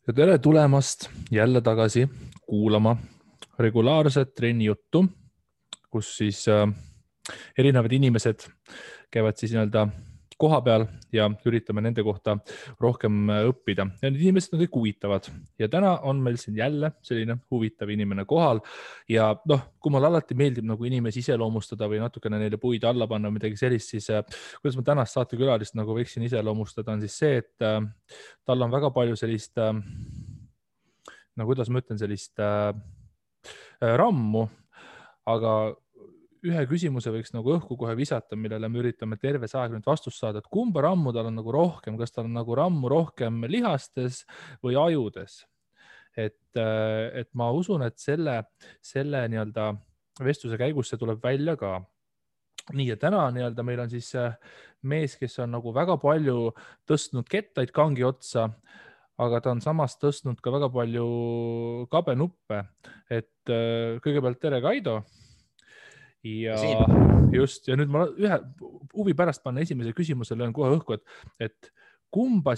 Ja tere tulemast jälle tagasi kuulama regulaarset trenni juttu, kus siis erinevad inimesed käivad siis nii-öelda koha peal ja üritame nende kohta rohkem õppida. Ja need inimesed on kõik huvitavad. Ja täna on meil siin jälle selline huvitav inimene kohal. Ja kui mulle alati meeldib nagu inimesi iseloomustada või natukene neile puid alla panna või midagi sellist, siis kuidas ma tänast saatekülalist nagu võiksin iseloomustada, on siis see, et tal on väga palju sellist no kuidas ma ütlen, sellist rammu, aga ühe küsimuse võiks nagu õhku kohe visata, millele me üritame terve see aeg nüüd vastust saada, et kumba rammu tal on nagu rohkem, kas tal on nagu rammu rohkem lihastes või ajudes. Et ma usun, et selle nii-öelda vestluse käigus see tuleb välja ka. Nii, ja täna nii-öelda meil on siis mees, kes on nagu väga palju tõstnud kettaid kangi otsa, aga ta on samas tõstnud ka väga palju kabenuppe. Et kõigepealt tere, Kaido. Ja just, ja nüüd ma ühe huvi pärast panna esimese küsimusele löön kohe õhku, et kumba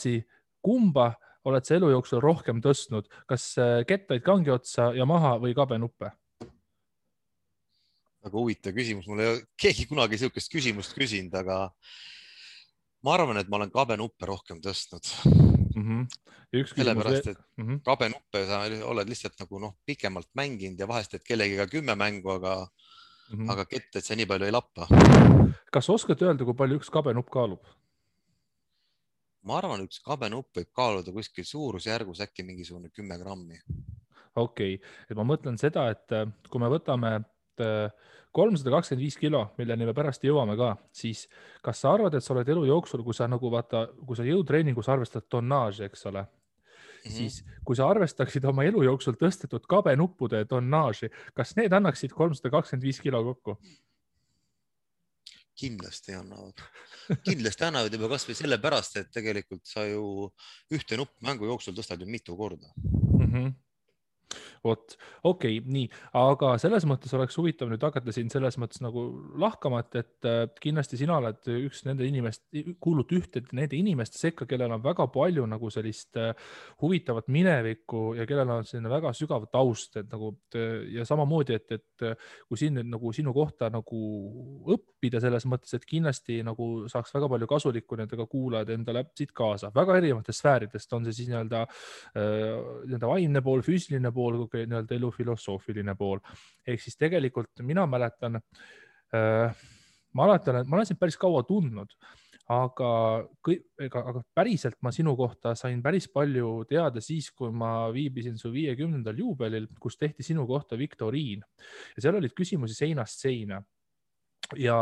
oled sa elu jooksul rohkem tõstnud, kas kettaid kangi otsa ja maha või kabenuppe? Väga huvitav küsimus, mul ei ole keegi kunagi sellist küsimust küsinud, aga ma arvan, et ma olen kabenuppe rohkem tõstnud. Sellepärast, et kabenuppe sa oled lihtsalt nagu pikemalt mänginud ja vahest, et kellegiga 10 mängu, aga ketted see nii palju ei lappa. Kas oskad öelda, kui palju üks kabenupp kaalub? Ma arvan, üks kabenupp võib kaaluda kuskil suurusjärgus äkki mingisugune 10 grammi. Okei, et ma mõtlen seda, et kui me võtame 325 kilo, milleni me pärast jõuame ka, siis kas sa arvad, et sa oled elu jooksul, kui sa jõutreeningus arvestad tonnaaži, eks ole, siis kui sa arvestaksid oma elu jooksul tõstetud kabenuppude tonnaaži, kas need annaksid 325 kilo kokku? Kindlasti annavad. Kindlasti annavad juba kas või sellepärast, et tegelikult sa ju ühte nupp mängu jooksul tõstad ju mitu korda. Vot, okei, nii, aga selles mõttes oleks huvitav nüüd hakata siin selles mõttes nagu lahkama, et kindlasti sina oled üks nende kuulud ühte nende inimeste sekka, kellel on väga palju nagu sellist huvitavat minevikku ja kellel on selline väga sügav taust, et nagu ja samamoodi, et kui siin nagu sinu kohta nagu õppida selles mõttes, et kindlasti nagu saaks väga palju kasulikku nendega kuulajad endale siit kaasa, väga erinevatest sfääridest, on see siis nii-öelda vaimne pool, füüsiline pool, nii-öelda elu filosoofiline pool. Ehk siis tegelikult mina mäletan, ma olen sind päris kaua tundnud, aga päriselt ma sinu kohta sain päris palju teada siis, kui ma viibisin su 50. juubelil, kus tehti sinu kohta viktoriin. Ja seal olid küsimusi seinast seina. Ja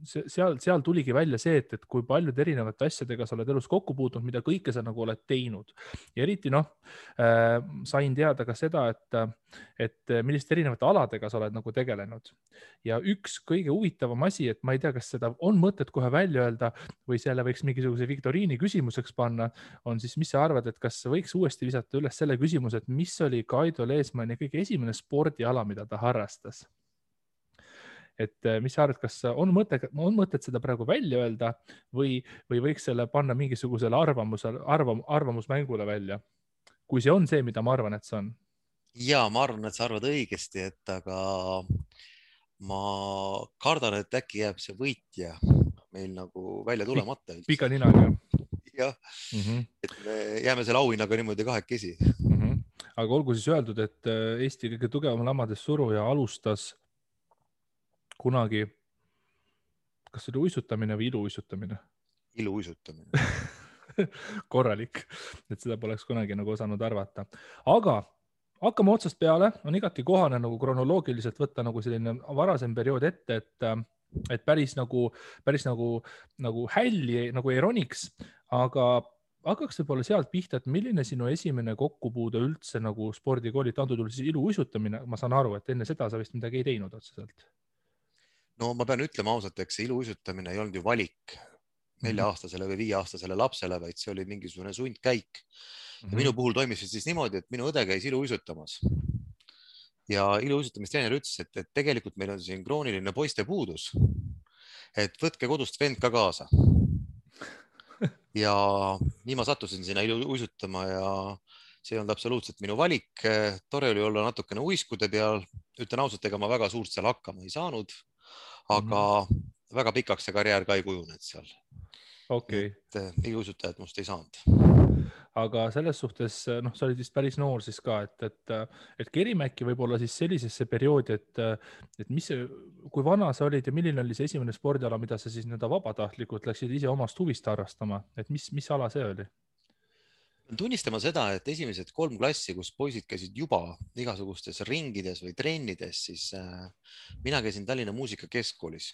seal tuligi välja see, et kui paljud erinevate asjadega sa oled elus kokku puutunud, mida kõike sa nagu oled teinud. Ja eriti sain teada ka seda, et milliste erinevate aladega sa oled nagu tegelenud. Ja üks kõige huvitavam asi, et ma ei tea, kas seda on mõtet kohe välja öelda või selle võiks mingisuguse viktoriini küsimuseks panna, on siis, mis sa arvad, et kas võiks uuesti visata üles selle küsimuse, et mis oli Kaido Leesmanni kõige esimene spordiala, mida ta harrastas? Et mis sa arvad, kas on mõtet seda praegu välja öelda või võiks selle panna mingisugusele arvamusmängule välja, kui see on see, mida ma arvan, et see on? Ja ma arvan, et sa arvad õigesti, aga ma kardan, et äkki jääb see võitja meil nagu välja tulemata. Pika ninaga. Jah, et me jääme selle auhinnaga niimoodi kahekesi. Aga olgu siis öeldud, et Eesti kõige tugevam lamades suruja alustas kunagi, kas see oli uisutamine või iluuisutamine? Iluuisutamine. Korralik, et seda poleks kunagi nagu osanud arvata. Aga hakkame otsast peale, on igati kohane nagu kronoloogiliselt võtta nagu selline varasem periood ette, et päris nagu hälli nagu ei roniks, aga hakkaks võib-olla sealt pihta, et milline sinu esimene kokkupuude üldse nagu spordikooli, antud juhul siis iluuisutamine, ma saan aru, et enne seda sa vist midagi ei teinud otseselt. No ma pean ütlema ausalt, eks see iluuisutamine ei olnud ju valik 4-aastasele või 5-aastasele lapsele, vaid see oli mingisugune sundkäik. Ja minu puhul toimis siis niimoodi, et minu õde käis iluuisutamas. Ja iluuisutamistreener ütles, et tegelikult meil on siin krooniline poiste puudus, et võtke kodust vend ka kaasa. ja nii ma sattusin sinna uisutama ja see ei olnud absoluutselt minu valik. Tore oli olla natukene uiskude peal. Ütlen ausalt, ega ma väga suurt seal hakkama ei saanud, aga väga pikaks see karjäär ka ei kujunenud seal. okei. Et iluuisutajad must ei saanud. Aga selles suhtes, noh, sa olid vist päris noor siis ka, et Kerimäki võib-olla siis sellisesse perioodi, et mis see, kui vana sa olid ja milline oli see esimene spordiala, mida sa siis nii-öelda vabatahtlikult läksid ise omast huvist harrastama, et mis ala see oli? Tunnistama seda, et esimesed 3 klassi, kus poisid käisid juba igasugustes ringides või trennides, siis mina käisin Tallinna Muusikakeskkoolis.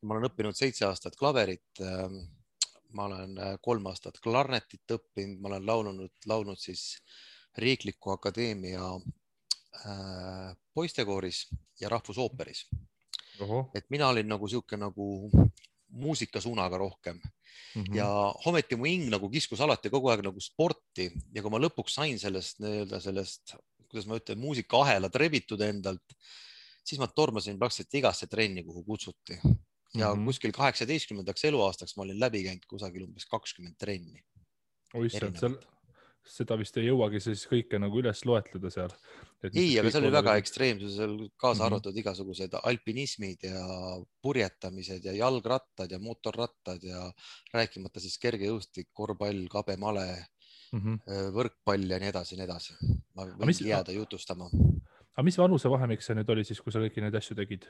Ma olen õppinud 7 aastat klaverit. Ma olen 3 aastat klarnetit õppinud, ma olen laulnud siis Riikliku Akadeemia poistekooris ja rahvusooperis. Et mina olin nagu sihuke nagu muusikasuunaga rohkem ja ometi mu hing nagu kiskus alati kogu aeg nagu sporti ja kui ma lõpuks sain sellest, kuidas ma ütlen, muusikaahela trebitud endalt, siis ma tormasin praktiliselt igasse trenni, kuhu kutsuti. Ja kuskil 18. eluaastaks ma olin läbi käinud kusagil umbes 20 trenni. Seda vist ei jõuagi siis kõike nagu üles loetleda seal. Ei, aga see oli väga ekstreemsus, kaasa arvatud igasugused alpinismid ja purjetamised ja jalgrattad ja motorrattad ja rääkimata siis kergejõustik, korvpall, kabemale, võrkpall ja nii edasi, nii edasi. Ma võin jääda jutustama. Aga mis vanuse vahemik see nüüd oli siis, kui sa kõiki neid asju tegid?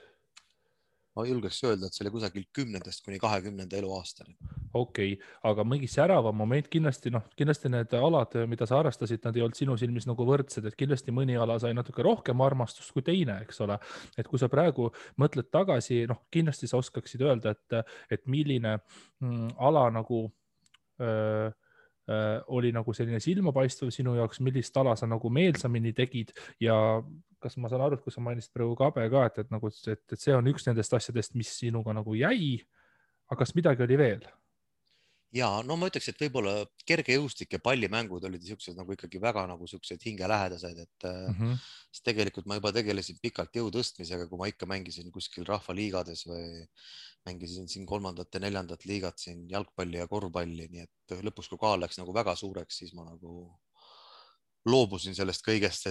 Ma julgeks öelda, et see oli kusagil 10. kuni 20. eluaastani. Okei, aga mingi säravam moment kindlasti need alad, mida sa harrastasid, nad ei olnud sinu silmis nagu võrdsed, et kindlasti mõni ala sai natuke rohkem armastust kui teine, eks ole. Et kui sa praegu mõtled tagasi, kindlasti sa oskaksid öelda, et milline ala nagu oli nagu selline silmapaistev sinu jaoks, millist ala sa nagu meelsamini tegid ja kas ma saan aru, et kui sa mainisid praegu kabe ka, et see on üks nendest asjadest, mis sinuga nagu jäi, aga kas midagi oli veel? Ja no ma ütleks, et võib-olla kergejõustik ja pallimängud olid siuksed nagu ikkagi väga nagu siuksed hingelähedased, et tegelikult ma juba tegelesin pikalt jõutõstmisega, kui ma ikka mängisin kuskil rahvaliigades või mängisin siin 3. ja 4. liigat siin jalgpalli ja korvpalli, nii et lõpuks, kui kaal läks nagu väga suureks, siis ma nagu loobusin sellest kõigest,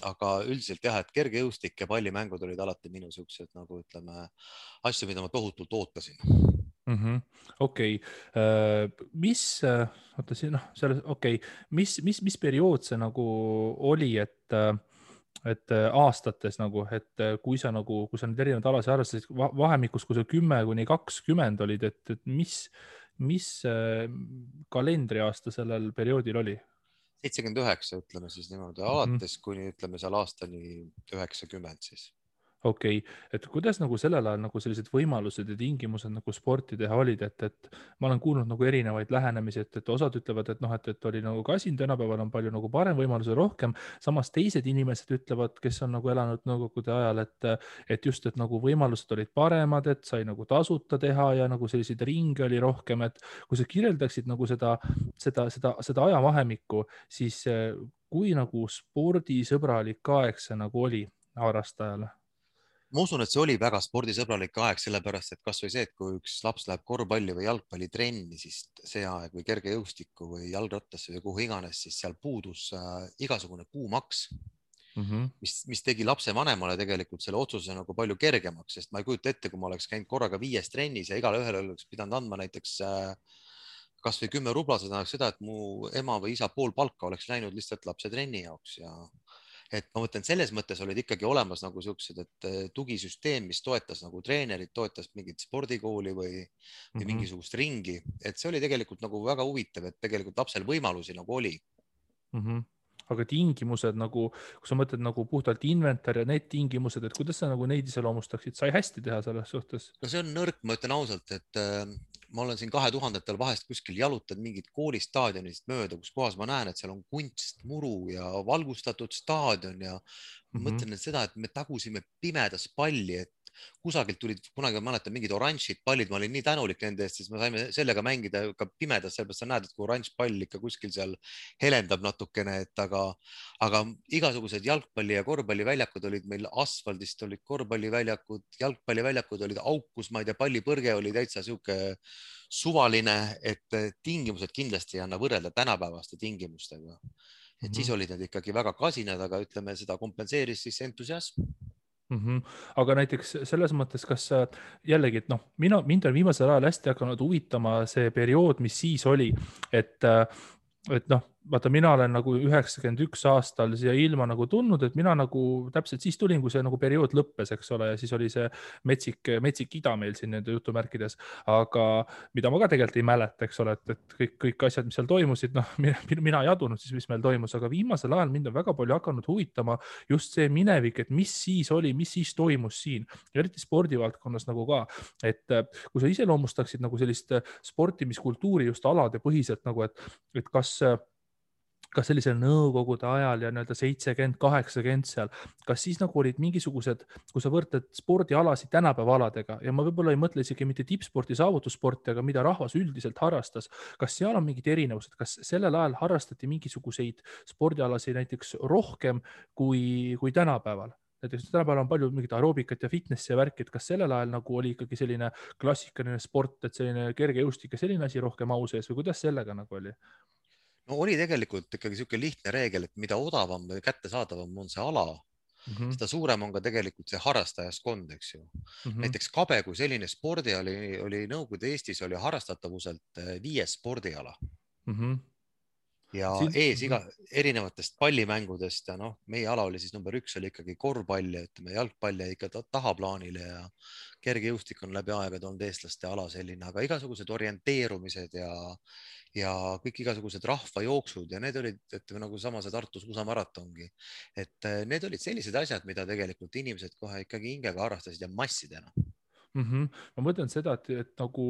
aga üldiselt jah, et kergejõustik ja pallimängud olid alati minu siuksed nagu ütleme asju, mida ma tohutult ootasin. Okei, mis periood see nagu oli, et aastates nagu, et kui sa nüüd erinevad alasid harrastasid vahemikus, kui sa 10 kuni 20 olid, et mis kalendriaasta sellel perioodil oli? 79, ütleme siis niimoodi, alates kuni ütleme seal aastani 90 siis. Okei, et kuidas nagu sellel ajal nagu sellised võimalused ja tingimused nagu sporti teha olid, et ma olen kuulnud nagu erinevaid lähenemisi, et osad ütlevad, et oli nagu kasin, tänapäeval on palju nagu parem võimalus ja rohkem, samas teised inimesed ütlevad, kes on nagu elanud nõukogude ajal, et just, et nagu võimalused olid paremad, et sai nagu tasuta teha ja nagu selliseid ringe oli rohkem, et kui sa kirjeldaksid nagu seda ajavahemikku, siis kui nagu spordisõbralik aeg see nagu oli harrastajale? Ma usun, et see oli väga spordisõbralik aeg, sellepärast et kas või see, et kui üks laps läheb korvpalli või jalgpallitrenni, siis see aeg või kergejõustikku või jalgrattasse või kuhu iganes, siis seal puudus igasugune kuumaks, mis tegi lapsevanemale tegelikult selle otsuse nagu palju kergemaks, sest ma ei kujuta ette, kui ma oleks käinud korraga 5 trennis ja igale ühele oleks pidanud andma näiteks kas või 10 rubla, see tähendaks seda, et mu ema või isa pool palka oleks läinud lihtsalt lapse trenni jaoks ja et ma mõtlen, selles mõttes olid ikkagi olemas nagu siuksed, et tugisüsteem, mis toetas nagu treenerid, toetas mingit spordikooli või mingisugust ringi, et see oli tegelikult nagu väga huvitav, et tegelikult lapsel võimalusi nagu oli. Aga tingimused nagu, kui sa mõtled nagu puhtalt inventar ja need tingimused, et kuidas sa nagu neid iseloomustaksid, sai hästi teha selles suhtes? No see on nõrk, ma ütlen ausalt, et ma olen siin 2000-ndatel vahest kuskil jalutanud mingit koolistaadionist mööda, kus kohas ma näen, et seal on kunstmuru ja valgustatud staadion ja mõtlen seda, et me tagusime pimedas palli, et kusagilt tulid, kunagi ma mäletan mingid oranžid pallid, ma olin nii tänulik nende eest, siis me saime sellega mängida ka pimedas, sellepärast sa näed, et kui oranž pall ikka kuskil seal helendab natukene, et aga igasugused jalgpalli ja korvpalliväljakud olid meil asfaldist, olid korvpalliväljakud, jalgpalliväljakud olid aukus, ma ei tea, pallipõrge oli täitsa sihuke suvaline, et tingimused kindlasti ei anna võrrelda tänapäevaste tingimustega. Et siis olid need ikkagi väga kasinad, aga ütleme, seda kompenseeris siis entusiasm. Aga näiteks selles mõttes, kas jällegi, et noh, mind on viimasel ajal hästi hakanud huvitama see periood, mis siis oli, et noh, vaata, mina olen nagu 91 aastal siia ilma nagu tulnud, et mina nagu täpselt siis tulin, kui see nagu periood lõppes, eks ole, ja siis oli see metsik ida meil siin nende jutumärkides, aga mida ma ka tegelikult ei mäleta, eks ole, et kõik asjad, mis seal toimusid, noh, mina ei adunud siis, mis meil toimus, aga viimasel ajal mind on väga palju hakanud huvitama just see minevik, et mis siis oli, mis siis toimus siin, eriti spordivaldkonnas nagu ka, et kui sa iseloomustaksid nagu sellist sportimiskultuuri just alade põhiselt nagu, et kas sellisel nõukogude ajal ja nii-öelda 70, 80 seal, kas siis nagu olid mingisugused, kui sa võrdled spordialasid tänapäeva aladega ja ma võib-olla ei mõtle isegi mitte tippsporti, saavutussporti, aga mida rahvas üldiselt harrastas, kas seal on mingid erinevused, kas sellel ajal harrastati mingisuguseid spordialasid näiteks rohkem kui tänapäeval? Näiteks tänapäeval on palju mingit aeroobikat ja fitnessi ja värki, et kas sellel ajal nagu oli ikkagi selline klassikaline sport, et selline kergejõustik ja selline asi rohkem au sees või kuidas sellega nagu oli? No oli tegelikult ikkagi sihuke lihtne reegel, et mida odavam või kättesaadavam on see ala, seda suurem on ka tegelikult see harrastajaskond, eks ju. Näiteks kabe kui selline spordiala oli Nõukogude Eestis oli harrastatavuselt 5. spordiala. Ja ees erinevatest pallimängudest ja noh, meie ala oli siis number 1 oli ikkagi korvpall ja ütleme jalgpall ja ikka tahaplaanile ja kergejõustik on läbi aegade olnud eestlaste ala selline, aga igasugused orienteerumised ja kõik igasugused rahvajooksud ja need olid, ütleme nagu sama see Tartus USA maratongi, et need olid sellised asjad, mida tegelikult inimesed kohe ikkagi hingega harrastasid ja massidena. Ma mõtlen seda, et nagu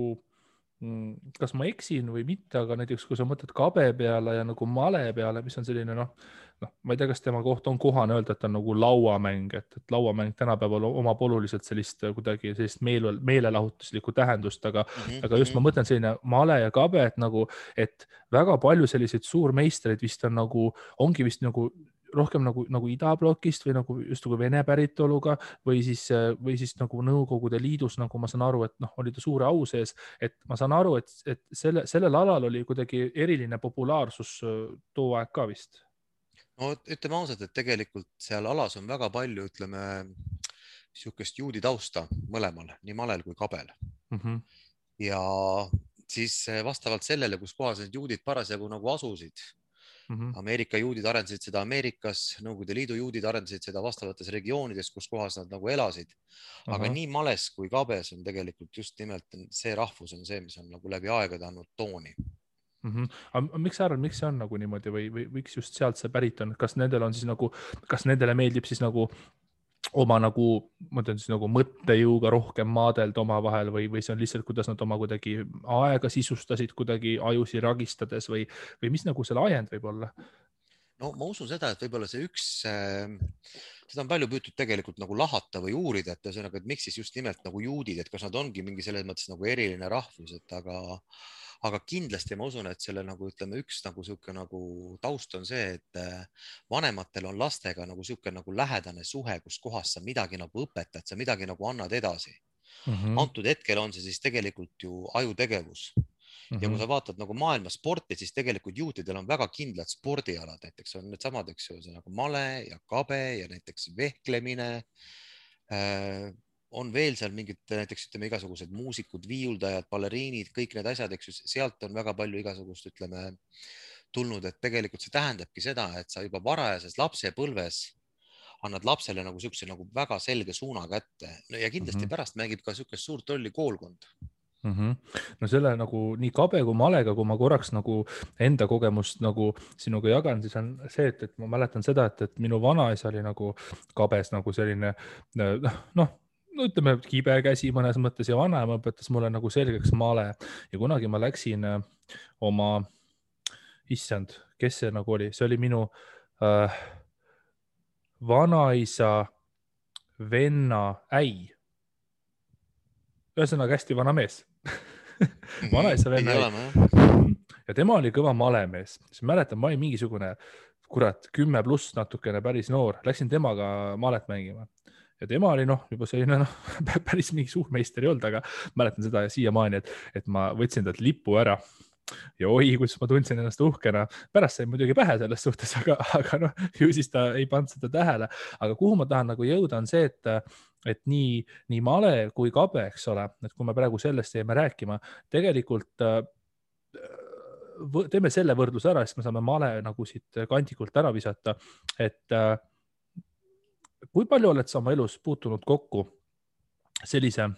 kas ma eksin või mitte, aga näiteks kui sa mõtled kabe peale ja nagu male peale, mis on selline noh, ma ei tea, kas tema kohta on kohane öelda, et on nagu lauamäng, et lauamäng tänapäeval omab oluliselt sellist kuidagi sellist meelelahutuslikku tähendust, aga just ma mõtlen selline male ja kabe, et nagu, et väga palju selliseid suurmeistreid vist on nagu, ongi vist nagu rohkem nagu idablokist või nagu just nagu Vene päritoluga või siis nagu Nõukogude Liidus, nagu ma saan aru, et noh, oli ta suure au sees, et ma saan aru, et sellel alal oli kuidagi eriline populaarsus too aeg ka vist. No ütleme ausalt, et tegelikult seal alas on väga palju, ütleme, sihukest juudi tausta mõlemal, nii malel kui kabel. Ja siis vastavalt sellele, kus kohas need juudid parasjagu nagu asusid, Ameerika juudid arendasid seda Ameerikas, Nõukogude Liidu juudid arendasid seda vastavates regioonides, kus kohas nad nagu elasid. Aga nii males kui kabes on tegelikult just nimelt see rahvus on see, mis on nagu läbi aegade andnud tooni. Aga miks sa arvad, miks see on nagu niimoodi või miks just sealt see pärit on? Kas nendel on siis nagu, kas nendele meeldib siis nagu oma nagu, ma ütlen siis nagu mõttejõuga rohkem maadelda omavahel või see on lihtsalt, kuidas nad oma kuidagi aega sisustasid kuidagi ajusi ragistades või mis nagu selle ajend võib olla? No ma usun seda, et võib-olla see üks, seda on palju püütud tegelikult nagu lahata või uurida, et ühesõnaga, et miks siis just nimelt nagu juudid, et kas nad ongi mingi selles mõttes nagu eriline rahvus, et aga kindlasti ma usun, et selle nagu ütleme, üks nagu sihuke nagu taust on see, et vanematel on lastega nagu sihuke nagu lähedane suhe, kus kohas sa midagi nagu õpetad, sa midagi nagu annad edasi. Antud hetkel on see siis tegelikult ju ajutegevus. Ja kui sa vaatad nagu maailma sporti, siis tegelikult juutidel on väga kindlad spordialad, näiteks on need samad, eks ju, nagu male ja kabe ja näiteks vehklemine. On veel seal mingid näiteks ütleme igasugused muusikud, viiuldajad, baleriinid, kõik need asjad, eks ju, sealt on väga palju igasugust ütleme tulnud, et tegelikult see tähendabki seda, et sa juba varajases lapsepõlves annad lapsele nagu siukse nagu väga selge suuna kätte ja kindlasti pärast mängib ka siukest suurt rolli koolkond. No selle nagu nii kabe kui malega, kui ma korraks nagu enda kogemust nagu sinuga jagan, siis on see, et ma mäletan seda, et minu vanaisa oli nagu kabes nagu selline noh, ütleme kibe käsi mõnes mõttes ja vanaema õpetas mulle nagu selgeks male ja kunagi ma läksin oma, issand, kes see nagu oli, see oli minu vanaisa venna äi. ühesõnaga hästi vana mees vanaisa pidi venna olema, jah. ja tema oli kõva malemees, siis mäletan, ma olin mingisugune kurat 10+ natukene päris noor, läksin temaga malet mängima ja tema oli juba selline päris mingi suur meister ei olnud, aga mäletan seda siiamaani, et ma võtsin talt lipu ära ja oi, kus ma tundsin ennast uhkena. Pärast sai muidugi pähe selles suhtes, aga ju siis ta ei pannud seda tähele. Aga kuhu ma tahan nagu jõuda on see, et nii male kui kabe, eks ole, et kui me praegu sellest jäime rääkima, tegelikult teeme selle võrdluse ära, siis me saame male nagu siit kandikult ära visata, et kui palju oled sa oma elus puutunud kokku sellise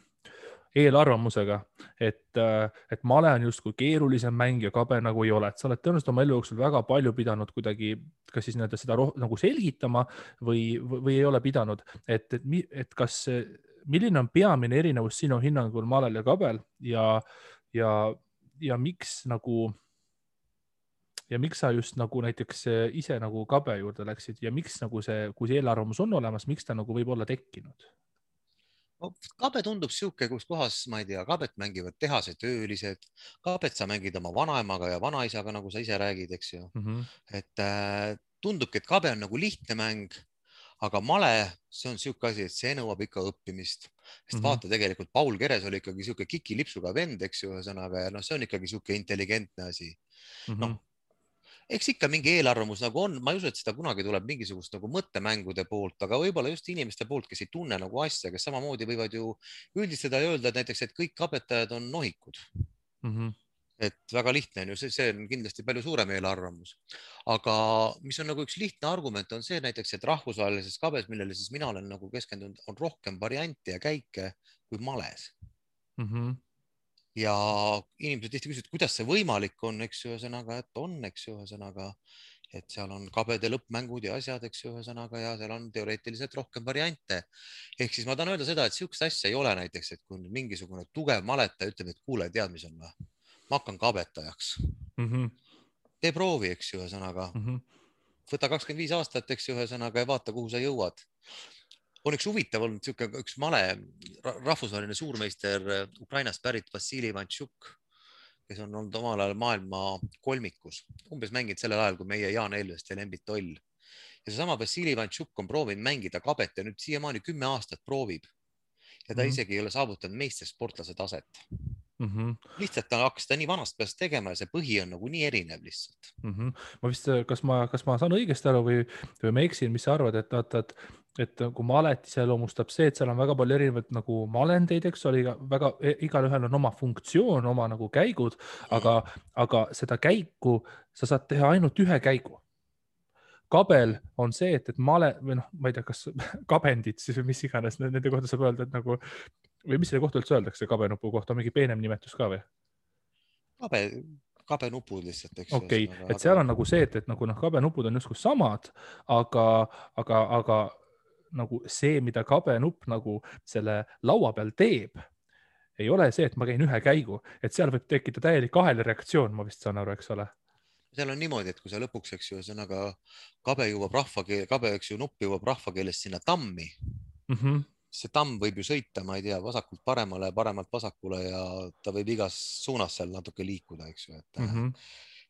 eelarvamusega, et male on justkui keerulisem mäng ja kabe nagu ei ole, et sa oled tõenäoliselt oma elu jooksul väga palju pidanud kuidagi kas siis seda nagu selgitama või ei ole pidanud, et milline on peamine erinevus sinu hinnangul malel ja kabel ja miks nagu ja miks sa just nagu näiteks ise nagu kabe juurde läksid ja miks nagu kui see eelarvamus on olemas, miks ta nagu võib olla tekkinud? Kabe tundub siuke, kus kohas, ma ei tea, kabet mängivad tehasetöölised, kabet sa mängid oma vanaemaga ja vanaisaga, nagu sa ise räägid, eks ju. Et tundubki, et kabe on nagu lihtne mäng, aga male, see on siuke asi, et see nõuab ikka õppimist. Sest vaata, tegelikult Paul Keres oli ikkagi siuke kikilipsuga vend, eks ju, ühesõnaga, ja see on ikkagi siuke intelligentne asi. Eks ikka mingi eelarvamus nagu on, ma ei usu, et seda kunagi tuleb mingisugust nagu mõttemängude poolt, aga võib-olla just inimeste poolt, kes ei tunne nagu asja, kes samamoodi võivad ju üldistada ja öelda, et näiteks, et kõik kabetajad on nohikud. Et väga lihtne on ju, see on kindlasti palju suurem eelarvamus. Aga mis on nagu üks lihtne argument on see näiteks, et rahvusvahelises kabes, millele siis mina olen nagu keskendunud, on rohkem variante ja käike kui males. Ja inimesed tihti küsivad, kuidas see võimalik on, eks ju, ühesõnaga, et on, eks ju, ühesõnaga, et seal on kabede lõppmängud ja asjad, eks ju, ühesõnaga, ja seal on teoreetiliselt rohkem variante. Ehk siis ma tahan öelda seda, et siukest asja ei ole näiteks, et kui mingisugune tugev maletaja ütleb, et kuule, tead, mis on, ma hakkan kabetajaks. Tee proovi, eks ju, ühesõnaga. Võta 25 aastat, eks ju, ühesõnaga, ja vaata, kuhu sa jõuad. On üks huvitav olnud üks male rahvusvaheline suurmeister Ukrainast pärit Vassili Ivantšuk, kes on olnud omal ajal maailma kolmikus. Umbes mänginud sellel ajal, kui meie Jaan Elvest ja Lembit Toll. Ja seesama Vassili Ivantšuk on proovinud mängida kabet ja nüüd siiamaani 10 aastat proovib. Ja ta isegi ei ole saavutanud meistersportlase taset. Lihtsalt ta hakkas seda nii vanast peast tegema ja see põhi on nagu nii erinev lihtsalt. Ma vist, kas ma saan õigesti aru või ma eksin, mis sa arvad, et kui malet iseloomustab see, et seal on väga palju erinevaid nagu malendeid, eks oli igalühel on oma funktsioon, oma nagu käigud, aga seda käiku sa saad teha ainult ühe käigu. Kabel on see, et male või ma ei tea, kas kabendid siis või mis iganes nende kohta saab öelda, et nagu või mis selle kohta üldse öeldakse kabenupu kohta, mingi peenem nimetus ka või? Kabenupud lihtsalt, eks. Okei, et seal on nagu see, et nagu kabenupud on justkui samad, aga nagu see, mida kabenupp nagu selle laua peal teeb, ei ole see, et ma käin ühe käigu, et seal võib tekkida täielik ahelreaktsioon, ma vist saan aru, eks ole. Seal on niimoodi, et kui sa lõpuks, eks ju, ühesõnaga kabe jõuab nupp jõuab rahvakeeles sinna tammi. See tamm võib ju sõita, ma ei tea, vasakult paremale, paremalt vasakule ja ta võib igas suunas seal natuke liikuda, eks ju.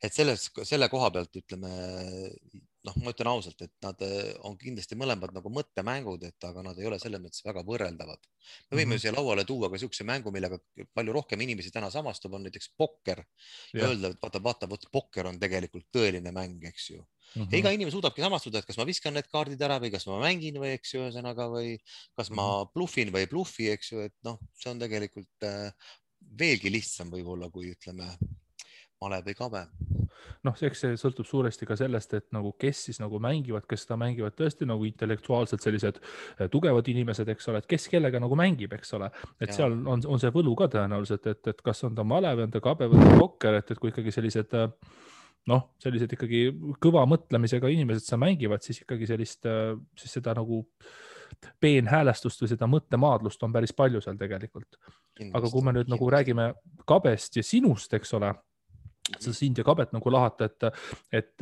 Et selle koha pealt ütleme, ma ütlen ausalt, et nad on kindlasti mõlemad nagu mõttemängud, aga nad ei ole selles mõttes väga võrreldavad. Me võime siia lauale tuua ka siukse mängu, millega palju rohkem inimesi täna samastub, on näiteks pokker ja öelda, et vaata, pokker on tegelikult tõeline mäng, eks ju. Ja iga inimene suudabki samastuda, et kas ma viskan need kaardid ära või kas ma mängin või, eks ju, ühesõnaga, või kas ma bluffin või ei bluffi, eks ju, et see on tegelikult veelgi lihtsam võib-olla, kui ütleme male või kabe. Eks see sõltub suuresti ka sellest, et nagu kes siis nagu mängivad, kes seda mängivad tõesti nagu intellektuaalselt sellised tugevad inimesed, eks ole, et kes kellega nagu mängib, eks ole, et seal on see võlu ka tõenäoliselt, et kas on ta male või on ta kabe või on ta pokker, et kui ikkagi sellised ikkagi kõva mõtlemisega inimesed sa mängivad, siis ikkagi siis seda nagu peenhäälestust või seda mõttemaadlust on päris palju seal tegelikult. Aga kui me nüüd nagu räägime kabest ja sinust, eks ole, sa sind ja kabet nagu lahata, et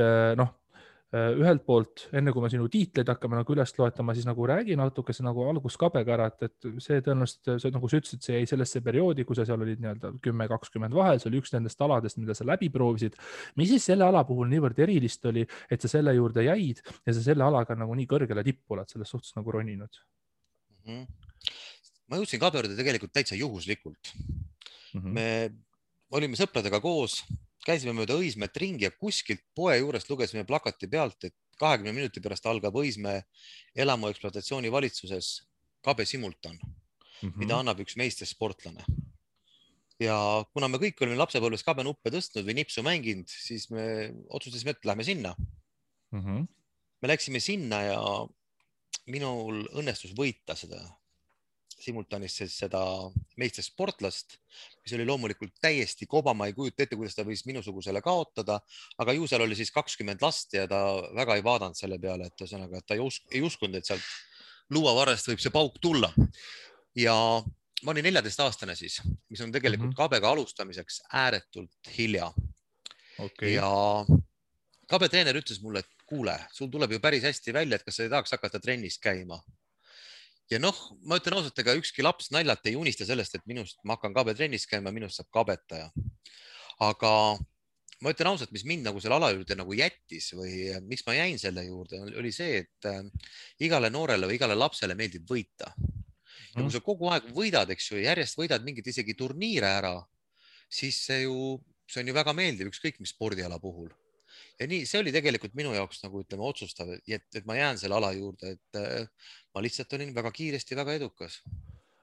ühelt poolt, enne kui me sinu tiitleid hakkame nagu üles loetama, siis nagu räägi natukese nagu alguskabega ära, et see tõenäoliselt, see nagu sa ütlesid, see jäi sellesse perioodi, kui sa seal olid nii-öelda 10-20 vahel, see oli üks nendest aladest, mida sa läbi proovisid. mis siis selle ala puhul niivõrd erilist oli, et sa selle juurde jäid ja sa selle alaga nagu nii kõrgele tippu oled selles suhtes nagu roninud? Ma jõudsin kabjurde tegelikult täitsa juhuslikult. Me olime sõpradega koos, käisime mööda Õismäed ringi ja kuskilt poe juurest lugesime plakati pealt, et 20 minuti pärast algab Õismäe elamu ekspluatatsiooni valitsuses kabe simultan, mida annab üks meistersportlane. Ja kuna me kõik olime lapsepõlves kabenuppe tõstnud või nipsu mänginud, siis me otsustasime, et lähme sinna. Me läksime sinna ja minul õnnestus võita seda simultaanis seda meistersportlast, mis oli loomulikult täiesti koba, ma ei kujuta ette, kuidas ta võis minusugusele kaotada, aga ju seal oli siis 20 last ja ta väga ei vaadanud selle peale, et ühesõnaga, et ta ei uskunud, et sealt luuavarrest võib see pauk tulla. Ja ma olin 14-aastane siis, mis on tegelikult kabega alustamiseks ääretult hilja. Ja kabetreener ütles mulle, et kuule, sul tuleb ju päris hästi välja, et kas sa ei tahaks hakata trennis käima. Ja noh, ma ütlen ausalt, ega ükski laps naljalt ei unista sellest, et ma hakkan kabetrennis käima, minust saab kabetaja. Aga ma ütlen ausalt, mis mind nagu selle ala juurde nagu jättis või miks ma jäin selle juurde, oli see, et igale noorele või igale lapsele meeldib võita. Ja kui sa kogu aeg võidad, eks ju, järjest võidad mingit isegi turniire ära, siis see on ju väga meeldiv, ükskõik mis spordiala puhul. Ja nii, see oli tegelikult minu jaoks nagu ütleme otsustav, et ma jään selle ala juurde, et ma lihtsalt olin väga kiiresti väga edukas.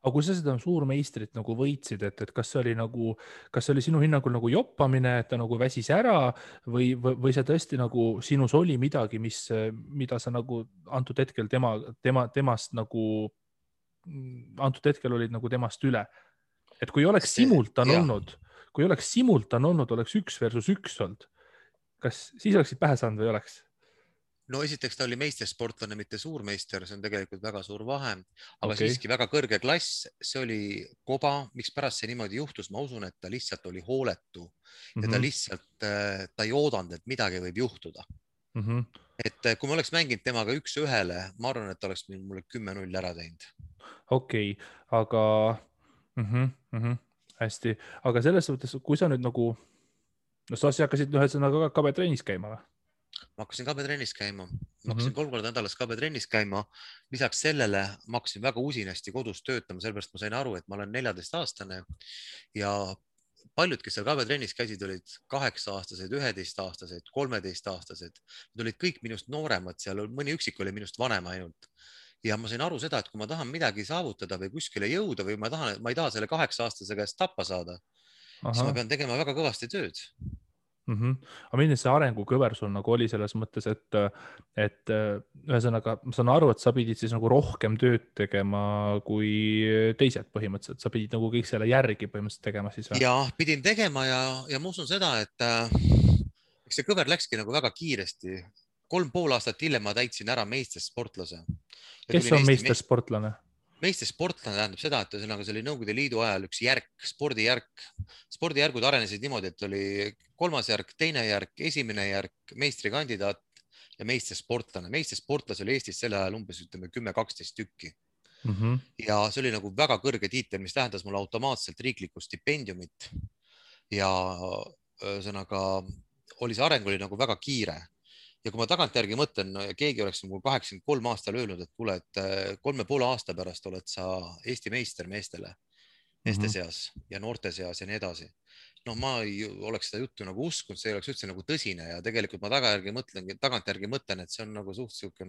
Aga kui sa seda suurmeistrit nagu võitsid, et kas see oli sinu hinnangul nagu joppamine, et ta nagu väsis ära või see tõesti nagu sinus oli midagi, mida sa nagu antud hetkel temast nagu, antud hetkel olid nagu temast üle. Et kui oleks simultan olnud, oleks 1 versus 1 olnud. Kas siis oleksid pähe saanud või oleks? No esiteks ta oli meistersportlane, mitte suurmeister, see on tegelikult väga suur vahe, aga siiski väga kõrge klass, see oli koba, miks pärast see niimoodi juhtus, ma usun, et ta lihtsalt oli hooletu ja ta lihtsalt, ta ei oodanud, et midagi võib juhtuda. Et kui ma oleks mänginud temaga 1-1, ma arvan, et ta oleks mulle 10-0 ära teinud. Okei, aga hästi, aga selles suhtes, kui sa nüüd nagu, no sa hakkasid ühesõnaga kabetrennis käima või? Ma hakkasin kabetrennis käima, ma hakkasin 3 korda nädalas kabetrennis käima. Lisaks sellele ma hakkasin väga usinasti kodus töötama, sellepärast ma sain aru, et ma olen 14-aastane ja paljud, kes seal kabetrennis käisid, olid 8-aastased, 11-aastased, 13-aastased. Nad olid kõik minust nooremad, seal mõni üksik oli minust vanem ainult. Ja ma sain aru seda, et kui ma tahan midagi saavutada või kuskile jõuda või ma ei taha selle 8-aastase käest tappa saada, siis ma pean tegema väga kõvasti tööd. Aga milline see arengukõver sul nagu oli selles mõttes, et ühesõnaga ma saan aru, et sa pidid siis nagu rohkem tööd tegema kui teised põhimõtteliselt, sa pidid nagu kõik selle järgi põhimõtteliselt tegema siis või? Ja pidin tegema ja ma usun seda, et see kõver läkski nagu väga kiiresti. 3,5 aastat hiljem ma täitsin ära meistersportlase. Kes on meistersportlane? Meistersportlane tähendab seda, et see oli Nõukogude Liidu ajal üks järk, spordijärk. Spordijärgud arenesid niimoodi, et oli 3. järk, 2. järk, 1. järk, meistrikandidaat ja meistersportlane. Meistersportlase oli Eestis selle ajal umbes 10-12 tükki. Ja see oli nagu väga kõrge tiitel, mis tähendas mulle automaatselt riiklikku stipendiumit. Ja ühesõnaga oli see areng oli nagu väga kiire. Ja kui ma tagantjärgi mõtlen, keegi oleks 83 aastal öelnud, et kuule, et 3,5 aasta pärast oled sa Eesti meister meeste seas ja noorte seas ja nii edasi. No ma ei oleks seda juttu nagu uskunud, see oleks üldse nagu tõsine ja tegelikult ma tagantjärgi mõtlen, et see on nagu suht siuke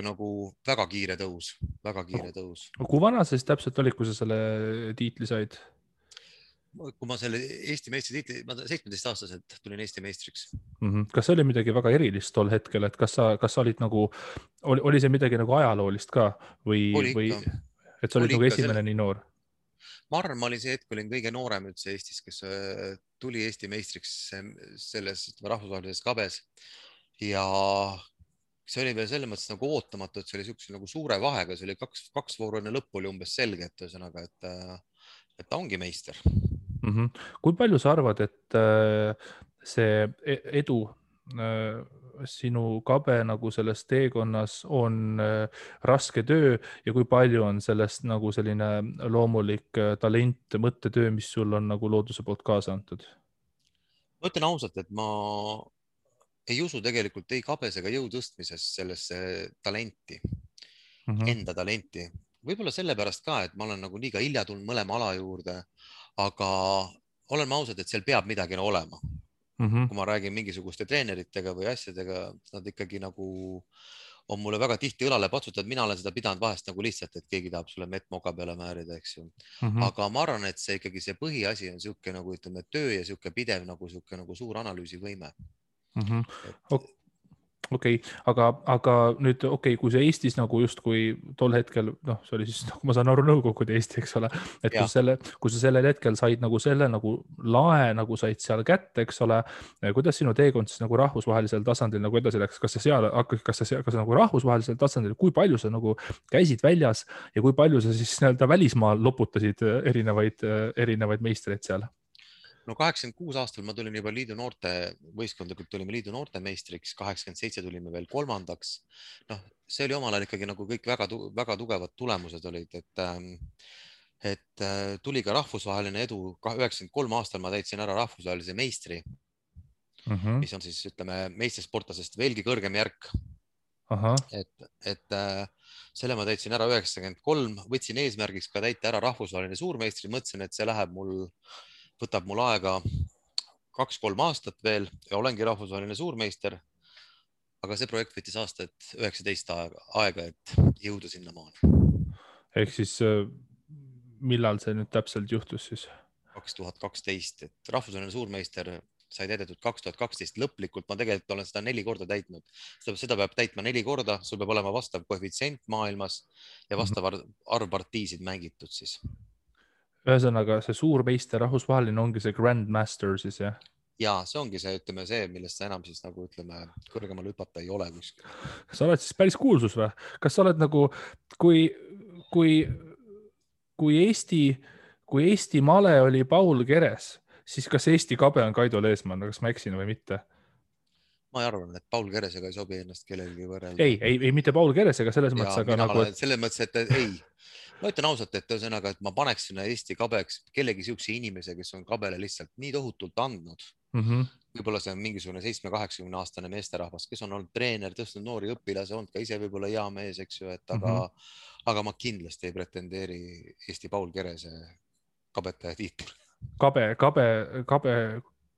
nagu väga kiire tõus. Kui vana sa siis täpselt olid, kui sa selle tiitli said? Kui ma selle Eesti meistri tiitli, ma 17-aastaselt tulin Eesti meistriks. Kas see oli midagi väga erilist tol hetkel, et kas sa olid nagu, oli see midagi nagu ajaloolist ka või et sa olid nagu esimene nii noor? Ma arvan, ma olin see hetk, olin kõige noorem üldse Eestis, kes tuli Eesti meistriks selles rahvusvahelises kabes ja see oli veel selles mõttes nagu ootamatu, et see oli siukse nagu suure vahega, see oli 2 vooru enne lõppu oli umbes selge, et ühesõnaga, et ta ongi meister. Kui palju sa arvad, et see edu sinu kabe nagu selles teekonnas on raske töö ja kui palju on sellest nagu selline loomulik talent, mõttetöö, mis sul on nagu looduse poolt kaasa antud? ma ütlen ausalt, et ma ei usu tegelikult ei kabes ega jõu tõstmises sellesse talenti, enda talenti. Võib-olla sellepärast ka, et ma olen nagu liiga hilja tulnud mõlema ala juurde, aga oleme ausad, et seal peab midagi olema. Kui ma räägin mingisuguste treeneritega või asjadega, nad ikkagi nagu on mulle väga tihti õlale patsutanud, mina olen seda pidanud vahest nagu lihtsalt, et keegi tahab sulle mett moka peale määrida, eks ju. Aga ma arvan, et see ikkagi see põhiasi on sihuke nagu ütleme töö ja sihuke pidev nagu sihuke nagu suur analüüsivõime. Okei, aga nüüd kui see Eestis nagu justkui tol hetkel, noh, see oli siis, nagu ma saan aru, Nõukogude Eesti, eks ole, et kui sa sellel hetkel said nagu selle nagu lae nagu said seal kätte, eks ole, kuidas sinu teekond siis nagu rahvusvahelisel tasandil nagu edasi läks, kas sa nagu rahvusvahelisel tasandil, kui palju sa nagu käisid väljas ja kui palju sa siis nii-öelda välismaal loputasid erinevaid meistreid seal? No 86 aastal ma tulin juba liidu noorte, võistkondlikult tulime liidu noorte meistriks, 87 tulime veel kolmandaks. Noh, see oli omal ajal ikkagi nagu kõik väga tugevad tulemused olid, et tuli ka rahvusvaheline edu. 93 aastal ma täitsin ära rahvusvahelise meistri, mis on siis, ütleme, meistrisportlasest veelgi kõrgem järk. Et selle ma täitsin ära 93, võtsin eesmärgiks ka täita ära rahvusvaheline suurmeistri, mõtlesin, et see võtab mul aega 2-3 aastat veel ja olengi rahvusvaheline suurmeister. Aga see projekt võttis aastat 19 aega, et jõuda sinna maale. Ehk siis millal see nüüd täpselt juhtus siis? 2012, et rahvusvaheline suurmeister sai täidetud 2012 lõplikult. Ma tegelikult olen seda 4 korda täitnud. Seda peab täitma 4 korda, sul peab olema vastav koefitsient maailmas ja vastav arv partiisid mängitud siis. Ühesõnaga, see suurmeister rahvusvaheline ongi see Grandmaster siis, jah? Ja see ongi see, ütleme see, millest sa enam siis nagu ütleme kõrgemal hüpata ei ole kuskil. Sa oled siis päris kuulsus või? Kas sa oled nagu, kui Eesti male oli Paul Keres, siis kas Eesti kabe on Kaido Leesmann, kas ma eksin või mitte? Ma arvan, et Paul Keresega ei sobi ennast kellelegi võrrelda. Ei, mitte Paul Keresega selles mõttes, aga nagu... Selles mõttes, et ei. Ma ütlen ausalt, et ühesõnaga, et ma paneks sinna Eesti kabeks kellegi siukse inimese, kes on kabele lihtsalt nii tohutult andnud. Võib-olla see on mingisugune 7-80 aastane meesterahvas, kes on olnud treener, tõstnud noori õpilase, olnud ka ise võib-olla hea mees, eks ju, et aga ma kindlasti ei pretendeeri Eesti Paul Kerese kabetaja tiitel.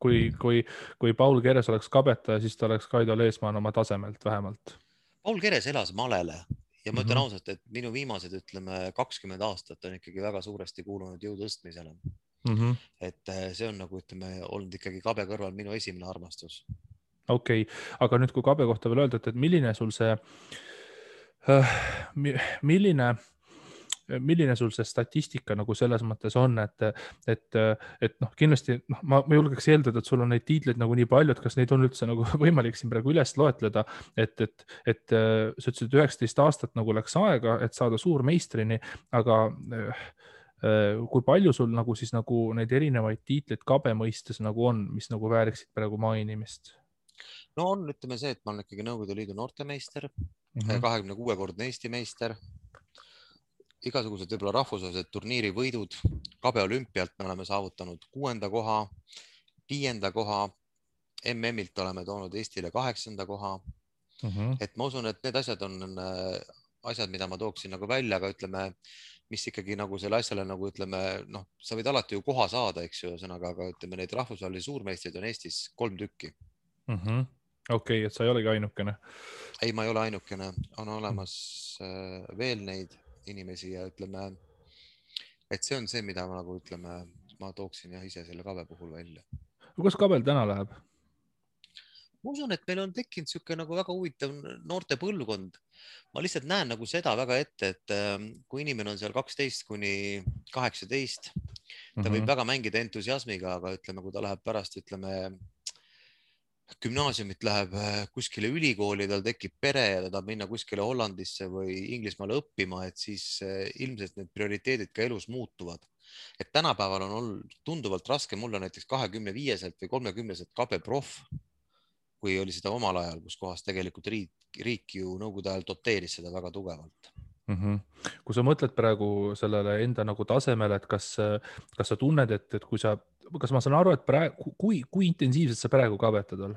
Kui Paul Keres oleks kabetaja, siis ta oleks Kaido Leesmann oma tasemelt vähemalt. Paul Keres elas malele ja ma ütlen ausalt, et minu viimased, ütleme, 20 aastat on ikkagi väga suuresti kuulunud jõutõstmisele. Et see on nagu, ütleme, olnud ikkagi kabe kõrval minu esimene armastus. Okei, aga nüüd kui kabe kohta veel öelda, et milline sul see milline sul see statistika nagu selles mõttes on, et noh, kindlasti ma julgeks eeldada, et sul on neid tiitleid nagu nii palju, et kas neid on üldse nagu võimalik siin praegu üles loetleda, et sa ütlesid 19 aastat nagu läks aega, et saada suurmeistrini, aga kui palju sul nagu siis nagu neid erinevaid tiitleid kabe mõistes nagu on, mis nagu vääriksid praegu mainimist? No on, ütleme see, et ma olen ikkagi Nõukogude Liidu noortemeister, 26-kordne Eesti meister, igasugused võib-olla rahvusvahelised turniiri võidud, kabe olümpialt me oleme saavutanud 6. koha, 5. koha, MM-ilt oleme toonud Eestile 8. koha. Et ma usun, et need asjad on asjad, mida ma tooksin nagu välja, aga ütleme, mis ikkagi nagu selle asjale nagu ütleme, noh, sa võid alati ju koha saada, eks ju, aga ütleme, neid rahvusvahelisi suurmeistreid on Eestis 3 tükki. Okei, et sa ei olegi ainukene. Ei, ma ei ole ainukene, on olemas veel neid inimesi ja ütleme, et see on see, mida ma nagu ütleme, ma tooksin jah ise selle kabe puhul välja. Kuidas kabel täna läheb? Ma usun, et meil on tekkinud siuke nagu väga huvitav noorte põlvkond. Ma lihtsalt näen nagu seda väga ette, et kui inimene on seal 12 kuni 18, ta võib väga mängida entusiasmiga, aga ütleme, kui ta läheb pärast, ütleme, gümnaasiumit läheb kuskile ülikooli, tal tekib pere ja ta tahab minna kuskile Hollandisse või Inglismaale õppima, et siis ilmselt need prioriteedid ka elus muutuvad. Et tänapäeval on olnud tunduvalt raske, mul on näiteks 25-selt või 30-selt kabe proff, kui oli seda omal ajal, kus kohas tegelikult riik ju nõukogude ajal doteeris seda väga tugevalt. Kui sa mõtled praegu sellele enda nagu tasemele, et kas sa tunned, et kas ma saan aru, et praegu, kui intensiivselt sa praegu kabetad all?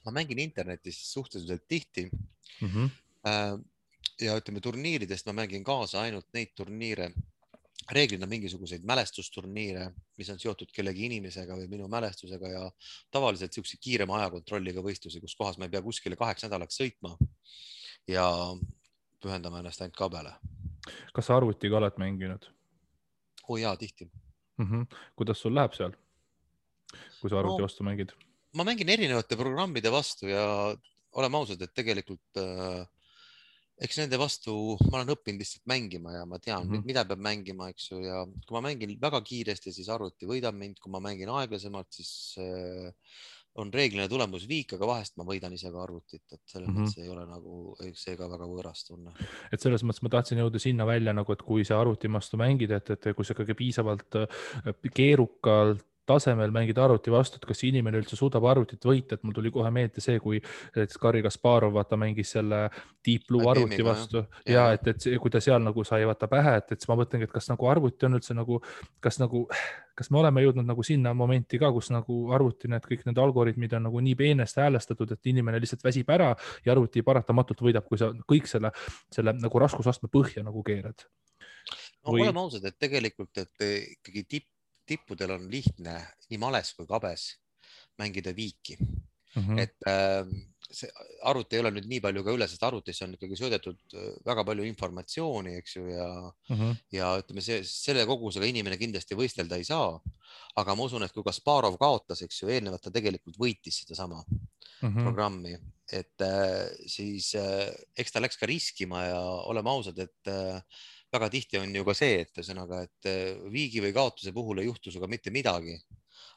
Ma mängin internetis suhteliselt tihti. Ja ütleme turniiridest ma mängin kaasa ainult neid turniire, reeglina mingisuguseid mälestusturniire, mis on seotud kellegi inimesega või minu mälestusega ja tavaliselt siukse kiirema ajakontrolliga võistlusi, kus kohas ma ei pea kuskile 8 nädalaks sõitma ja pühendama ennast ainult kabele. Kas sa arvutiga oled mänginud? Jaa, tihti. Kuidas sul läheb seal, kui sa arvuti vastu mängid? Ma mängin erinevate programmide vastu ja oleme ausad, et tegelikult eks nende vastu ma olen õppinud lihtsalt mängima ja ma tean, mida peab mängima, eks ju, ja kui ma mängin väga kiiresti, siis arvuti võidab mind, kui ma mängin aeglasemalt, siis on reeglina tulemus viik, aga vahest ma võidan ise ka arvutit, et selles mõttes ei ole nagu seega väga võõras tunne. Et selles mõttes ma tahtsin jõuda sinna välja nagu, et kui sa arvuti vastu mängid, et kui sa ikkagi piisavalt keerukalt tasemel mängid arvuti vastu, et kas inimene üldse suudab arvutit võita, et mul tuli kohe meelde see, kui Garri Kasparov vaata mängis selle Deep Blue arvuti vastu ja et kui ta seal nagu sai vaata pähe, et siis ma mõtlengi, et kas nagu arvuti on üldse nagu, kas me oleme jõudnud nagu sinna momenti ka, kus nagu arvuti kõik need algoritmid on nagu nii peenesti häälestatud, et inimene lihtsalt väsib ära ja arvuti paratamatult võidab, kui sa kõik selle nagu raskusastme põhja nagu keerad. Oleme ausad, et tegelikult, et ikkagi tippudel on lihtne nii males kui kabes mängida viiki. Et see arvuti ei ole nüüd nii palju ka üle, sest arvutisse on ikkagi söödetud väga palju informatsiooni, eks ju, ja ütleme, selle kogusega inimene kindlasti võistelda ei saa, aga ma usun, et kui Kasparov kaotas, eks ju, eelnevalt ta tegelikult võitis seda sama programmi, et siis eks ta läks ka riskima ja oleme ausad, et väga tihti on ju ka see, et ühesõnaga, et viigi või kaotuse puhul ei juhtu sinuga mitte midagi.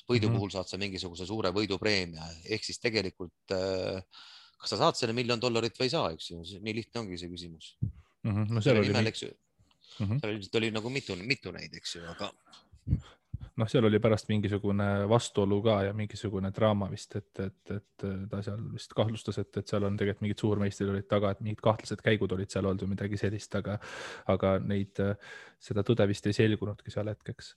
Võidu puhul saad sa mingisuguse suure võidupreemia, ehk siis tegelikult kas sa saad selle $1 000 000 või ei saa, eks ju, nii lihtne ongi see küsimus. Seal oli nagu mitu neid, eks ju, aga seal oli pärast mingisugune vastuolu ka ja mingisugune draama vist, et ta seal vist kahtlustas, et seal on tegelikult mingid suurmeistrid olid taga, et mingid kahtlased käigud olid seal olnud või midagi sellist, aga seda tõde vist ei selgunudki seal hetkeks.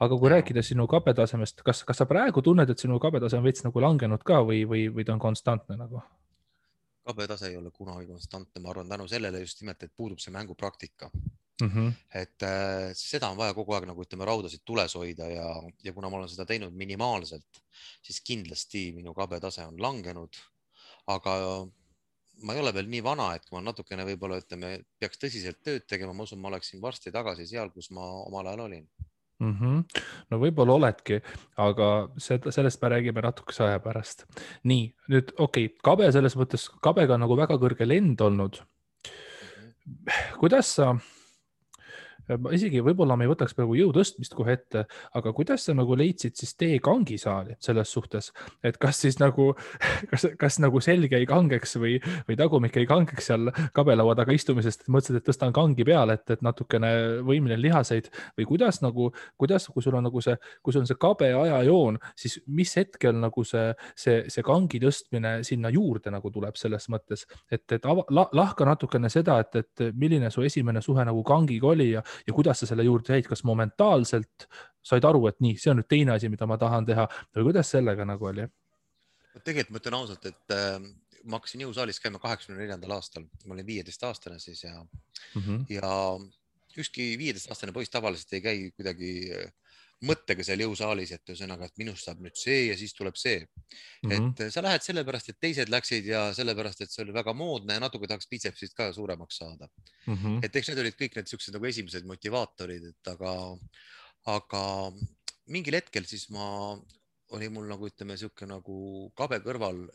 Aga kui rääkida sinu kabetasemest, kas sa praegu tunned, et sinu kabetase on veits nagu langenud ka või ta on konstantne nagu? Kabetase ei ole kunagi konstantne, ma arvan tänu sellele just nimelt, et puudub see mängupraktika. Et seda on vaja kogu aeg nagu ütleme raudasid tules hoida ja kuna ma olen seda teinud minimaalselt, siis kindlasti minu kabetase on langenud, aga ma ei ole veel nii vana, et kui ma natukene võib-olla ütleme, peaks tõsiselt tööd tegema, ma usun, ma oleksin varsti tagasi seal, kus ma omal ajal olin. No võib-olla oledki, aga sellest me räägime natukese aja pärast. Nii, nüüd kabe selles mõttes, kabega on nagu väga kõrge lend olnud. Kuidas sa, isegi võib-olla me ei võtaks praegu jõu tõstmist kohe ette, aga kuidas sa nagu leidsid siis tee kangisaali selles suhtes, et kas siis nagu, kas nagu selge ei kangeks või tagumik ei kangeks seal kabelaua taga istumisest, et mõtlesid, et tõstan kangi peale, et natukene võimlen lihaseid või kuidas, kui sul on nagu kui sul on see kabe ajajoon, siis mis hetkel nagu see kangi tõstmine sinna juurde nagu tuleb selles mõttes, et lahka natukene seda, et milline su esimene suhe nagu kangiga oli ja kuidas sa selle juurde jäid, kas momentaalselt said aru, et nii, see on nüüd teine asi, mida ma tahan teha või kuidas sellega nagu oli? Tegelikult ma ütlen ausalt, et ma hakkasin jõusaalis käima 84. aastal, ma olin 15-aastane siis ja ükski 15-aastane poiss tavaliselt ei käi kuidagi mõttega seal jõusaalis, et ühesõnaga, et minust saab nüüd see ja siis tuleb see. Et sa lähed sellepärast, et teised läksid ja sellepärast, et see oli väga moodne ja natuke tahaks bitsepsist ka suuremaks saada. Et eks need olid kõik need siuksed nagu esimesed motivaatorid, et aga mingil hetkel siis oli mul nagu ütleme siuke nagu kabe kõrval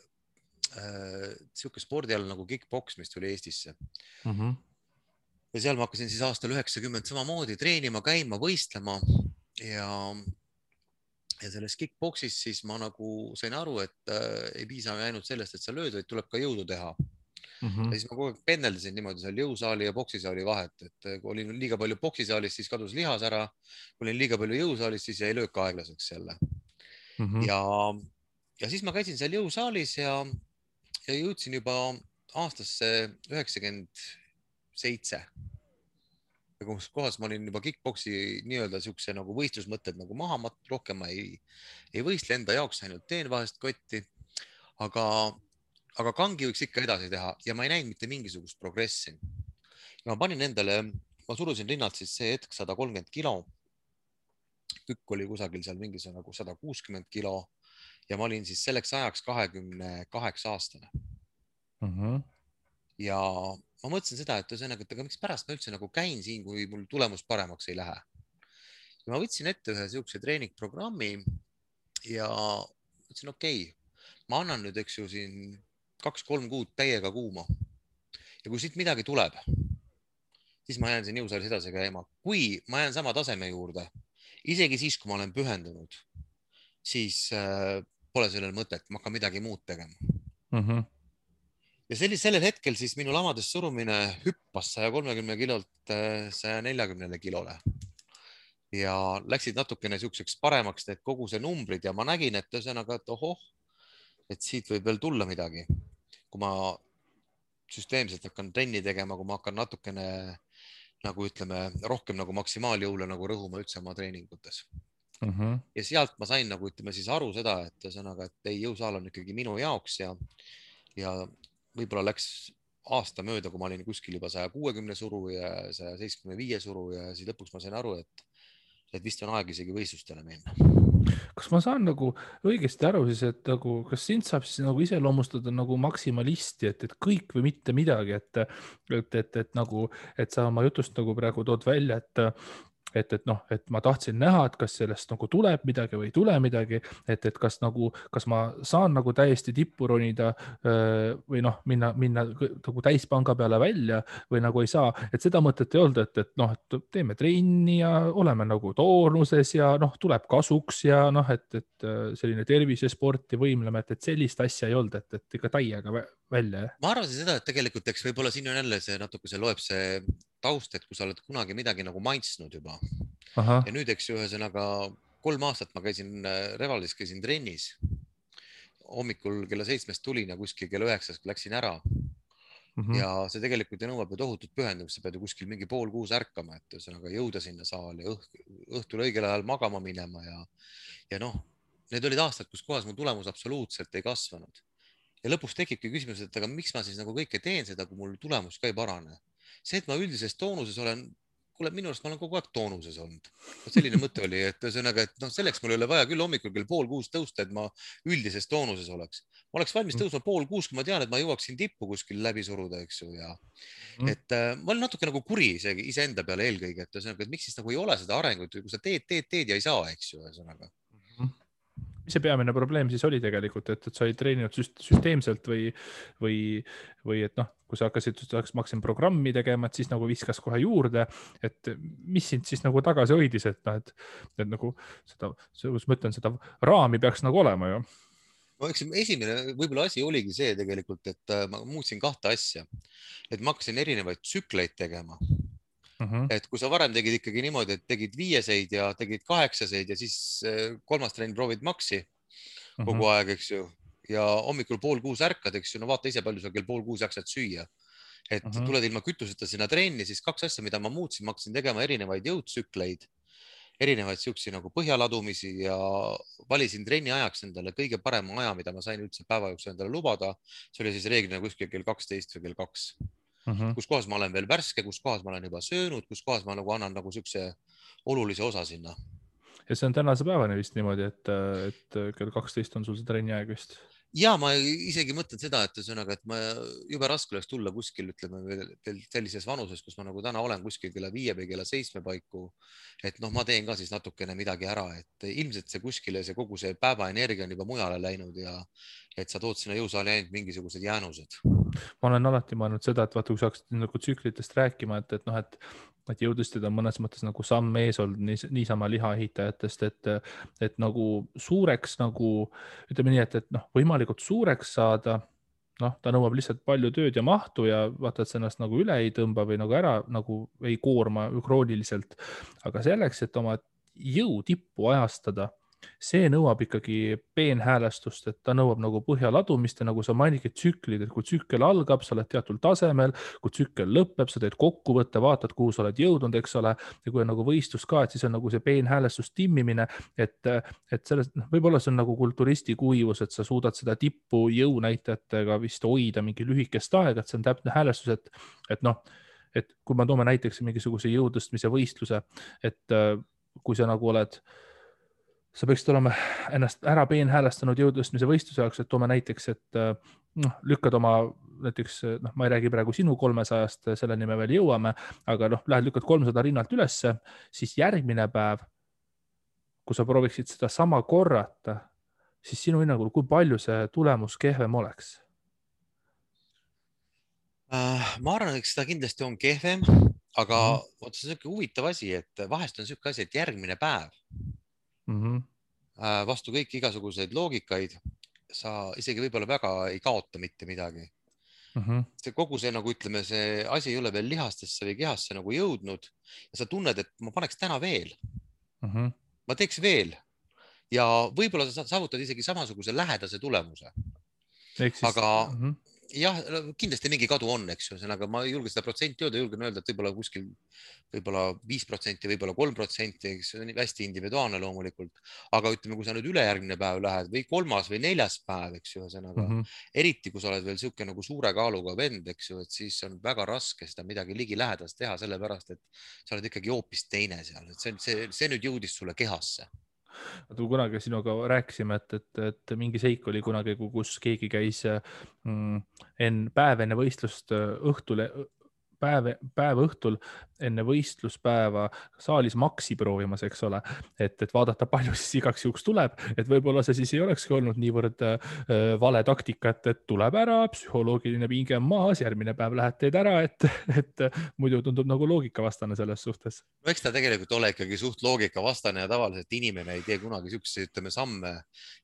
siuke spordiala nagu kickboks, mis tuli Eestisse. Ja seal ma hakkasin siis aastal 90 samamoodi treenima, käima, võistlema ja selles kickboksis siis ma nagu sain aru, et ei piisa ainult sellest, et sa lööd, vaid tuleb ka jõudu teha. Ja siis ma kogu aeg pendeldasin niimoodi seal jõusaali ja boksisaali vahet, et kui olin liiga palju boksisaalis, siis kadus lihas ära. Kui olin liiga palju jõusaalis, siis jäi löök aeglaseks jälle. Ja ja siis ma käisin seal jõusaalis ja jõudsin juba aastasse 97. Ja kus kohas ma olin juba kickboksi nii-öelda siukse nagu võistlusmõtted nagu maha, ma rohkem ma ei võistle enda jaoks, ainult teen vahest kotti, aga kangi võiks ikka edasi teha ja ma ei näinud mitte mingisugust progressi. Ja ma panin endale, ma surusin rinnalt siis see hetk 130 kilo. Tükk oli kusagil seal mingisugune nagu 160 kilo ja ma olin siis selleks ajaks 28-aastane. Ja ma mõtlesin seda, et ühesõnaga, et aga miks pärast ma üldse nagu käin siin, kui mul tulemus paremaks ei lähe. Ja ma võtsin ette ühe siukse treeningprogrammi ja mõtlesin, okei, ma annan nüüd, eks ju, siin 2-3 kuud täiega kuuma. Ja kui siit midagi tuleb, siis ma jään siin jõusaalis edasi käima. Kui ma jään sama taseme juurde, isegi siis, kui ma olen pühendunud, siis pole sellel mõtet, ma hakkan midagi muud tegema. Ja sellel hetkel siis minu lamades surumine hüppas 130 kilolt 140 kilole. Ja läksid natukene siukseks paremaks need kogu see numbrid ja ma nägin, et ühesõnaga, et ohoh, et siit võib veel tulla midagi. Kui ma süsteemselt hakkan trenni tegema, kui ma hakkan natukene nagu ütleme, rohkem nagu maksimaaljõule nagu rõhuma üldse oma treeningutes. Ja sealt ma sain nagu ütleme siis aru seda, et ühesõnaga, et ei, jõusaal on ikkagi minu jaoks ja võib-olla läks aasta mööda, kui ma olin kuskil juba 160 suru ja 175 suru ja siis lõpuks ma sain aru, et vist on aeg isegi võistlustele minna. Kas ma saan nagu õigesti aru siis, et nagu, kas sind saab siis nagu iseloomustada nagu maksimalisti, et kõik või mitte midagi, et nagu, et sa oma jutust nagu praegu tood välja, et ma tahtsin näha, et kas sellest nagu tuleb midagi või ei tule midagi, et kas ma saan nagu täiesti tippu ronida või minna nagu täispanga peale välja või nagu ei saa, et seda mõtet ei olnud, et teeme trenni ja oleme nagu toonuses ja tuleb kasuks ja et selline tervisesport ja võimleme, et sellist asja ei olnud, et ikka täiega välja. Ma arvasin seda, et tegelikult eks võib-olla siin on jälle see natuke loeb see taust, et kui sa oled kunagi midagi nagu maitsnud juba. Ja nüüd, eks ühesõnaga 3 aastat ma käisin Revalis, käisin trennis. Hommikul kella 7 tulin ja kuskil kella 9 läksin ära. Ja see tegelikult nõuab ju tohutut pühendumist, sa pead ju kuskil mingi 5:30 ärkama, et ühesõnaga jõuda sinna saali, õhtul õigel ajal magama minema ja need olid aastad, kus kohas mu tulemus absoluutselt ei kasvanud. Ja lõpuks tekibki küsimus, et aga miks ma siis nagu kõike teen seda, kui mul tulemus ka ei parane. See, et ma üldises toonuses olen, kuule, minu arust ma olen kogu aeg toonuses olnud. Selline mõte oli, et ühesõnaga, et selleks mul ei ole vaja küll hommikul kell 5:30 tõusta, et ma üldises toonuses oleks. Ma oleks valmis tõusma 5:30, kui ma tean, et ma jõuaksin tippu kuskil läbi suruda, eks ju. Ja et ma olen natuke nagu kuri iseenda peale eelkõige, et ühesõnaga, et miks siis nagu ei ole seda arengut, kui sa teed ja ei saa, eks ju, ühesõnaga. Mis see peamine probleem siis oli tegelikult, et sa ei treeninud süsteemselt või et kui sa hakkasin programmi tegema, et siis nagu viskas kohe juurde, et mis sind siis nagu tagasi hoidis, et nagu seda, ma ütlen, seda raami peaks nagu olema ju. No eks esimene võib-olla asi oligi see tegelikult, et ma muutsin 2 asja, et ma hakkasin erinevaid tsükleid tegema. Et kui sa varem tegid ikkagi niimoodi, et tegid 5-seid ja tegid 8-seid ja siis 3. trenn proovid maksi kogu aeg, eks ju, ja hommikul 5:30 ärkad, eks ju, vaata ise palju sa kell 5:30 jaksad süüa. Et tuled ilma kütuseta sinna trenni, siis 2 asja, mida ma muutsin, ma hakkasin tegema erinevaid jõudsükleid, erinevaid siuksi nagu põhjaladumisi ja valisin trenni ajaks endale kõige parema aja, mida ma sain üldse päeva jooksul endale lubada. See oli siis reeglina kuskil kell 12 või kell 2. Kus kohas ma olen veel värske, kus kohas ma olen juba söönud, kus kohas ma nagu annan nagu siukse olulise osa sinna. Ja see on tänase päevani vist niimoodi, et kell 12 on sul see trenni aeg vist? Ja ma isegi mõtlen seda, et ühesõnaga, et ma jube raske oleks tulla kuskil, ütleme veel sellises vanuses, kus ma nagu täna olen kuskil kella 5 või kella 7 paiku. Et ma teen ka siis natukene midagi ära, et ilmselt see kuskile, see kogu see päevaenergia on juba mujale läinud ja et sa tood sinna jõusaali ainult mingisugused jäänused. Ma olen alati mõelnud seda, et vaata, kui sa hakkasid nagu tsüklitest rääkima, et jõudlustid on mõnes mõttes nagu samm ees olnud niisama lihaehitajatest, et nagu suureks nagu, ütleme nii, et võimalikult suureks saada, ta nõuab lihtsalt palju tööd ja mahtu ja vaata, et see ennast nagu üle ei tõmba või nagu ära nagu ei koorma krooniliselt. Aga selleks, et oma jõutippu ajastada, see nõuab ikkagi peenhäälestust, et ta nõuab nagu põhja ladumist ja nagu sa mainidki tsüklid, et kui tsükkel algab, sa oled teatud tasemel, kui tsükkel lõpeb, sa teed kokkuvõtte, vaatad, kuhu sa oled jõudnud, eks ole. Ja kui on nagu võistlus ka, et siis on nagu see peenhäälestus timmimine, et sellest, võib-olla see on nagu kulturisti kuivus, et sa suudad seda tippu jõunäitajatega vist hoida mingi lühikest aega, et see on täpne häälestus, et noh, et kui ma toome näiteks mingisuguse jõutõstmise võistluse, et kui sa nagu oled, sa peaksid olema ennast ära peenhäälestanud jõutõstmise võistluse jaoks, et toome näiteks, et lükkad oma näiteks, ma ei räägi praegu sinu 300-st, selleni me veel jõuame, aga lähed lükkad 300 rinnalt ülesse, siis järgmine päev, kui sa prooviksid seda sama korrata, siis sinu hinnangul, kui palju see tulemus kehvem oleks? Ma arvan, et seda kindlasti on kehvem, aga see on selline huvitav asi, et vahest on selline asi, et järgmine päev vastu kõik igasuguseid loogikaid, sa isegi võib-olla väga ei kaota mitte midagi. See kogu see, nagu ütleme, see asi ei ole veel lihastesse või kehasse nagu jõudnud ja sa tunned, et ma paneks täna veel, ma teeks veel ja võib-olla sa saavutad isegi samasuguse lähedase tulemuse. Aga jah, kindlasti mingi kadu on, eks ju, aga ma ei julge seda protsenti öelda, julgen öelda, et võib-olla kuskil võib-olla 5%, võib-olla 3%, eks see on hästi individuaalne loomulikult, aga ütleme, kui sa nüüd ülejärgmine päev lähed või 3. või 4. päev, eks ju, eriti kui sa oled veel siuke nagu suure kaaluga vend, eks ju, et siis on väga raske seda midagi ligilähedast teha, sellepärast et sa oled ikkagi hoopis teine seal, et see nüüd jõudis sulle kehasse. Kunagi sinuga rääkisime, et mingi seik oli kunagi, kus keegi käis päev enne võistlust päev õhtul enne võistluspäeva saalis maksi proovimas, eks ole, et vaadata, palju siis igaks juhuks tuleb, et võib-olla see siis ei olekski olnud niivõrd vale taktika, et tuleb ära, psühholoogiline pinge on maas, järgmine päev lähed teed ära, et muidu tundub nagu loogikavastane selles suhtes. No eks ta tegelikult ole ikkagi suht loogikavastane ja tavaliselt inimene ei tee kunagi siukseid, ütleme, samme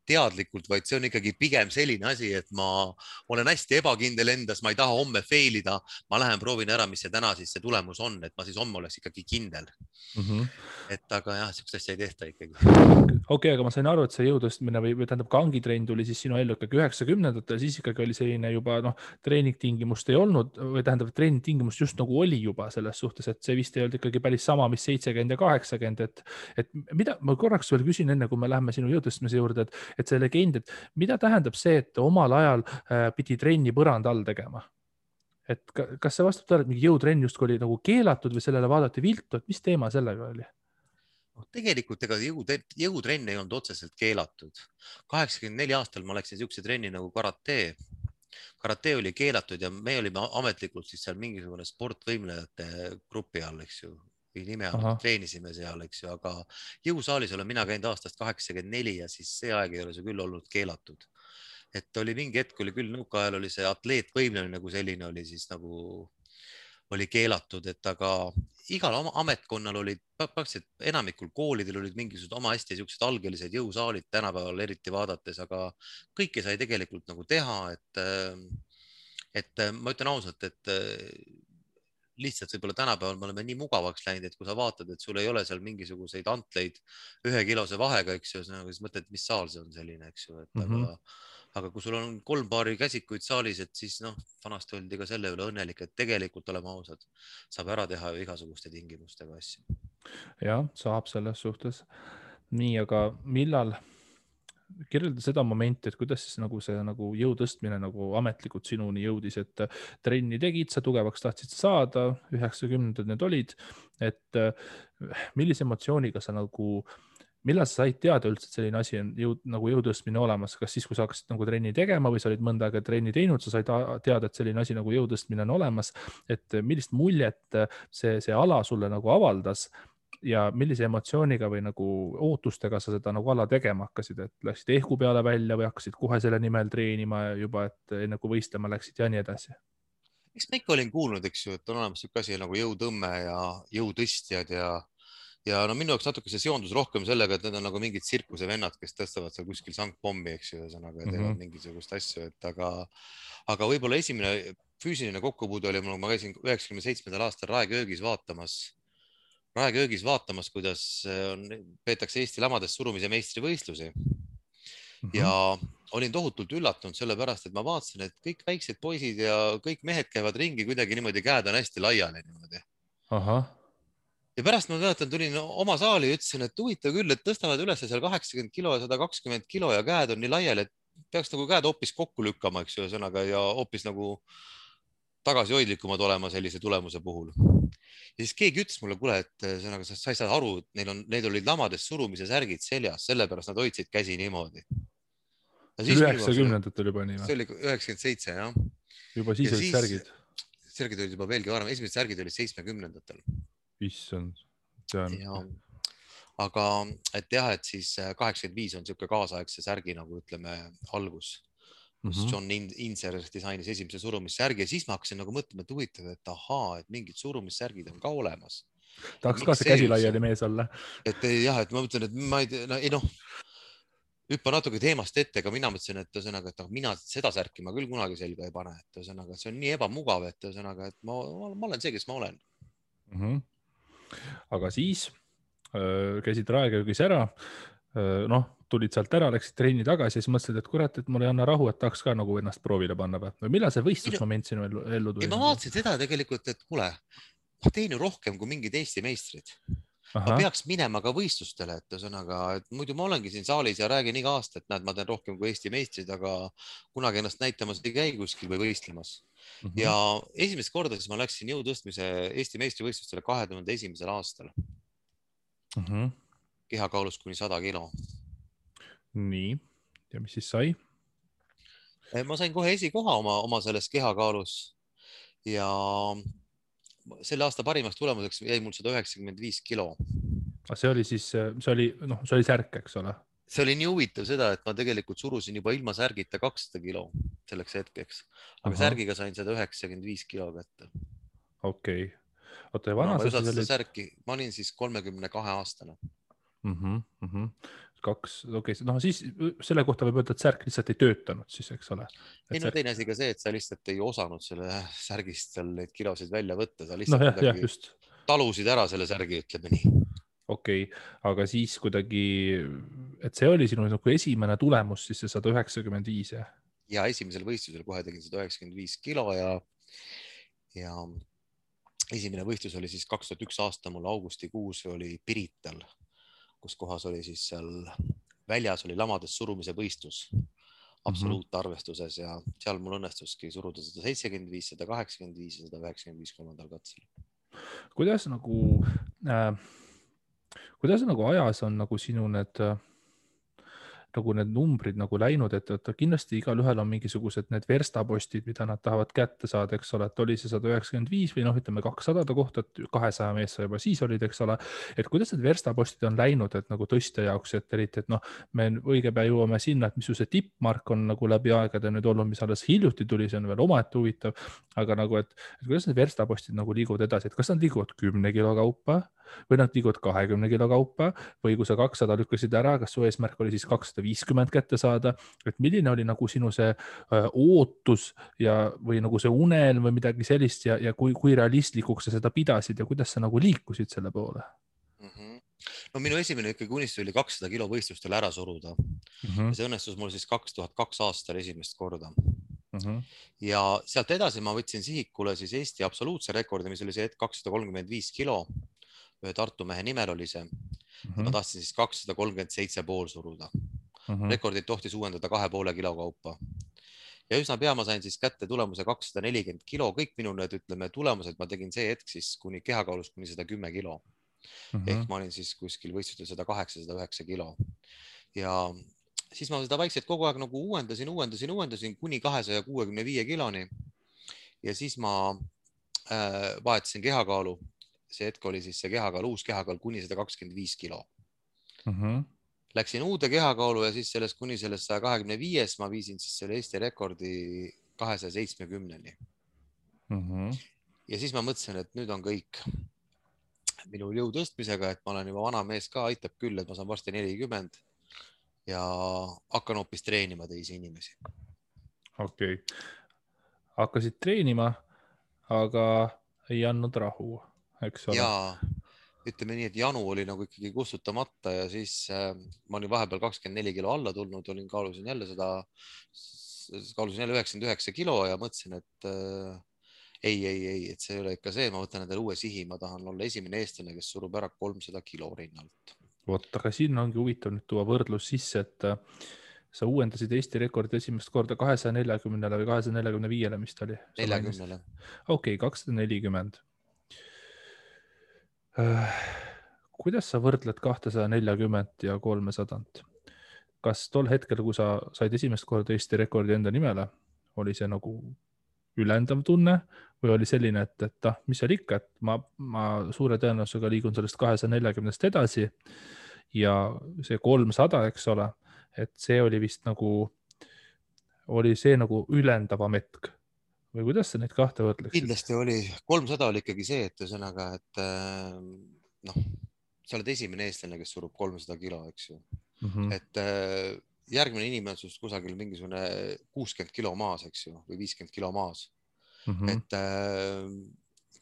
teadlikult, vaid see on ikkagi pigem selline asi, et ma olen hästi ebakindel endas, ma ei taha homme fail ida, ma lähen proovin ära, mis see täna siis see tulemus on, et ma siis homme oleks ikkagi kindel. Et aga jah, siukest asja ei tehta ikkagi. Okei, aga ma sain aru, et see jõutõstmine või tähendab kangitrenn tuli siis sinu ellu ikkagi 90-ndatel, siis ikkagi oli selline juba treeningtingimust ei olnud või tähendab, treeningtingimust just nagu oli juba selles suhtes, et see vist ei olnud ikkagi päris sama, mis 70 ja 80, et mida ma korraks veel küsin enne, kui me läheme sinu jõutõstmise juurde, et see legend, et mida tähendab see, et omal ajal pidi trenni põranda all tegema? Et kas see vastab tõele, et mingi jõutrenn justkui oli nagu keelatud või sellele vaadati viltu, et mis teema sellega oli? Tegelikult ega jõutrenn ei olnud otseselt keelatud. 84 aastal ma läksin siukse trenni nagu karate. Karate oli keelatud ja me olime ametlikult siis seal mingisugune sportvõimlejate grupi all, eks ju, või nime all treenisime seal, eks ju, aga jõusaalis olen mina käinud aastast 84 ja siis see aeg ei ole see küll olnud keelatud. Et oli mingi hetk, oli küll nõukaajal oli see atleetvõimlemine nagu selline oli siis nagu oli keelatud, et aga igal ametkonnal olid, praktiliselt enamikul koolidel olid mingisugused oma hästi siuksed algelised jõusaalid tänapäeval eriti vaadates, aga kõike sai tegelikult nagu teha, et ma ütlen ausalt, et lihtsalt võib-olla tänapäeval me oleme nii mugavaks läinud, et kui sa vaatad, et sul ei ole seal mingisuguseid antleid 1 kilose vahega, eks ju, siis mõtled, mis saal see on selline, eks ju, et aga kui sul on 3 paari käsikuid saalis, et siis vanasti oldi ka selle üle õnnelik, et tegelikult oleme ausad, saab ära teha ju igasuguste tingimustega asju. Jah, saab selles suhtes. Nii, aga millal kirjelda seda momenti, et kuidas siis nagu see nagu jõu tõstmine nagu ametlikult sinuni jõudis, et trenni tegid, sa tugevaks tahtsid saada, 90-ndad need olid, et millise emotsiooniga sa nagu, millal sa said teada üldse, et selline asi on nagu jõutõstmine olemas, kas siis, kui sa hakkasid nagu trenni tegema või sa olid mõnda aega trenni teinud, sa said teada, et selline asi nagu jõutõstmine on olemas, et millist muljet see ala sulle nagu avaldas ja millise emotsiooniga või nagu ootustega sa seda nagu ala tegema hakkasid, et läksid ehku peale välja või hakkasid kohe selle nimel treenima juba, et enne kui võistlema läksid ja nii edasi? Eks ma ikka olin kuulnud, eks ju, et on olemas siuke asi nagu jõutõmme ja jõutõstjad ja minu jaoks natuke see seondus rohkem sellega, et need on nagu mingid tsirkusevennad, kes tõstavad seal kuskil sangpommi, eks ju, ühesõnaga teevad mingisugust asju, et aga võib-olla esimene füüsiline kokkupuude oli mul, ma käisin 97. aastal Raeköögis vaatamas Raeköögis vaatamas, kuidas peetakse Eesti lamades surumise meistrivõistlusi ja olin tohutult üllatunud sellepärast, et ma vaatasin, et kõik väiksed poisid ja kõik mehed käivad ringi kuidagi niimoodi, käed on hästi laiali niimoodi. Ahah. Ja pärast ma mäletan, tulin oma saali ja ütlesin, et huvitav küll, et tõstavad üles seal 80 kilo ja 120 kilo ja käed on nii laiali, et peaks nagu käed hoopis kokku lükkama, eks ju, ühesõnaga ja hoopis nagu tagasihoidlikumad olema sellise tulemuse puhul. Ja siis keegi ütles mulle, kuule, et ühesõnaga sa ei saa aru, et neil olid lamades surumise särgid seljas, sellepärast nad hoidsid käsi niimoodi. See oli 90-ndatel juba nii või? See oli 97, jah. Juba siis olid särgid? Särgid olid juba veelgi varem, esimesed särgid olid 70-ndatel. Issand. Aga et jah, et siis 85 on siuke kaasaegse särgi nagu ütleme algus, kus John Inser disainis esimese surumissärgi ja siis ma hakkasin nagu mõtlema, et huvitav, et ahaa, et mingid surumissärgid on ka olemas. Tahaks ka see käsi laiali mees olla. Et jah, et ma mõtlen, et ma ei noh, hüppa natuke teemast ette, aga mina mõtlesin, et ühesõnaga, et mina seda särki ma küll kunagi selga ei pane, et ühesõnaga, see on nii ebamugav, et ühesõnaga, et ma olen see, kes ma olen. Aga siis käisid Raeköögis ära, noh, tulid sealt ära, läksid trenni tagasi ja siis mõtlesid, et kurat, et mul ei anna rahu, et tahaks ka nagu ennast proovile panna või millal see võistlusmoment sinu ellu tuli? Ma vaatasin seda tegelikult, et kuule, ma teen ju rohkem kui mingid Eesti meistrid. Ma peaks minema ka võistlustele, et ühesõnaga, et muidu ma olengi siin saalis ja räägin iga aasta, et näed, ma teen rohkem kui Eesti meistrid, aga kunagi ennast näitamas ei käi kuskil või võistlemas. Ja esimest korda siis ma läksin jõutõstmise Eesti meistrivõistlustele 2001. aastal. Kehakaalus kuni 100 kilo. Nii, ja mis siis sai? Ma sain kohe esikoha oma selles kehakaalus ja selle aasta parimaks tulemuseks jäi mul 195 kilo. See oli siis, see oli särk, eks ole? See oli nii huvitav seda, et ma tegelikult surusin juba ilma särgita 200 kilo selleks hetkeks, aga särgiga sain 195 kilo kätte. Okei. Oota, ja vana sa siis olid? Särki, ma olin siis 32 aastane. Okei, noh siis selle kohta võib öelda, et särk lihtsalt ei töötanud siis, eks ole? Ei, no teine asi ka see, et sa lihtsalt ei osanud selle särgist seal neid kilosid välja võtta, sa lihtsalt talusid ära selle särgi, ütleme nii. Okei, aga siis kuidagi, et see oli sinu esimene tulemus, siis see 195, jah? Ja esimesel võistlusel kohe tegin 195 kilo ja esimene võistlus oli siis 2001 aasta mul augustikuus oli Pirital, kus kohas oli siis seal väljas oli lamades surumise võistlus absoluutarvestuses ja seal mul õnnestuski suruda 175, 185 ja 195 kolmandal katsel. Kuidas nagu ajas on nagu sinu need numbrid nagu läinud, et kindlasti igal ühel on mingisugused need verstapostid, mida nad tahavad kätte saada, eks ole, et oli see 195 või noh, ütleme 200 kohta, et 200 mees juba siis olid, eks ole, et kuidas need verstapostid on läinud, et nagu tõstja jaoks, et eriti, et noh, me õige pea jõuame sinna, et mis ju see tippmark on nagu läbi aegade nüüd olnud, mis alles hiljuti tuli, see on veel omaette huvitav, aga nagu, et kuidas need verstapostid nagu liiguvad edasi, et kas nad liiguvad 10 kilo kaupa või nad liiguvad 20 kilo kaupa või kui sa 200 lükkasid ära, kas su eesmärk oli siis 250 kätte saada, et milline oli nagu sinu see ootus ja, või nagu see unelm või midagi sellist ja kui realistlikuks sa seda pidasid ja kuidas sa nagu liikusid selle poole? No minu esimene ikkagi unistus oli 200 kilo võistlustel ära suruda. Ja see õnnestus mul siis 2002 aastal esimest korda. Ja sealt edasi ma võtsin sihikule siis Eesti absoluutse rekordi, mis oli see hetk 235 kilo. Ühe Tartu mehe nimel oli see. Ma tahtsin siis 237,5 suruda. Rekordid tohtis uuendada 2,5 kilo kaupa. Ja üsna pea ma sain siis kätte tulemuse 240 kilo. Kõik minu need, ütleme, tulemused ma tegin see hetk siis kuni kehakaalus kuni 110 kilo. Ehk ma olin siis kuskil võistlustel 108-109 kilo. Ja siis ma seda vaikselt kogu aeg nagu uuendasin kuni 265 kiloni. Ja siis ma vahetasin kehakaalu. See hetk oli siis see kehakaal, uus kehakaal kuni 125 kilo. Läksin uude kehakaalu ja siis sellest kuni sellest 125 ma viisin siis selle Eesti rekordi 270-ni. Ja siis ma mõtlesin, et nüüd on kõik minu jõu tõstmisega, et ma olen juba vana mees ka, aitab küll, et ma saan varsti 40 ja hakkan hoopis treenima teisi inimesi. Okei. Hakkasid treenima, aga ei andnud rahu, eks ole? Jaa. ütleme nii, et janu oli nagu ikkagi kustutamata ja siis ma olin vahepeal 24 kilo alla tulnud, kaalusin jälle 99 kilo ja mõtlesin, et ei, et see ei ole ikka see, ma võtan endale uue sihi, ma tahan olla esimene eestlane, kes surub ära 300 kilo rinnalt. vot, aga siin ongi huvitav nüüd tuua võrdlus sisse, et sa uuendasid Eesti rekordi esimest korda 240-le või 245-le, mis ta oli? 40-le. Okei, 240. Kuidas sa võrdled 240 ja 300? Kas tol hetkel, kui sa said esimest korda Eesti rekordi enda nimele, oli see nagu ülendav tunne või oli selline, et mis seal ikka, et ma suure tõenäosusega liigun sellest 240-st edasi ja see 300, eks ole, et see oli vist nagu, oli see nagu ülendavam hetk või kuidas sa neid kahte võrdleksid? Kindlasti oli, 300 oli ikkagi see, et ühesõnaga, et noh, sa oled esimene eestlane, kes surub 300 kilo, eks ju. Et järgmine inimene on sust kusagil mingisugune 60 kilo maas, eks ju, või 50 kilo maas. Et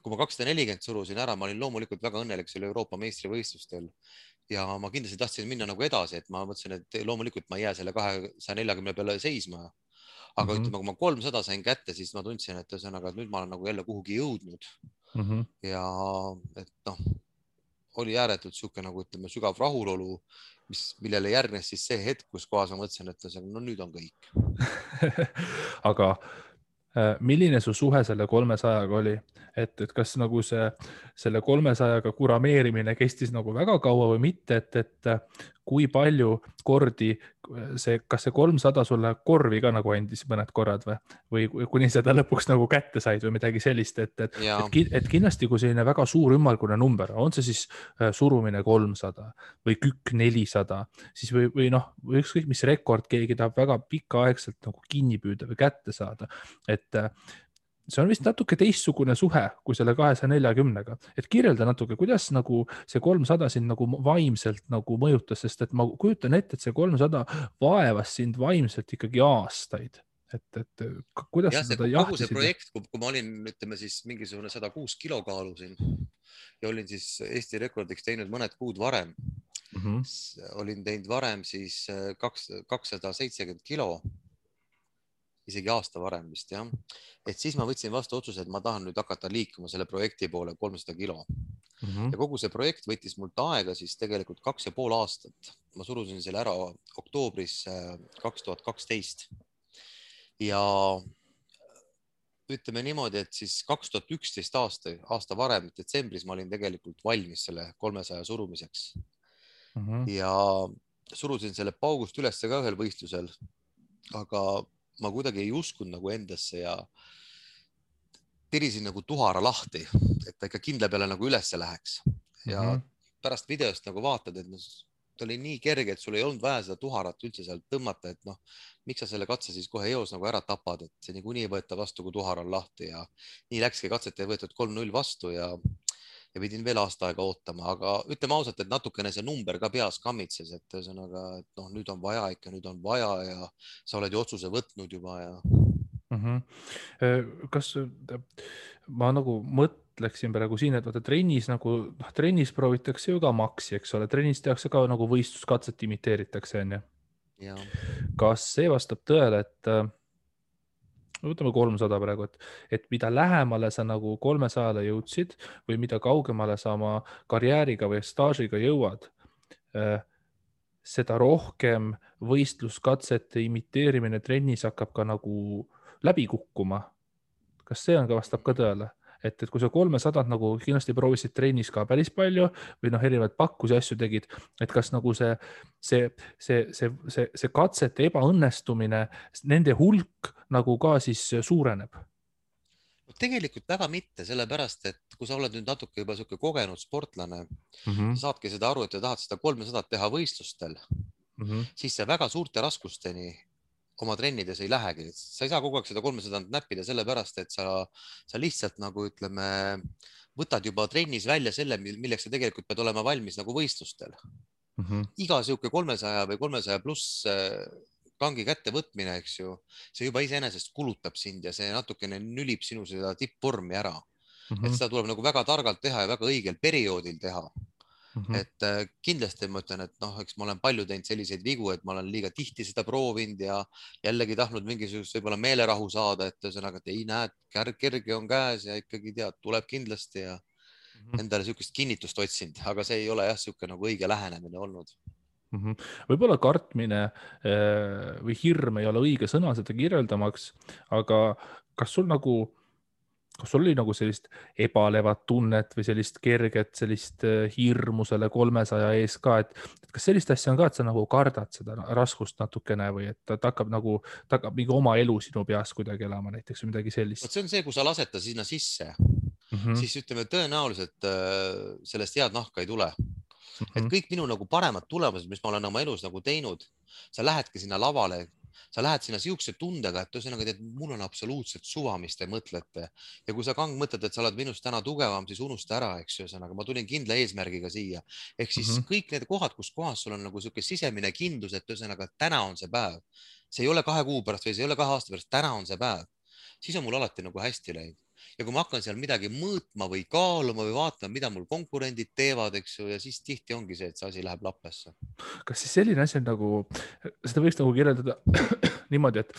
kui ma 240 surusin ära, ma olin loomulikult väga õnnelik selle Euroopa meistrivõistlustel ja ma kindlasti tahtsin minna nagu edasi, et ma mõtlesin, et loomulikult ma ei jää selle 240 peale seisma. Aga ütleme, kui ma 300 sain kätte, siis ma tundsin, et ühesõnaga, et nüüd ma olen nagu jälle kuhugi jõudnud. Ja et noh, oli ääretult siuke nagu ütleme sügav rahulolu, millele järgnes siis see hetk, kus kohas ma mõtlesin, et no nüüd on kõik. Aga milline su suhe selle 300-ga oli? Et kas nagu selle 300-ga kurameerimine kestis nagu väga kaua või mitte, et kui palju kordi kas see 300 sulle korvi ka nagu andis mõned korrad või kuni seda lõpuks nagu kätte said või midagi sellist, et kindlasti kui selline väga suur ümmargune number, on see siis surumine 300 või kükk 400, siis või noh, või ükskõik mis rekord keegi tahab väga pikaaegselt nagu kinni püüda või kätte saada, et see on vist natuke teistsugune suhe kui selle 240-ga, et kirjelda natuke, kuidas nagu see 300 sind nagu vaimselt nagu mõjutas, sest et ma kujutan ette, et see 300 vaevas sind vaimselt ikkagi aastaid, et kuidas sa seda jahtisid? Kogu see projekt, kui ma olin, ütleme siis mingisugune 106 kilo kaalusin ja olin siis Eesti rekordiks teinud mõned kuud varem, olin teinud varem siis 270 kilo, isegi aasta varem vist jah, et siis ma võtsin vastu otsuse, et ma tahan nüüd hakata liikuma selle projekti poole 300 kilo. Ja kogu see projekt võttis mult aega siis tegelikult 2,5 aastat. Ma surusin selle ära oktoobris 2012 ja ütleme niimoodi, et siis 2011 aasta varem, detsembris ma olin tegelikult valmis selle 300 surumiseks ja surusin selle paugust üles ka ühel võistlusel, aga ma kuidagi ei uskunud nagu endasse ja tirisin nagu tuhara lahti, et ta ikka kindla peale nagu ülesse läheks. Ja pärast videost nagu vaatad, et ta oli nii kerge, et sul ei olnud vaja seda tuharat üldse sealt tõmmata, et noh, miks sa selle katse siis kohe eos nagu ära tapad, et see niikuinii ei võeta vastu, kui tuhar on lahti ja nii läkski, katset ei võetud 3-0 vastu ja pidin veel aasta aega ootama, aga ütleme ausalt, et natukene see number ka peas kammitses, et ühesõnaga, et noh, nüüd on vaja ikka, nüüd on vaja ja sa oled ju otsuse võtnud juba ja. Kas ma nagu mõtleksin praegu siin, et vaata trennis nagu, trennis proovitakse ju ka maksi, eks ole, trennis tehakse ka nagu võistluskatset imiteeritakse, on ju? Kas see vastab tõele, et võtame 300 praegu, et mida lähemale sa nagu 300-le jõudsid või mida kaugemale sa oma karjääriga või staažiga jõuad, seda rohkem võistluskatsete imiteerimine trennis hakkab ka nagu läbi kukkuma. Kas see on ka vastab ka tõele? Et kui sa 300 nagu kindlasti proovisid trennis ka päris palju või noh, erinevaid pakkusi asju tegid, et kas nagu see katsete ebaõnnestumine, nende hulk nagu ka siis suureneb? Tegelikult väga mitte, sellepärast, et kui sa oled nüüd natuke juba selline kogenud sportlane, sa saadki seda aru, et sa tahad seda 300 teha võistlustel, siis see väga suurte raskusteni oma trennides ei lähegi. Sa ei saa kogu aeg seda 300 näppida sellepärast, et sa lihtsalt nagu ütleme, võtad juba trennis välja selle, milleks sa tegelikult pead olema valmis nagu võistlustel. Iga siuke 300 või 300 pluss kangi kätte võtmine, eks ju, see juba iseenesest kulutab sind ja see natukene nülib sinu seda tippvormi ära. Et seda tuleb nagu väga targalt teha ja väga õigel perioodil teha. et kindlasti ma ütlen, et noh, eks ma olen palju teinud selliseid vigu, et ma olen liiga tihti seda proovinud ja jällegi tahtnud mingisugust võib-olla meelerahu saada, et ühesõnaga, et ei näe, kerge on käes ja ikkagi tead, tuleb kindlasti ja endale niisugust kinnitust otsinud, aga see ei ole jah, niisugune nagu õige lähenemine olnud. Võib-olla kartmine või hirm ei ole õige sõna seda kirjeldamaks, aga kas sul oli nagu sellist ebalevat tunnet või sellist kerget sellist hirmu selle 300 ees ka, et kas sellist asja on ka, et sa nagu kardad seda raskust natukene või et ta hakkab mingi oma elu sinu peas kuidagi elama näiteks või midagi sellist? See on see, kui sa lased ta sinna sisse, siis ütleme tõenäoliselt sellest head nahka ei tule. Et kõik minu nagu paremad tulemused, mis ma olen oma elus nagu teinud, sa lähedki sinna lavale, sa lähed sinna siukse tundega, et ühesõnaga, et mul on absoluutselt suva, mis te mõtlete. Ja kui sa Kang mõtled, et sa oled minust täna tugevam, siis unusta ära, eks ju, ühesõnaga, ma tulin kindla eesmärgiga siia. Ehk siis kõik need kohad, kus kohas sul on nagu siuke sisemine kindlus, et ühesõnaga, täna on see päev. See ei ole 2 kuu pärast või see ei ole 2 aasta pärast, täna on see päev. Siis on mul alati nagu hästi läinud. Ja kui ma hakkan seal midagi mõõtma või kaaluma või vaatama, mida mul konkurendid teevad, eks ju, ja siis tihti ongi see, et see asi läheb lappesse. Kas siis selline asi on nagu, seda võiks nagu kirjeldada niimoodi, et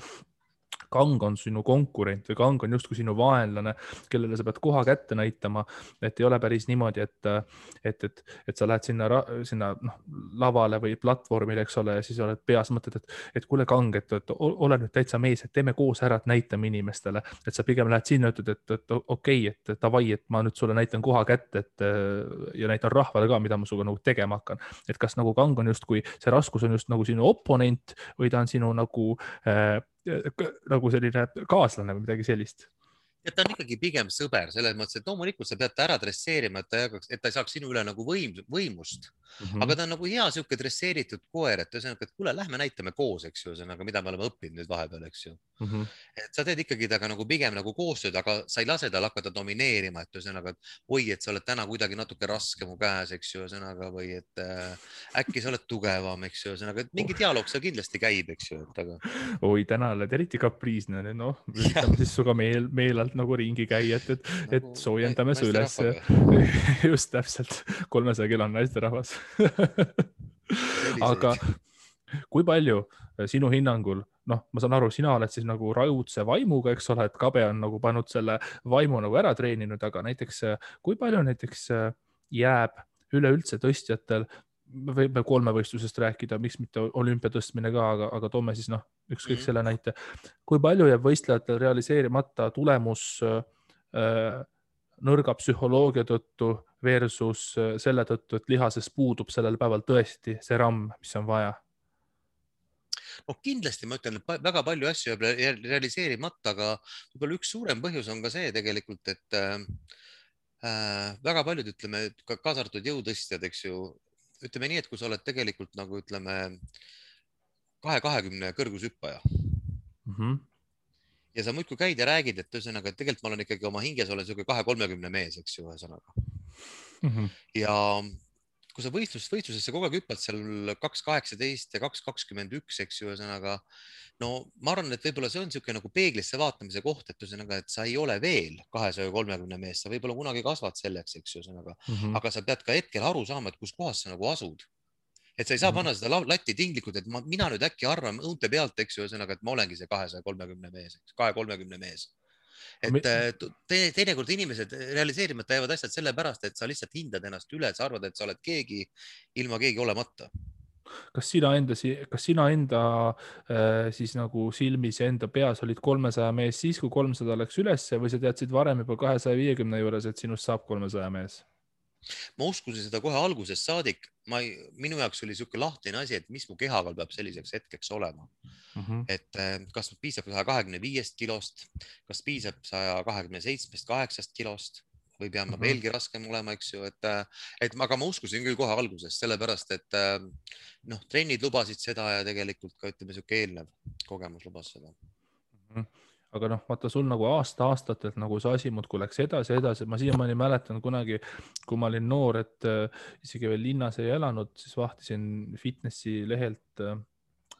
Kang on sinu konkurent või Kang on justkui sinu vaenlane, kellele sa pead koha kätte näitama, et ei ole päris niimoodi, et sa lähed sinna lavale või platvormile, eks ole, ja siis oled peas mõtled, et kuule Kang, et ole nüüd täitsa mees, et teeme koos ära, et näitame inimestele, et sa pigem lähed sinna, ütled, et okei, et davai, et ma nüüd sulle näitan koha kätte, ja näitan rahvale ka, mida ma suga nagu tegema hakkan. Et kas nagu Kang on justkui, see raskus on just nagu sinu oponent või ta on sinu nagu selline kaaslane või midagi sellist? Ja ta on ikkagi pigem sõber, selles mõttes, et loomulikult sa pead ta ära dresseerima, et ta ei saaks sinu üle nagu võimust. Aga ta on nagu hea siuke dresseeritud koer, et ühesõnaga, et kuule, lähme näitame koos, eks ju, ühesõnaga, mida me oleme õppinud nüüd vahepeal, eks ju. Et sa teed ikkagi taga nagu pigem nagu koostööd, aga sa ei lase tal hakata domineerima, et ühesõnaga, et oi, et sa oled täna kuidagi natuke raske mu käes, eks ju, ühesõnaga, või et äkki sa oled tugevam, eks ju, ühesõnaga, et mingi dialoog seal kindlasti käib, eks ju. Oi, täna oled eriti kapriisne, noh, üritame siis suga meelalt nagu ringi käia, et soojendame su üles. Just täpselt, 300 kilo on naisterahvas. Aga kui palju sinu hinnangul, noh, ma saan aru, sina oled siis nagu raudse vaimuga, eks ole, et Kabe on nagu pannud selle vaimu nagu ära treeninud, aga näiteks kui palju näiteks jääb üleüldse tõstjatel, võib 3-võistlusest rääkida, miks mitte olümpia tõstmine ka, aga toome siis ükskõik selle näite. Kui palju jääb võistlejatel realiseerimata tulemus nõrga psühholoogia tõttu versus selle tõttu, et lihases puudub sellel päeval tõesti see ramm, mis on vaja? No kindlasti ma ütlen, et väga palju asju jääb realiseerimata, aga võib-olla üks suurem põhjus on ka see tegelikult, et väga paljud, ütleme, kaasa arvatud jõutõstjad, eks ju, ütleme nii, et kui sa oled tegelikult nagu ütleme 220 kõrgushüppaja ja sa muidku käid ja räägid, et ühesõnaga, et tegelikult ma olen ikkagi oma hinges olen siuke 230 mees, eks ju, ühesõnaga. Ja kui sa võistlusesse kogu aeg hüppad seal 2.18 ja 2.21, eks ju, ühesõnaga, no ma arvan, et võib-olla see on siuke nagu peeglisse vaatamise koht, et ühesõnaga, et sa ei ole veel 230 mees, sa võib-olla kunagi kasvad selleks, eks ju, ühesõnaga, aga sa pead ka hetkel aru saama, et kus kohas sa nagu asud. Et sa ei saa panna seda latti tinglikult, et mina nüüd äkki arvan õunte pealt, eks ju, ühesõnaga, et ma olengi see 230 mees, 230 mees. Et teinekord inimesed realiseerimata jäävad asjad sellepärast, et sa lihtsalt hindad ennast üle, et sa arvad, et sa oled keegi ilma keegi olemata. Kas sina enda siis nagu silmis ja enda peas olid 300 mees siis, kui 300 läks ülesse või sa teadsid varem juba 250 juures, et sinust saab 300 mees? Ma uskusin seda kohe algusest saadik. Minu jaoks oli siuke lahtine asi, et mis mu kehaga peab selliseks hetkeks olema. Et kas piisab 125 kilost, kas piisab 127-8 kilost või peame veelgi raskem olema, eks ju, aga ma uskusin küll kohe algusest, sellepärast, et trennid lubasid seda ja tegelikult ka ütleme siuke eelnev kogemus lubas seda. Aga vaata sul nagu aastatelt nagu see asi muudkui läks edasi. Ma siiamaani mäletan kunagi, kui ma olin noor, et isegi veel linnas ei elanud, siis vahtisin fitnessi lehelt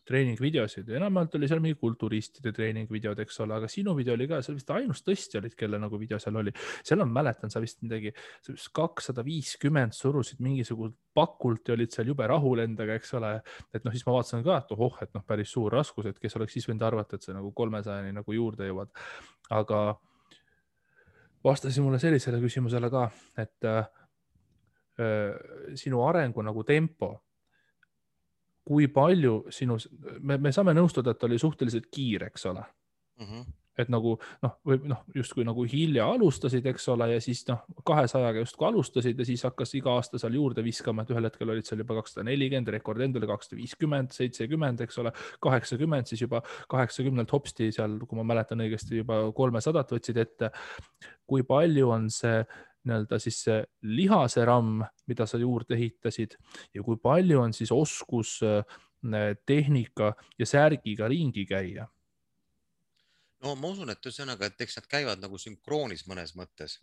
treeningvideosid, enamalt oli seal mingi kulturistide treeningvideod, eks ole, aga sinu video oli ka, sa vist ainus tõstja olid, kelle nagu video seal oli. seal on, mäletan, sa vist midagi, 250 surusid mingisugust pakult ja olid seal jube rahul endaga, eks ole. et noh, siis ma vaatasin ka, et ohoh, et noh, päris suur raskus, et kes oleks siis võinud arvata, et sa nagu 300-ni nagu juurde jõuad. aga vastasin mulle sellisele küsimusele ka, et sinu arengu nagu tempo, kui palju sinu, me saame nõustuda, et ta oli suhteliselt kiire, eks ole. Et nagu noh, või noh, justkui nagu hilja alustasid, eks ole, ja siis noh, 200-ga justkui alustasid ja siis hakkas iga aasta seal juurde viskama, et ühel hetkel olid seal juba 240, rekord endale 250, 70, eks ole, 80, siis juba 80-lt hopsti seal, kui ma mäletan õigesti, juba 300 võtsid ette. Kui palju on see nii-öelda siis see lihase ramm, mida sa juurde ehitasid ja kui palju on siis oskus tehnika ja särgiga ringi käia? No ma usun, et ühesõnaga, et eks nad käivad nagu sünkroonis mõnes mõttes,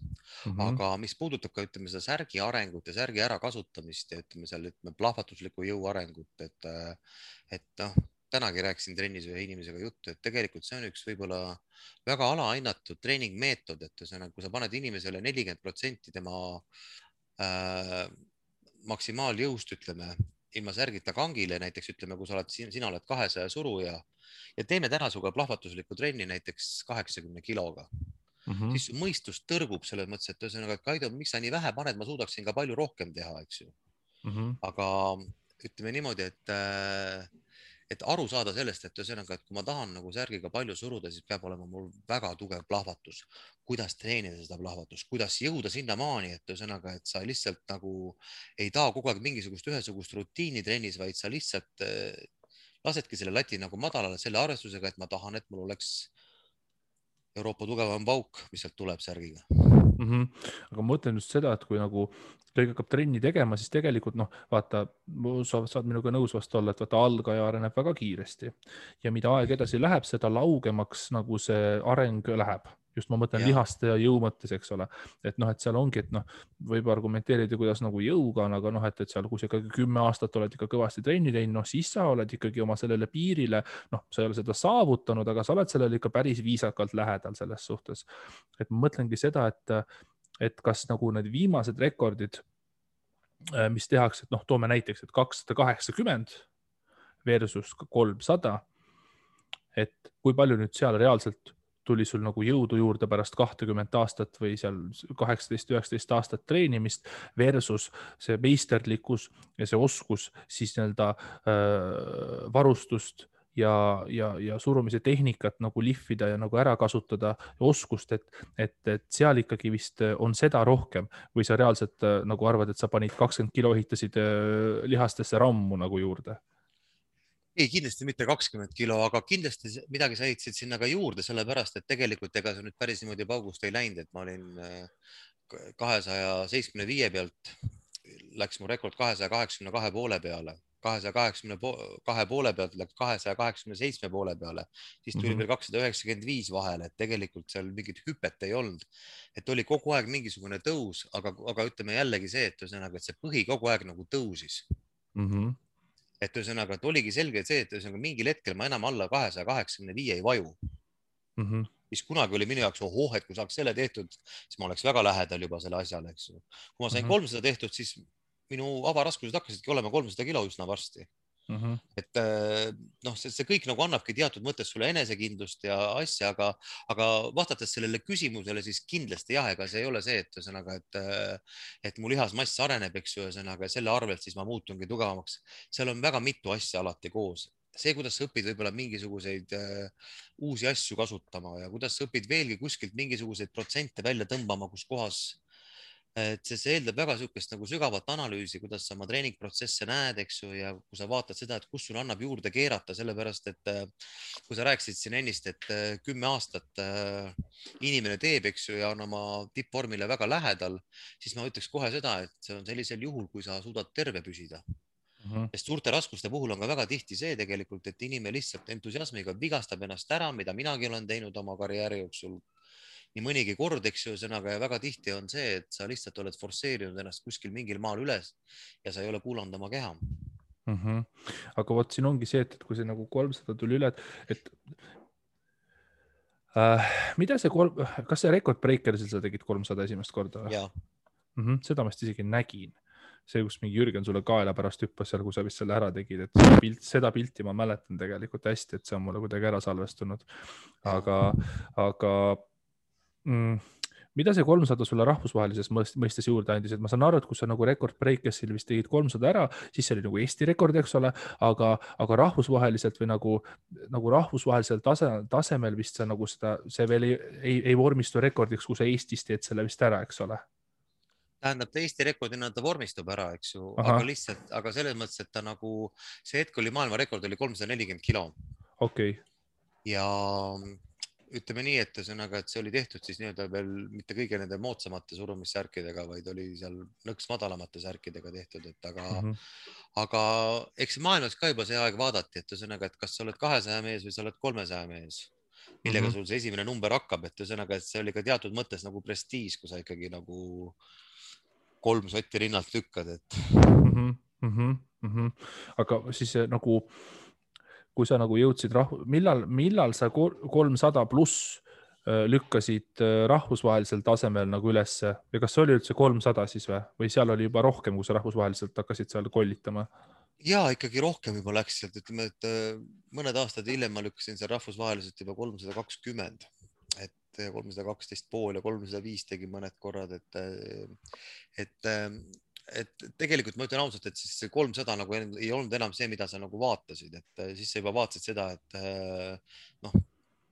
Mhm. aga mis puudutab ka, ütleme, seda särgi arengut ja särgi ärakasutamist ja ütleme seal, ütleme, plahvatusliku jõu arengut, et noh, tänagi rääkisin trennis ühe inimesega juttu, et tegelikult see on üks võib-olla väga alahinnatud treeningmeetod, et ühesõnaga, kui sa paned inimesele 40% tema maksimaaljõust, ütleme, ilma särgita kangile, näiteks ütleme, kui sina oled 200 suruja ja teeme täna sinuga plahvatuslikku trenni näiteks 80 kiloga, siis su mõistus tõrgub selles mõttes, et ühesõnaga, et Kaido, miks sa nii vähe paned, ma suudaksin ka palju rohkem teha, eks ju. Aga ütleme niimoodi, et aru saada sellest, et ühesõnaga, et kui ma tahan nagu särgiga palju suruda, siis peab olema mul väga tugev plahvatus. Kuidas treenida seda plahvatust, kuidas jõuda sinnamaani, et ühesõnaga, et sa lihtsalt nagu ei taha kogu aeg mingisugust ühesugust rutiini trennis, vaid sa lihtsalt lasedki selle lati nagu madalale selle arvestusega, et ma tahan, et mul oleks Euroopa tugevam pauk, mis sealt tuleb särgiga. Aga ma mõtlen just seda, et kui nagu keegi hakkab trenni tegema, siis tegelikult noh, vaata, sa saad minuga nõus vast olla, et vaata, algaja areneb väga kiiresti ja mida aeg edasi läheb, seda laugemaks nagu see areng läheb. Just ma mõtlen lihaste ja jõu mõttes, eks ole. Et noh, et seal ongi, et noh, võib argumenteerida, kuidas nagu jõuga on, aga noh, et seal, kui sa ikkagi 10 aastat oled ikka kõvasti trenni teinud, noh, siis sa oled ikkagi oma sellele piirile, noh, sa ei ole seda saavutanud, aga sa oled sellele ikka päris viisakalt lähedal selles suhtes. Et ma mõtlengi seda, et kas nagu need viimased rekordid, mis tehakse, et noh, toome näiteks, et 280 versus 300, et kui palju nüüd seal reaalselt tuli sul nagu jõudu juurde pärast 20 aastat või seal 18-19 aastat treenimist versus see meisterlikkus ja see oskus siis nii-öelda varustust ja surumise tehnikat nagu lihvida ja nagu ära kasutada oskust, et seal ikkagi vist on seda rohkem või sa reaalselt nagu arvad, et sa panid 20 kilo, ehitasid lihastesse rammu nagu juurde? Ei, kindlasti mitte 20 kilo, aga kindlasti midagi sa ehitasid sinna ka juurde, sellepärast et tegelikult ega see nüüd päris niimoodi paugust ei läinud, et ma olin 275 pealt, läks mu rekord 282 poole peale, 282 poole pealt läks 287 poole peale, siis tuli veel 295 vahele, et tegelikult seal mingit hüpet ei olnud, et oli kogu aeg mingisugune tõus, aga ütleme jällegi see, et ühesõnaga, et see põhi kogu aeg nagu tõusis. Et ühesõnaga, et oligi selge see, et ühesõnaga mingil hetkel ma enam alla 285 ei vaju. Mis kunagi oli minu jaoks, ohoh, et kui saaks selle tehtud, siis ma oleks väga lähedal juba selle asjale, eks ju. Kui ma sain 300 tehtud, siis minu avaraskused hakkasidki olema 300 kilo üsna varsti. Et noh, see kõik nagu annabki teatud mõttes sulle enesekindlust ja asja, aga vastates sellele küsimusele, siis kindlasti jah, ega see ei ole see, et ühesõnaga, et mu lihasmass areneb, eks ju, ühesõnaga selle arvelt siis ma muutungi tugevamaks. Seal on väga mitu asja alati koos. See, kuidas sa õpid võib-olla mingisuguseid uusi asju kasutama ja kuidas sa õpid veelgi kuskilt mingisuguseid protsente välja tõmbama, kus kohas et see eeldab väga sihukest nagu sügavat analüüsi, kuidas sa oma treeningprotsesse näed, eks ju, ja kui sa vaatad seda, et kus sul annab juurde keerata, sellepärast et kui sa rääkisid siin ennist, et 10 aastat inimene teeb, eks ju, ja on oma tippvormile väga lähedal, siis ma ütleks kohe seda, et see on sellisel juhul, kui sa suudad terve püsida. Sest suurte raskuste puhul on ka väga tihti see tegelikult, et inimene lihtsalt entusiasmiga vigastab ennast ära, mida minagi olen teinud oma karjääri jooksul nii mõnigi kord, eks ju, sõnaga, ja väga tihti on see, et sa lihtsalt oled forsseerinud ennast kuskil mingil maal üles ja sa ei ole kuulanud oma keha. Aga vot siin ongi see, et kui see nagu 300 tuli üle, et mida see kas see Record Breakersil sa tegid 300 esimest korda? Jaa. Seda ma isegi nägin. See, kus mingi Jürgen sulle kaela pärast hüppas seal, kui sa vist selle ära tegid, et seda pilti ma mäletan tegelikult hästi, et see on mulle kuidagi ära salvestunud. Aga mida see 300 sulle rahvusvahelises mõistes juurde andis, et ma saan aru, et kui sa nagu Record Breakersil vist tegid 300 ära, siis see oli nagu Eesti rekord, eks ole, aga rahvusvaheliselt või nagu rahvusvahelisel tasemel vist see nagu see veel ei vormistu rekordiks, kui sa Eestis teed selle vist ära, eks ole. Tähendab, Eesti rekordina ta vormistub ära, eks ju, aga selles mõttes, et ta nagu, see hetk oli maailmarekord, oli 340 kilo. Okei. Ja ütleme nii, et ühesõnaga, et see oli tehtud siis nii-öelda veel mitte kõige nende moodsamate surumissärkidega, vaid oli seal nõks madalamate särkidega tehtud, et aga eks maailmas ka juba see aeg vaadati, et ühesõnaga, et kas sa oled 200 mees või sa oled 300 mees, millega sul see esimene number hakkab, et ühesõnaga, et see oli ka teatud mõttes nagu prestiis, kui sa ikkagi nagu 3 sotti rinnalt lükkad, et. Aga siis nagu kui sa nagu jõudsid millal sa 300 pluss lükkasid rahvusvahelisel tasemel nagu ülesse ja kas oli üldse 300 siis või seal oli juba rohkem, kui sa rahvusvaheliselt hakkasid seal kollitama? Ja ikkagi rohkem juba läks sealt, ütleme, et mõned aastad hiljem ma lükkasin seal rahvusvaheliselt juba 320, et 312,5 ja 305 tegin mõned korrad, et tegelikult ma ütlen ausalt, et siis see 300 nagu ei olnud enam see, mida sa nagu vaatasid, et siis sa juba vaatasid seda, et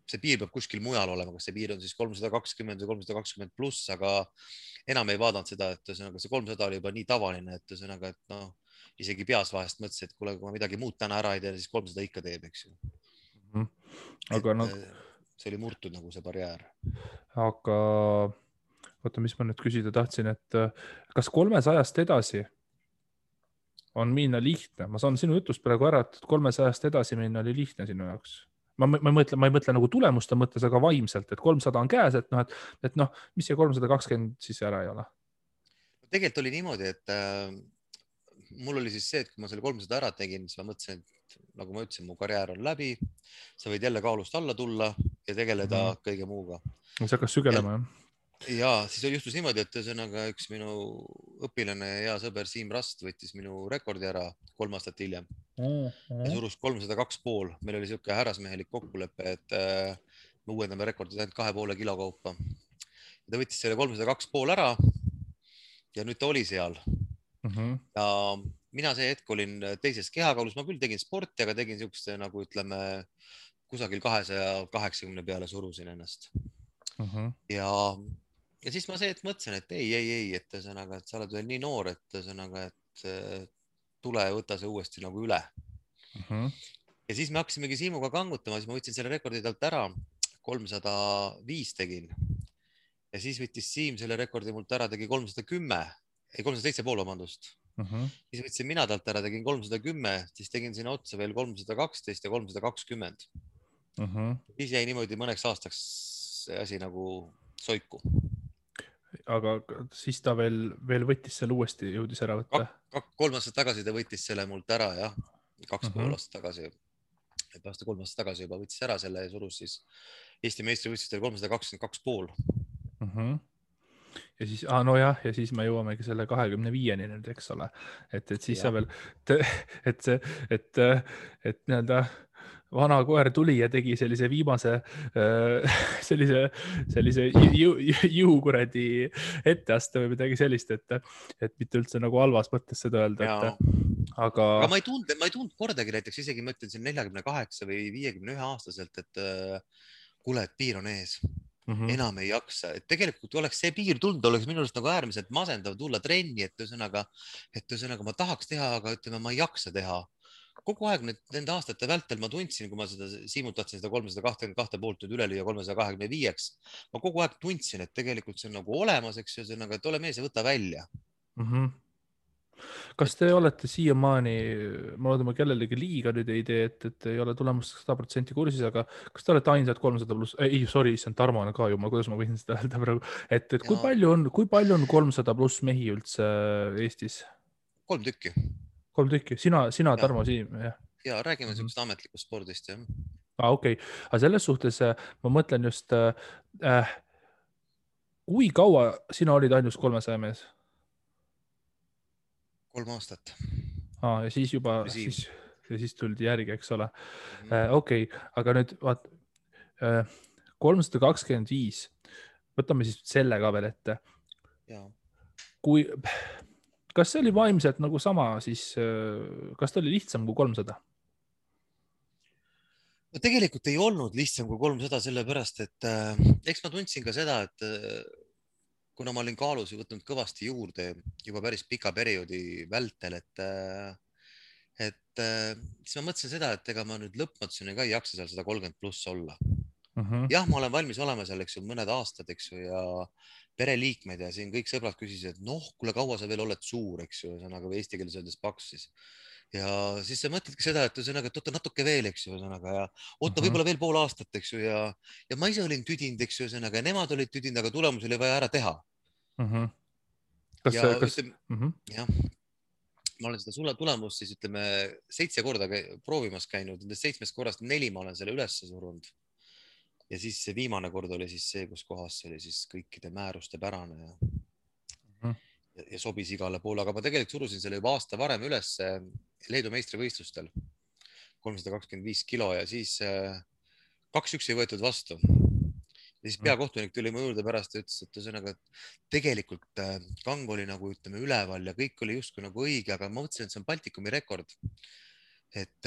see piir peab kuskil mujal olema, kas see piir on siis 320 või 320 pluss, aga enam ei vaadanud seda, et ühesõnaga see 300 oli juba nii tavaline, et ühesõnaga, et isegi peas vahest mõtlesin, et kuule, kui ma midagi muud täna ära ei tee, siis 300 ikka teeb, eks ju. Aga see oli murtud nagu see barjäär. Aga oota, mis ma nüüd küsida tahtsin, et kas 300-st edasi on minna lihtne? Ma saan sinu jutust praegu ära, et 300-st edasi minna oli lihtne sinu jaoks. Ma ei mõtle nagu tulemuste mõttes, aga vaimselt, et 300 on käes, et mis see 320 siis ära ei ole? Tegelikult oli niimoodi, et mul oli siis see, et kui ma selle 300 ära tegin, siis ma mõtlesin, et nagu ma ütlesin, mu karjäär on läbi, sa võid jälle kaalust alla tulla ja tegeleda kõige muuga. See hakkas sügelema, jah? Ja siis juhtus niimoodi, et ühesõnaga üks minu õpilane ja hea sõber Siim Rast võttis minu rekordi ära 3 aastat hiljem ja surus 302,5. Meil oli siuke härrasmehelik kokkulepe, et me uuendame rekordid ainult 2,5 kilo kaupa. Ja ta võttis selle 302,5 ära ja nüüd ta oli seal. Ja mina see hetk olin teises kehakaalus, ma küll tegin sporti, aga tegin siukeste nagu ütleme kusagil 280 peale surusin ennast. Ja siis ma see, et mõtlesin, et ei, et ühesõnaga, et sa oled veel nii noor, et ühesõnaga, et tule ja võta see uuesti nagu üle. Ja siis me hakkasimegi Siimuga kangutama, siis ma võtsin selle rekordi talt ära, 305 tegin. Ja siis võttis Siim selle rekordi mult ära, tegi 307,5, vabandust. Siis võtsin mina talt ära, tegin 310, siis tegin sinna otsa veel 312 ja 320. Siis jäi niimoodi mõneks aastaks see asi nagu soiku. Aga siis ta veel võttis selle uuesti, jõudis ära võtta? 3 aastat tagasi ta võttis selle mult ära, jah. 2,5 aastat tagasi. Et aasta 3 aastat tagasi juba võttis ära selle ja surus siis Eesti meistrivõistlustel 322,5. Ja siis, nojah, ja siis me jõuamegi selle 25-ni nüüd, eks ole. Et siis sa veel, et nii-öelda vana koer tuli ja tegi sellise viimase sellise jõukuradi etteaste või midagi sellist, et mitte üldse nagu halvas mõttes seda öelda. Aga ma ei tundnud kordagi näiteks, isegi ma ütlen siin 48 või 51 aastaselt, et kuule, et piir on ees. Enam ei jaksa, et tegelikult oleks see piir tulnud, oleks minu arust nagu äärmiselt masendav tulla trenni, et ühesõnaga ma tahaks teha, aga ütleme, ma ei jaksa teha. Kogu aeg nende aastate vältel ma tundsin, kui ma seda Siimult tahtsin seda 322 poolt nüüd üle lüüa 325-ks. Ma kogu aeg tundsin, et tegelikult see on nagu olemas, eks ühesõnaga, et ole mees ja võta välja. Kas te olete siiamaani, ma loodan, ma kellelegi liiga nüüd ei tee, et ei ole tulemust 100% kursis, aga kas te olete ainsad 300 pluss, see on Tarmo ka ju, kuidas ma võin seda öelda praegu, et kui palju on 300 pluss mehi üldse Eestis? 3 tükki. 3 tükki, sina ja, Tarmo Siim, jah? ja räägime siuksest ametlikust spordist, jah. Okei, aga selles suhtes ma mõtlen just, kui kaua sina olid ainus 300 mees? 3 aastat. Ja siis juba, Siim. ja siis tuldi järgi, eks ole. Mhm. Okei, aga nüüd vaat 325, võtame siis selle ka veel ette. Ja. Kui, kas see oli vaimselt nagu sama, siis kas ta oli lihtsam kui 300? no tegelikult ei olnud lihtsam kui 300, sellepärast et eks ma tundsin ka seda, et kuna ma olin kaalus võtnud kõvasti juurde juba päris pika perioodi vältel, siis ma mõtlesin seda, et ega ma nüüd lõpmatuseni ka ei jaksa seal 130+ olla. Jah, ma olen valmis olema seal, eks ju, mõned aastad, eks ju, ja pereliikmed ja siin kõik sõbrad küsisid, et noh, kuule, kaua sa veel oled suur, eks ju, ühesõnaga või eesti keeles öeldes paks siis. Ja siis sa mõtledki seda, et ühesõnaga, et oota natuke veel, eks ju, ühesõnaga ja oota võib-olla veel pool aastat, eks ju, ja ma ise olin tüdinud, eks ju, ühesõnaga ja nemad olid tüdinud, aga tulemus oli vaja ära teha. Ja ütleme, jah, ma olen seda tulemust siis ütleme 7 korda proovimas käinud, nendest 7 korrast 4 ma olen selle üles surunud. Ja siis see viimane kord oli siis see, kus kohas see oli siis kõikide määruste pärane ja sobis igale poole, aga ma tegelikult surusin selle juba aasta varem üles Leedu meistrivõistlustel 325 kilo ja siis 2-1 ei võetud vastu. Ja siis peakohtunik tuli mu juurde pärast ja ütles, et ühesõnaga, et tegelikult kang oli nagu ütleme üleval ja kõik oli justkui nagu õige, aga ma mõtlesin, et see on Baltikumi rekord. Et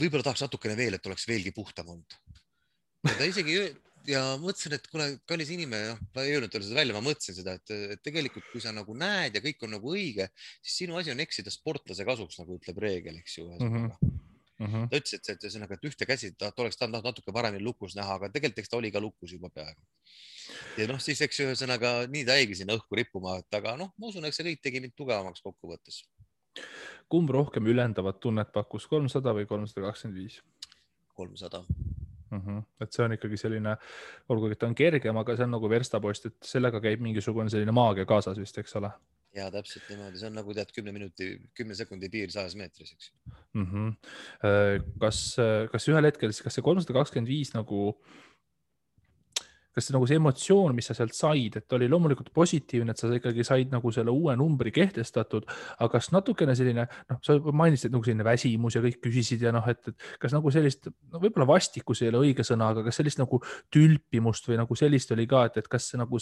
võib-olla tahaks natukene veel, et oleks veelgi puhtam olnud. Ja ta isegi ja mõtlesin, et kuule, kallis inimene, ma ei öelnud talle seda välja, ma mõtlesin seda, et tegelikult kui sa nagu näed ja kõik on nagu õige, siis sinu asi on eksida sportlase kasuks, nagu ütleb reegel, eks ju. Ta ütles, et ühesõnaga, et ühte käsi ta oleks tahtnud natuke paremini lukus näha, aga tegelikult eks ta oli ka lukus juba peaaegu. Ja noh, siis eks ühesõnaga nii ta jäigi sinna õhku rippuma, aga noh, ma usun, et see kõik tegi mind tugevamaks kokkuvõttes. Kumb rohkem ülendavat tunnet pakkus, 300 või 325? 300. Et see on ikkagi selline, olgugi ta on kergem, aga see on nagu verstapost, et sellega käib mingisugune selline maagia kaasas vist, eks ole? Ja täpselt niimoodi, see on nagu tead 10 sekundi piir 100 meetris, eks. Kas ühel hetkel, kas see 325 nagu, kas see nagu see emotsioon, mis sa sealt said, et oli loomulikult positiivne, et sa ikkagi said nagu selle uue numbri kehtestatud, aga kas natukene selline, noh, sa mainisid nagu selline väsimus ja kõik küsisid ja noh, et kas nagu sellist, no võib-olla vastikus ei ole õige sõna, aga kas sellist nagu tülpimust või nagu sellist oli ka, et kas see nagu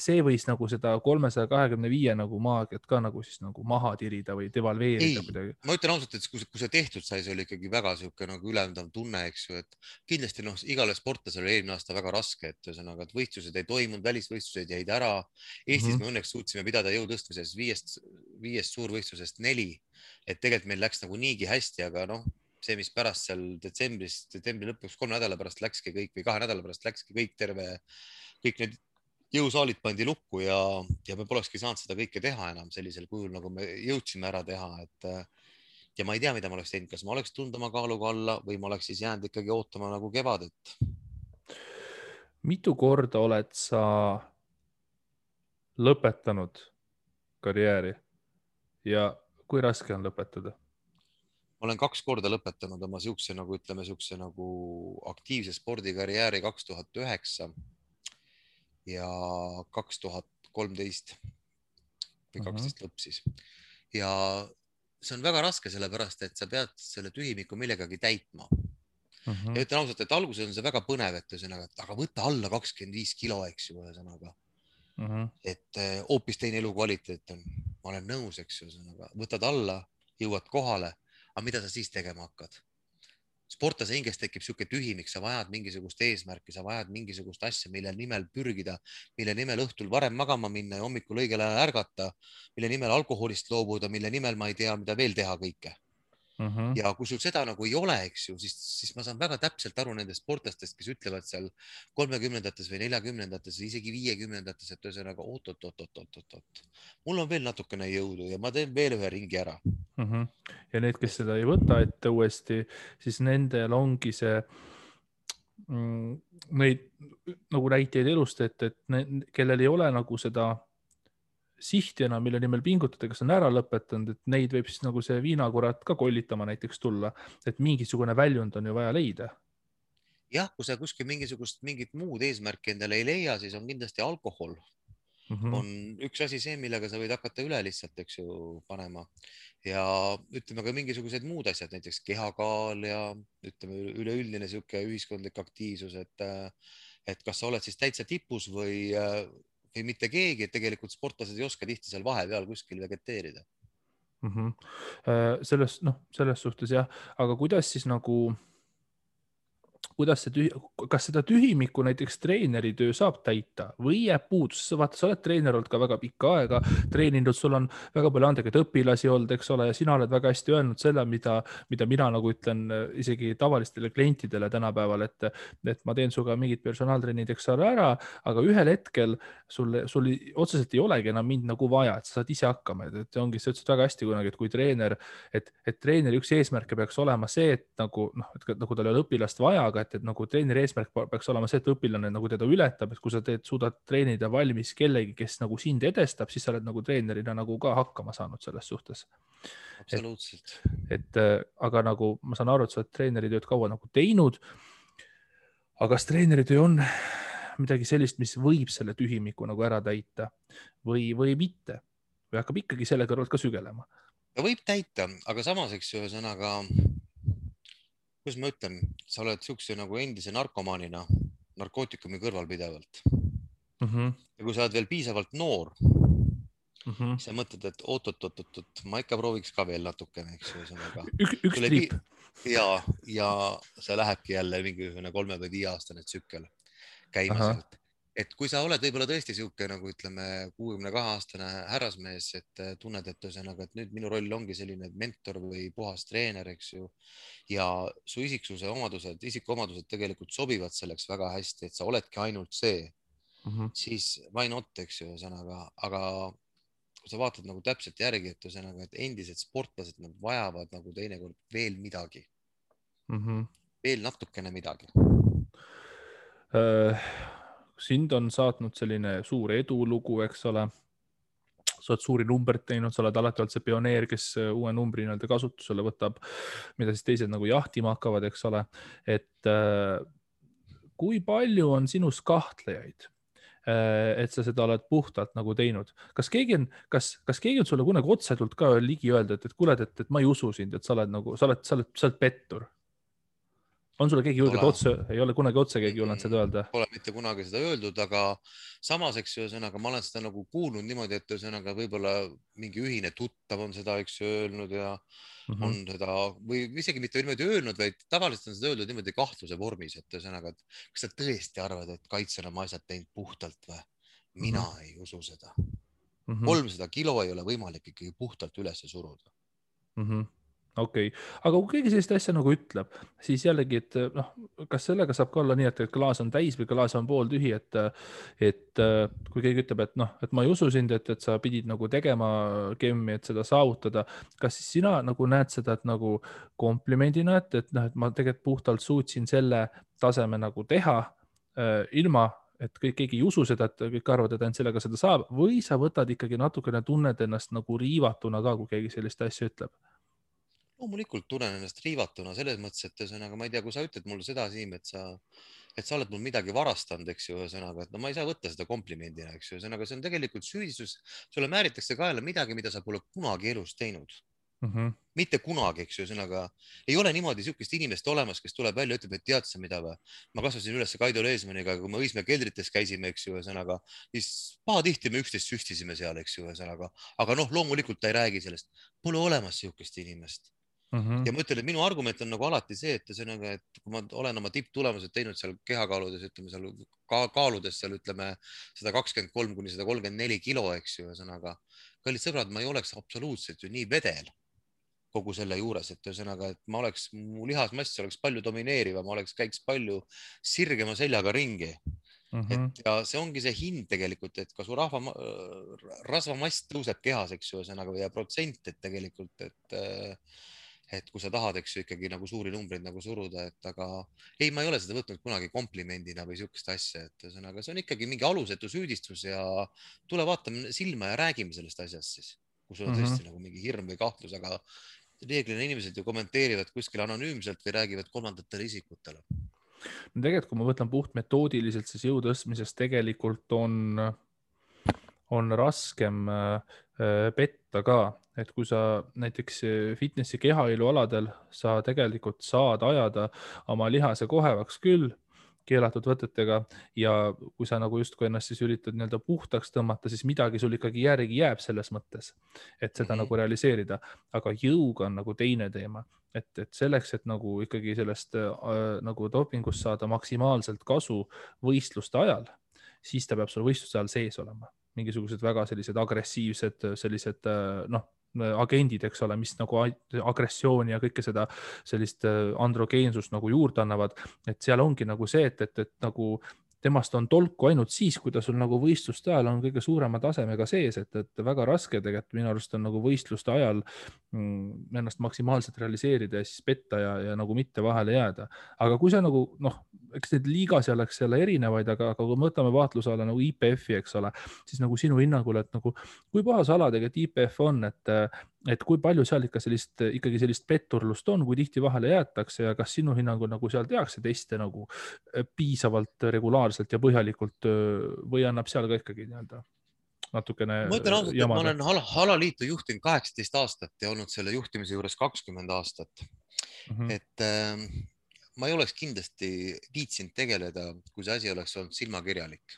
see võis nagu seda 325 nagu maagiat ka nagu siis nagu maha tirida või devalveerida kuidagi? Ma ütlen ausalt, et kui see tehtud sai, see oli ikkagi väga sihuke nagu ülendav tunne, eks ju, et kindlasti noh, igale sportlasele oli eelmine aasta väga raske, et ühesõnaga, et võistlused ei toimunud, välisvõistlused jäid ära. Eestis me õnneks suutsime pidada jõutõstmises 5 suurvõistlusest 4, et tegelikult meil läks nagu niigi hästi, aga noh, see, mis pärast seal detsembri lõpuks 3 nädala pärast läkski kõik või 2 nädala pärast läkski kõik kõik need jõusaalid pandi lukku ja me polekski saanud seda kõike teha enam sellisel kujul, nagu me jõudsime ära teha, ja ma ei tea, mida ma oleks teinud, kas ma oleks tulnud oma kaaluga alla või ma oleks siis jäänud ikkagi ootama nagu kevadet. Mitu korda oled sa lõpetanud karjääri ja kui raske on lõpetada? Ma olen 2 korda lõpetanud oma siukse nagu ütleme, siukse nagu aktiivse spordikarjääri 2009 ja 2013 või 12 lõpp siis. Ja see on väga raske, sellepärast, et sa pead selle tühimiku millegagi täitma. Ja ütlen ausalt, et alguses on see väga põnev, et ühesõnaga, aga võtta alla 25 kilo, eks ju, ühesõnaga. Et hoopis teine elukvaliteet on. Ma olen nõus, eks ju, ühesõnaga, võtad alla, jõuad kohale, aga mida sa siis tegema hakkad? Sportlase hinges tekib sihuke tühimik, sa vajad mingisugust eesmärki, sa vajad mingisugust asja, mille nimel pürgida, mille nimel õhtul varem magama minna ja hommikul õigel ajal ärgata, mille nimel alkoholist loobuda, mille nimel ma ei tea, mida veel teha kõike. Ja kui sul seda nagu ei ole, eks ju, siis ma saan väga täpselt aru nendest sportlastest, kes ütlevad seal 30-ndates või 40-ndates või isegi 50-ndates, et ühesõnaga oot. Mul on veel natukene jõudu ja ma teen veel ühe ringi ära. Ja need, kes seda ei võta ette uuesti, siis nendel ongi see neid nagu näiteid elust, et kellel ei ole nagu seda sihtjana, mille nimel pingutada, kes on ära lõpetanud, et neid võib siis nagu see viinakurat ka kollitama näiteks tulla, et mingisugune väljund on ju vaja leida. jah, kui sa kuskil mingit muud eesmärki endale ei leia, siis on kindlasti alkohol on üks asi see, millega sa võid hakata üle lihtsalt, eks ju, panema ja ütleme ka mingisugused muud asjad, näiteks kehakaal ja ütleme üleüldine niisugune ühiskondlik aktiivsus, et kas sa oled siis täitsa tipus või mitte keegi, et tegelikult sportlased ei oska tihti seal vahepeal kuskil vegeteerida. selles suhtes jah, aga kuidas siis nagu kuidas kas seda tühimikku näiteks treeneri töö saab täita või jääb puudus? Vaata, sa oled treener olnud ka väga pikka aega, treeninud, sul on väga palju andekaid õpilasi olnud, eks ole, ja sina oled väga hästi öelnud selle, mida mina nagu ütlen isegi tavalistele klientidele tänapäeval, et ma teen suga mingid personaaltrennid, eks ole, ära, aga ühel hetkel sul otseselt ei olegi enam mind nagu vaja, et sa saad ise hakkama, et ongi, sa ütlesid väga hästi kunagi, et kui treener, et treeneri üks eesmärke peaks olema see, et nagu tal ei ole õpilast vaja, aga et nagu treeneri eesmärk peaks olema see, et õpilane nagu teda ületab, et kui sa suudad treenida valmis kellegi, kes nagu sind edestab, siis sa oled nagu treenerina nagu ka hakkama saanud selles suhtes. Absoluutselt. Aga nagu ma saan aru, et sa oled treeneritööd kaua nagu teinud. Aga kas treeneritöö on midagi sellist, mis võib selle tühimiku nagu ära täita või mitte? Või hakkab ikkagi selle kõrvalt ka sügelema? Ta võib täita, aga samas, eks ju, ühesõnaga, kuidas ma ütlen, sa oled siukse nagu endise narkomaanina narkootikumi kõrval pidevalt. Ja kui sa oled veel piisavalt noor, siis sa mõtled, et oot, ma ikka prooviks ka veel natukene, eks ju, ühesõnaga. Üks triip. Ja see lähebki jälle mingisugune 3 või 5 aastane tsükkel käima sealt. Et kui sa oled võib-olla tõesti siuke nagu ütleme 62-aastane härrasmees, et tunned, et ühesõnaga, et nüüd minu roll ongi selline mentor või puhas treener, eks ju, ja su isikuomadused tegelikult sobivad selleks väga hästi, et sa oledki ainult see, siis why not, eks ju, ühesõnaga, aga kui sa vaatad nagu täpselt järgi, et ühesõnaga, et endised sportlased, nad vajavad nagu teinekord veel midagi, veel natukene midagi. Sind on saatnud selline suur edulugu, eks ole. Sa oled suuri numbreid teinud, sa oled alati olnud see pioneer, kes uue numbri nii-öelda kasutusele võtab, mida siis teised nagu jahtima hakkavad, eks ole. Et kui palju on sinus kahtlejaid, et sa seda oled puhtalt nagu teinud? Kas keegi on sulle kunagi otsetult ka ligi öelda, et kuule, et ma ei usu sind, et sa oled nagu, sa oled pettur? On sulle keegi julgelt otse, ei ole kunagi otse keegi julgenud seda öelda? Pole mitte kunagi seda öeldud, aga samas, eks ju, ühesõnaga, ma olen seda nagu kuulnud niimoodi, et ühesõnaga võib-olla mingi ühine tuttav on seda, eks ju, öelnud ja on seda või isegi mitte niimoodi öelnud, vaid tavaliselt on seda öeldud niimoodi kahtluse vormis, et ühesõnaga, et kas sa tõesti arvad, et Kaitse on oma asjad teinud puhtalt või? Mina ei usu seda. 300 kilo ei ole võimalik ikkagi puhtalt üles suruda. Okei. Aga kui keegi sellist asja nagu ütleb, siis jällegi, et kas sellega saab ka olla nii, et klaas on täis või klaas on pooltühi, et kui keegi ütleb, et ma ei usu sind, et sa pidid nagu tegema kemmi, et seda saavutada, kas siis sina nagu näed seda nagu komplimendina, et ma tegelikult puhtalt suutsin selle taseme nagu teha ilma, et keegi ei usu seda, et kõik arvavad, et ainult sellega seda saab, või sa võtad ikkagi natukene, tunned ennast nagu riivatuna ka, kui keegi sellist asja ütleb? Loomulikult tunnen ennast riivatuna selles mõttes, et ühesõnaga, ma ei tea, kui sa ütled mulle seda, Siim, et sa oled mul midagi varastanud, eks ju, ühesõnaga, et no ma ei saa võtta seda komplimendina, eks ju, ühesõnaga, see on tegelikult süüdistus, sulle määritakse kaela midagi, mida sa pole kunagi elus teinud. Mitte kunagi, eks ju, ühesõnaga, ei ole niimoodi sihukest inimest olemas, kes tuleb välja ja ütleb, et tead sa mida või? Ma kasvasin üles Kaido Leesmaniga, kui me Õismäe keldrites käisime, eks ju, ühesõnaga, siis pahatihti me üksteist süstisime seal, eks ju, ühesõnaga, aga noh, loomulikult ta ei räägi sellest, pole olemas sihukest inimest. Ja ma ütlen, et minu argument on nagu alati see, et ühesõnaga, et kui ma olen oma tipptulemused teinud seal kehakaaludes, ütleme seal kaaludes seal ütleme 123 kuni 134 kilo, eks ju, ühesõnaga, kallid sõbrad, ma ei oleks absoluutselt ju nii vedel kogu selle juures, et ühesõnaga, et mu lihasmass oleks palju domineerivam, käiks palju sirgema seljaga ringi. Ja see ongi see hind tegelikult, et ka su rasvamass tõuseb kehas, eks ju, ühesõnaga, ja protsent, et tegelikult, et et kui sa tahad, eks ju, ikkagi nagu suuri numbreid nagu suruda, et aga ei, ma ei ole seda võtnud kunagi komplimendina või sihukest asja, et ühesõnaga see on ikkagi mingi alusetu süüdistus ja tule vaatame silma ja räägime sellest asjast siis, kui sul on tõesti nagu mingi hirm või kahtlus, aga reeglina inimesed ju kommenteerivad kuskil anonüümselt või räägivad kolmandatele isikutele. No tegelikult, kui ma võtan puht metoodiliselt, siis jõu tõstmises tegelikult on raskem petta ka, et kui sa näiteks fitnessi kehailualadel sa tegelikult saad ajada oma lihase kohevaks küll keelatud võtetega ja kui sa nagu justkui ennast siis üritad nii-öelda puhtaks tõmmata, siis midagi sul ikkagi järgi jääb selles mõttes, et seda nagu realiseerida, aga jõuga on nagu teine teema, et selleks, et nagu ikkagi sellest nagu dopingust saada maksimaalselt kasu võistluste ajal, siis ta peab sul võistluste ajal sees olema. Mingisugused väga sellised agressiivsed sellised agendid, eks ole, mis nagu agressiooni ja kõike seda sellist androgeensust nagu juurde annavad, et seal ongi nagu see, et nagu temast on tolku ainult siis, kui ta sul nagu võistluste ajal on kõige suurema tasemega sees, et väga raske tegelikult minu arust on nagu võistluste ajal ennast maksimaalselt realiseerida ja siis petta ja nagu mitte vahele jääda. Aga kui sa nagu, eks need liigas oleks jälle erinevaid, aga kui me võtame vaatluse alla nagu IPF-i, eks ole, siis nagu sinu hinnangul, et nagu kui puhas ala tegelikult IPF on, et kui palju seal ikka ikkagi sellist petturlust on, kui tihti vahele jäetakse ja kas sinu hinnangul nagu seal tehakse teste nagu piisavalt regulaarselt ja põhjalikult või annab seal ka ikkagi nii-öelda natukene ma ütlen ausalt, et ma jamada? olen alaliitu juhtinud 18 aastat ja olnud selle juhtimise juures 20 aastat. Et ma ei oleks kindlasti viitsinud tegeleda, kui see asi oleks olnud silmakirjalik.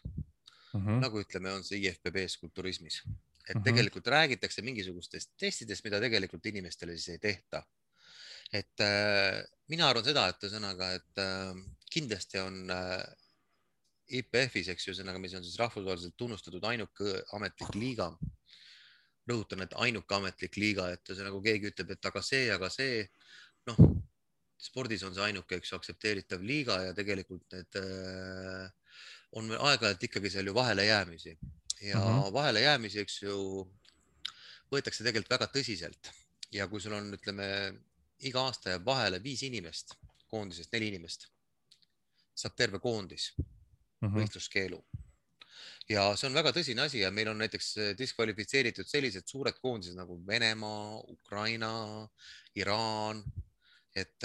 Nagu ütleme, on see IFBB-s kulturismis. Et tegelikult räägitakse mingisugustest testidest, mida tegelikult inimestele siis ei tehta. Et mina arvan seda, et ühesõnaga, et kindlasti on IPF-is, eks ju, ühesõnaga, mis on siis rahvusvaheliselt tunnustatud ainuke ametlik liiga. Rõhutan, et ainuke ametlik liiga, et ühesõnaga keegi ütleb, et aga see, spordis on see ainuke, eks ju, aktsepteeritav liiga ja tegelikult need on aeg-ajalt ikkagi seal ju vahelejäämisi. Ja vahelejäämisi, eks ju, võetakse tegelikult väga tõsiselt. Ja kui sul on, ütleme, iga aasta jääb vahele 5 inimest, koondisest 4 inimest, saab terve koondis võistluskeelu. Ja see on väga tõsine asi ja meil on näiteks diskvalifitseeritud sellised suured koondised nagu Venemaa, Ukraina, Iraan, et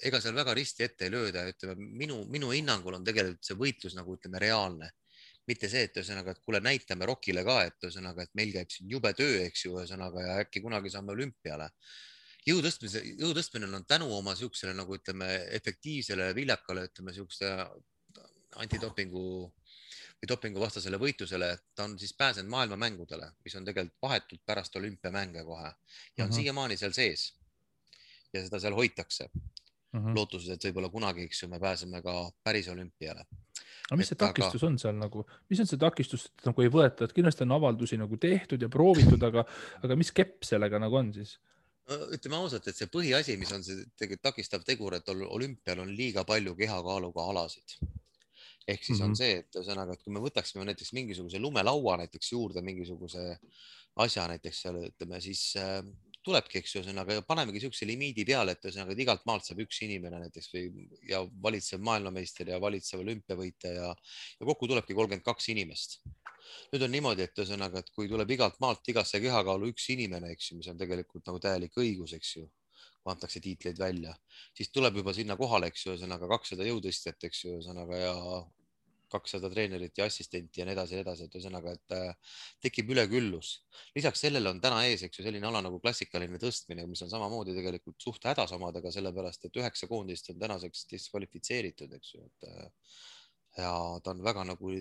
ega seal väga risti ette ei lööda. Ütleme, minu hinnangul on tegelikult see võitlus nagu, ütleme, reaalne. Mitte see, et ühesõnaga, et kuule, näitame Rockile ka, et ühesõnaga, et meil käib siin jube töö, eks ju, ühesõnaga, ja äkki kunagi saame olümpiale. Jõutõstmine on tänu oma siuksele, nagu ütleme, efektiivsele, viljakale, ütleme, siukse antidopingu või dopinguvastasele võitlusele, ta on siis pääsenud maailmamängudele, mis on tegelikult vahetult pärast olümpiamänge kohe ja on siiamaani seal sees ja seda seal hoitakse. Lootuses, et võib-olla kunagi, eks ju, me pääseme ka päris olümpiale. Aga mis see takistus on seal nagu, mis on see takistus, et nagu ei võeta, et kindlasti on avaldusi nagu tehtud ja proovitud, aga mis kepp sellega nagu on siis? Ütleme ausalt, et see põhiasi, mis on see tegelikult takistav tegur, et olümpial on liiga palju kehakaaluga alasid. Ehk siis on see, et ühesõnaga, et kui me võtaksime näiteks mingisuguse lumelaua näiteks juurde mingisuguse asja näiteks seal, ütleme, siis tulebki, eks ju, ühesõnaga, panemegi siukse limiidi peale, et ühesõnaga, et igalt maalt saab üks inimene näiteks ja valitsev maailmameister ja valitsev olümpiavõitja ja kokku tulebki 32 inimest. Nüüd on niimoodi, et ühesõnaga, et kui tuleb igalt maalt igasse kehakaalu üks inimene, eks ju, mis on tegelikult nagu täielik õigus, eks ju, kui antakse tiitleid välja, siis tuleb juba sinna kohale, eks ju, ühesõnaga 200 jõutõstjat, eks ju, ühesõnaga ja 200 treenerit ja assistenti ja nii edasi, et ühesõnaga, et tekib üleküllus. Lisaks sellele on täna ees, eks ju, selline ala nagu klassikaline tõstmine, mis on samamoodi tegelikult suht hädas omadega, sellepärast, et 9 koondist on tänaseks diskvalifitseeritud, eks ju, ja ta on väga nagu,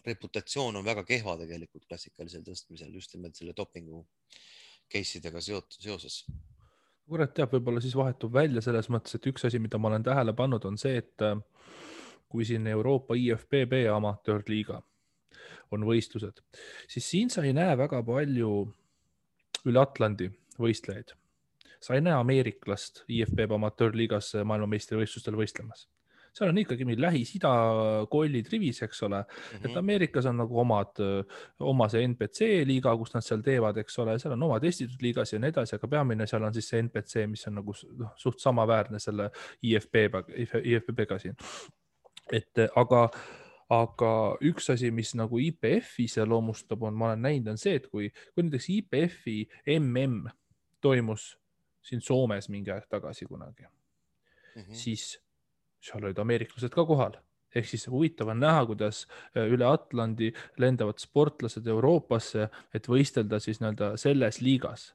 reputatsioon on väga kehva tegelikult klassikalisel tõstmisel, just nimelt selle dopingu case'idega seoses. Kurat teab, võib-olla siis vahetub välja selles mõttes, et üks asi, mida ma olen tähele pannud, on see, et kui siin Euroopa IFBB amatöörliiga on võistlused, siis siin sa ei näe väga palju üle Atlandi võistlejaid. Sa ei näe ameeriklast IFBB amatöörliigas maailmameistrivõistlustel võistlemas. seal on ikkagi meil Lähis-Ida kollid rivis, eks ole, et Ameerikas on nagu oma see NPC liiga, kus nad seal teevad, eks ole, seal on omad estitud liigas ja nii edasi, aga peamine seal on siis see NPC, mis on nagu suht samaväärne selle IFBB-ga siin. Et aga üks asi, mis nagu IPF-i iseloomustab, ma olen näinud, on see, et kui näiteks IPF-i MM toimus siin Soomes mingi aeg tagasi kunagi, siis seal olid ameeriklased ka kohal. Ehk siis huvitav on näha, kuidas üle Atlandi lendavad sportlased Euroopasse, et võistelda siis nii-öelda selles liigas.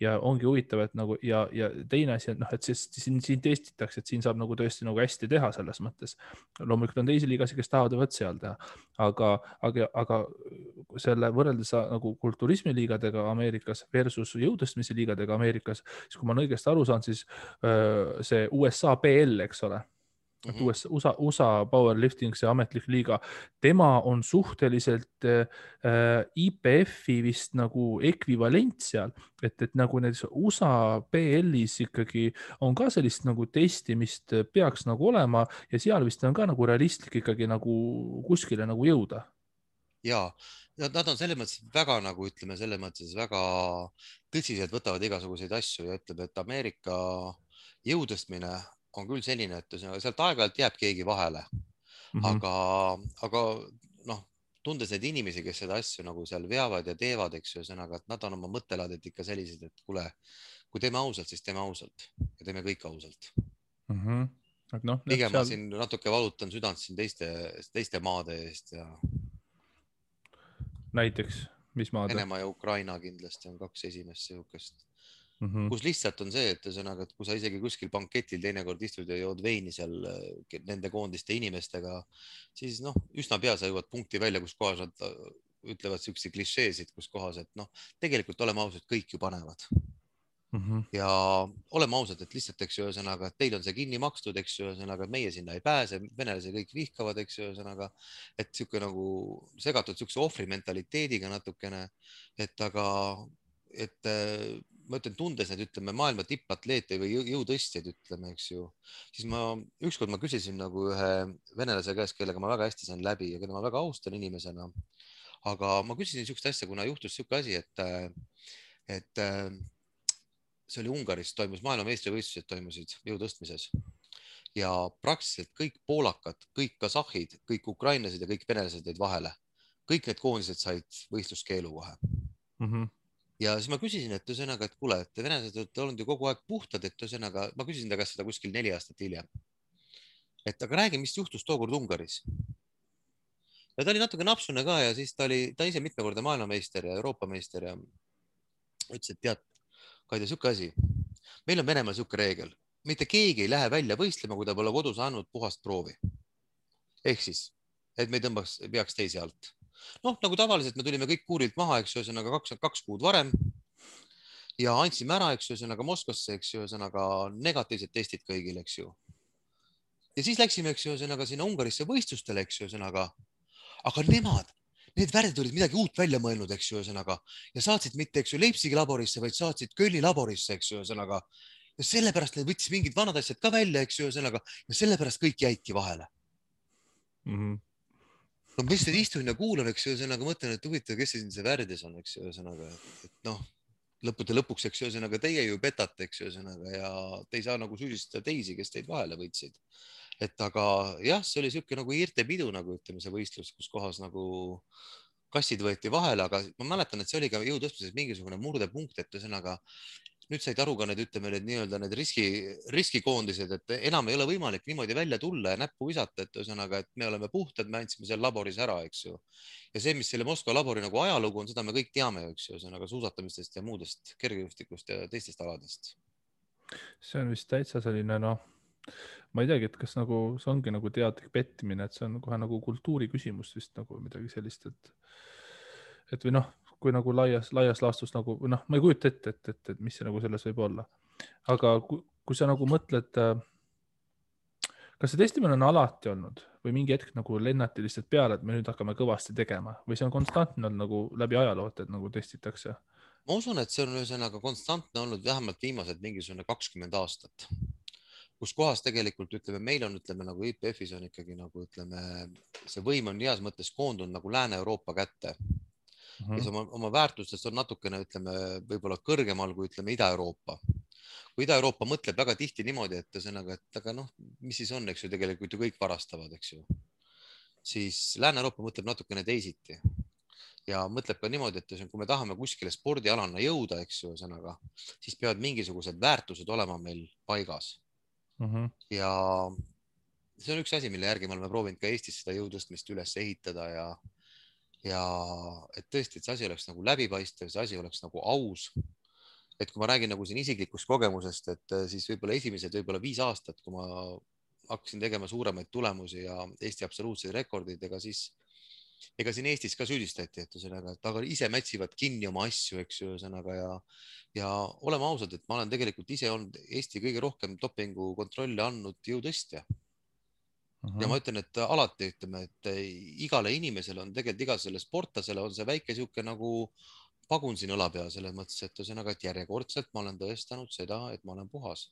Ja ongi huvitav, et nagu ja teine asi, et noh, et siin testitakse, et siin saab nagu tõesti nagu hästi teha selles mõttes. Loomulikult on teisi liigasi, kes tahavad võt seal teha, aga selle võrreldes nagu kulturismiliigadega Ameerikas versus jõutõstmise liigadega Ameerikas, siis kui ma olen õigesti aru saan, siis see USA PL, eks ole, USA powerlifting, see ametlik liiga, tema on suhteliselt IPF-i vist nagu ekvivalent seal, et nagu need USA PL-is ikkagi on ka sellist nagu testimist peaks nagu olema ja seal vist on ka nagu realistlik ikkagi nagu kuskile nagu jõuda. Ja nad on selles mõttes väga nagu ütleme, selles mõttes väga tõsiselt võtavad igasuguseid asju ja ütleb, et Ameerika jõutõstmine on küll selline, et sealt aeg-ajalt jääb keegi vahele, aga noh, tundes neid inimesi, kes seda asju nagu seal veavad ja teevad, eks ju, ühesõnaga, et nad on oma mõttelaadet ikka sellised, et kuule, kui teeme ausalt, siis teeme ausalt ja teeme kõik ausalt. Pigem ma siin natuke valutan südant siin teiste maade eest ja näiteks, mis maade? Venemaa ja Ukraina kindlasti on kaks esimest sihukest. Kus lihtsalt on see, et ühesõnaga, et kui sa isegi kuskil banketil teinekord istud ja jood veini seal nende koondiste inimestega, siis noh, üsna pea sa jõuad punkti välja, kus kohas nad ütlevad siukse klišeesid, kus kohas, et noh, tegelikult oleme ausad, kõik ju panevad. Ja oleme ausad, et lihtsalt, eks ju, ühesõnaga, et teil on see kinni makstud, eks ju, ühesõnaga, et meie sinna ei pääse, venelasi kõik vihkavad, eks ju, ühesõnaga, et siuke nagu segatud siukse ohvri mentaliteediga natukene, et aga, et ma ütlen, tundes need, ütleme, maailma tippatleete või jõutõstjaid, ütleme, eks ju, siis ükskord ma küsisin nagu ühe venelase käest, kellega ma väga hästi sain läbi ja keda ma väga austan inimesena. Aga ma küsisin siukest asja, kuna juhtus siuke asi, et see oli Ungaris, toimus maailmameistrivõistlused toimusid jõutõstmises ja praktiliselt kõik poolakad, kõik kasahhid, kõik ukrainlased ja kõik venelased jäid vahele. Kõik need koondised said võistluskeelu kohe. Ja siis ma küsisin, et ühesõnaga, et kuule, et venelased olete olnud ju kogu aeg puhtad, et ühesõnaga, ma küsisin ta käest seda kuskil 4 aastat hiljem. Et aga räägi, mis juhtus tookord Ungaris. Ja ta oli natuke napsune ka ja siis ta ise mitmekordne maailmameister ja Euroopa meister ja ütles, et tead, Kaide, siuke asi. Meil on Venemaal siuke reegel. Mitte keegi ei lähe välja võistlema, kui ta pole kodus andnud puhast proovi. Ehk siis, et me ei peaks teisi alt. Noh, nagu tavaliselt me tulime kõik kuurilt maha, eks ju, ühesõnaga 2 kuud varem ja andsime ära, eks ju, ühesõnaga Moskvasse, eks ju, ühesõnaga negatiivsed testid kõigil, eks ju. Ja siis läksime, eks ju, ühesõnaga sinna Ungarisse võistlustele, eks ju, ühesõnaga, aga need värdid olid midagi uut välja mõelnud, eks ju, ühesõnaga, ja saatsid mitte, eks ju, Leipzigi laborisse, vaid saatsid Kölni laborisse, eks ju, ühesõnaga, ja sellepärast need võttis mingid vanad asjad ka välja, eks ju, ühesõnaga, ja sellepärast kõik jäidki vahele. No ma lihtsalt istun ja kuulan, eks ju, ühesõnaga mõtlen, et huvitav, kes see värdis on, eks ju, ühesõnaga, et noh, lõppude lõpuks, eks ju, ühesõnaga teie ju petate, eks ju, ühesõnaga, ja te ei saa nagu süüdistada teisi, kes teid vahele võtsid. Et aga jah, see oli siuke nagu irtepidu, nagu ütleme, see võistlus, kus kohas nagu kassid võeti vahele, aga ma mäletan, et see oli ka jõutõstmises mingisugune murdepunkt, et ühesõnaga nüüd said aru ka need, ütleme, need riskikoondised, et enam ei ole võimalik niimoodi välja tulla ja näppu visata, et ühesõnaga, et me oleme puhtad, me andsime seal laboris ära, eks ju. Ja see, mis selle Moskva labori nagu ajalugu on, seda me kõik teame, eks ju, ühesõnaga suusatamistest ja muudest kergejõustikust ja teistest aladest. See on vist täitsa selline, noh, ma ei teagi, et kas nagu see ongi nagu teadlik pettimine, et see on kohe nagu kultuuri küsimus vist nagu midagi sellist, et või noh, kui nagu laias laastus nagu, noh, ma ei kujuta ette, et mis see nagu selles võib olla. Aga kui sa nagu mõtled, kas see testimine on alati olnud või mingi hetk nagu lennati lihtsalt peale, et me nüüd hakkame kõvasti tegema või see on konstantne olnud nagu läbi ajaloo, et nagu testitakse? Ma usun, et see on ühesõnaga konstantne olnud vähemalt viimased mingisugune 20 aastat. kus kohas tegelikult ütleme, meil on, ütleme nagu IPF-is on ikkagi nagu ütleme, see võim on heas mõttes koondunud nagu Lääne-Euroopa kätte, kes oma väärtustest on natukene, ütleme, võib-olla kõrgemal kui ütleme Ida-Euroopa. Kui Ida-Euroopa mõtleb väga tihti niimoodi, et ühesõnaga, et aga noh, mis siis on, eks ju, tegelikult ju kõik varastavad, eks ju. Siis Lääne-Euroopa mõtleb natukene teisiti ja mõtleb ka niimoodi, et kui me tahame kuskile spordialana jõuda, eks ju, ühesõnaga, siis peavad mingisugused väärtused olema meil paigas. Ja see on üks asi, mille järgi me oleme proovinud ka Eestis seda jõutõstmist üles ehitada ja et tõesti, et see asi oleks nagu läbipaistev, see asi oleks nagu aus. Et kui ma räägin nagu siin isiklikust kogemusest, et siis võib-olla esimesed 5 aastat, kui ma hakkasin tegema suuremaid tulemusi ja Eesti absoluutseid rekordid, ega siin Eestis ka süüdistati, et ühesõnaga, et aga ise mätsivad kinni oma asju, eks ju, ühesõnaga ja oleme ausad, et ma olen tegelikult ise olnud Eesti kõige rohkem dopingu kontrolli andnud jõutõstja. Ja ma ütlen, et alati ütleme, et igale inimesele on tegelikult iga selle sportlasele on see väike sihuke nagu pagun siin õla peal selles mõttes, et ühesõnaga, et järjekordselt ma olen tõestanud seda, et ma olen puhas.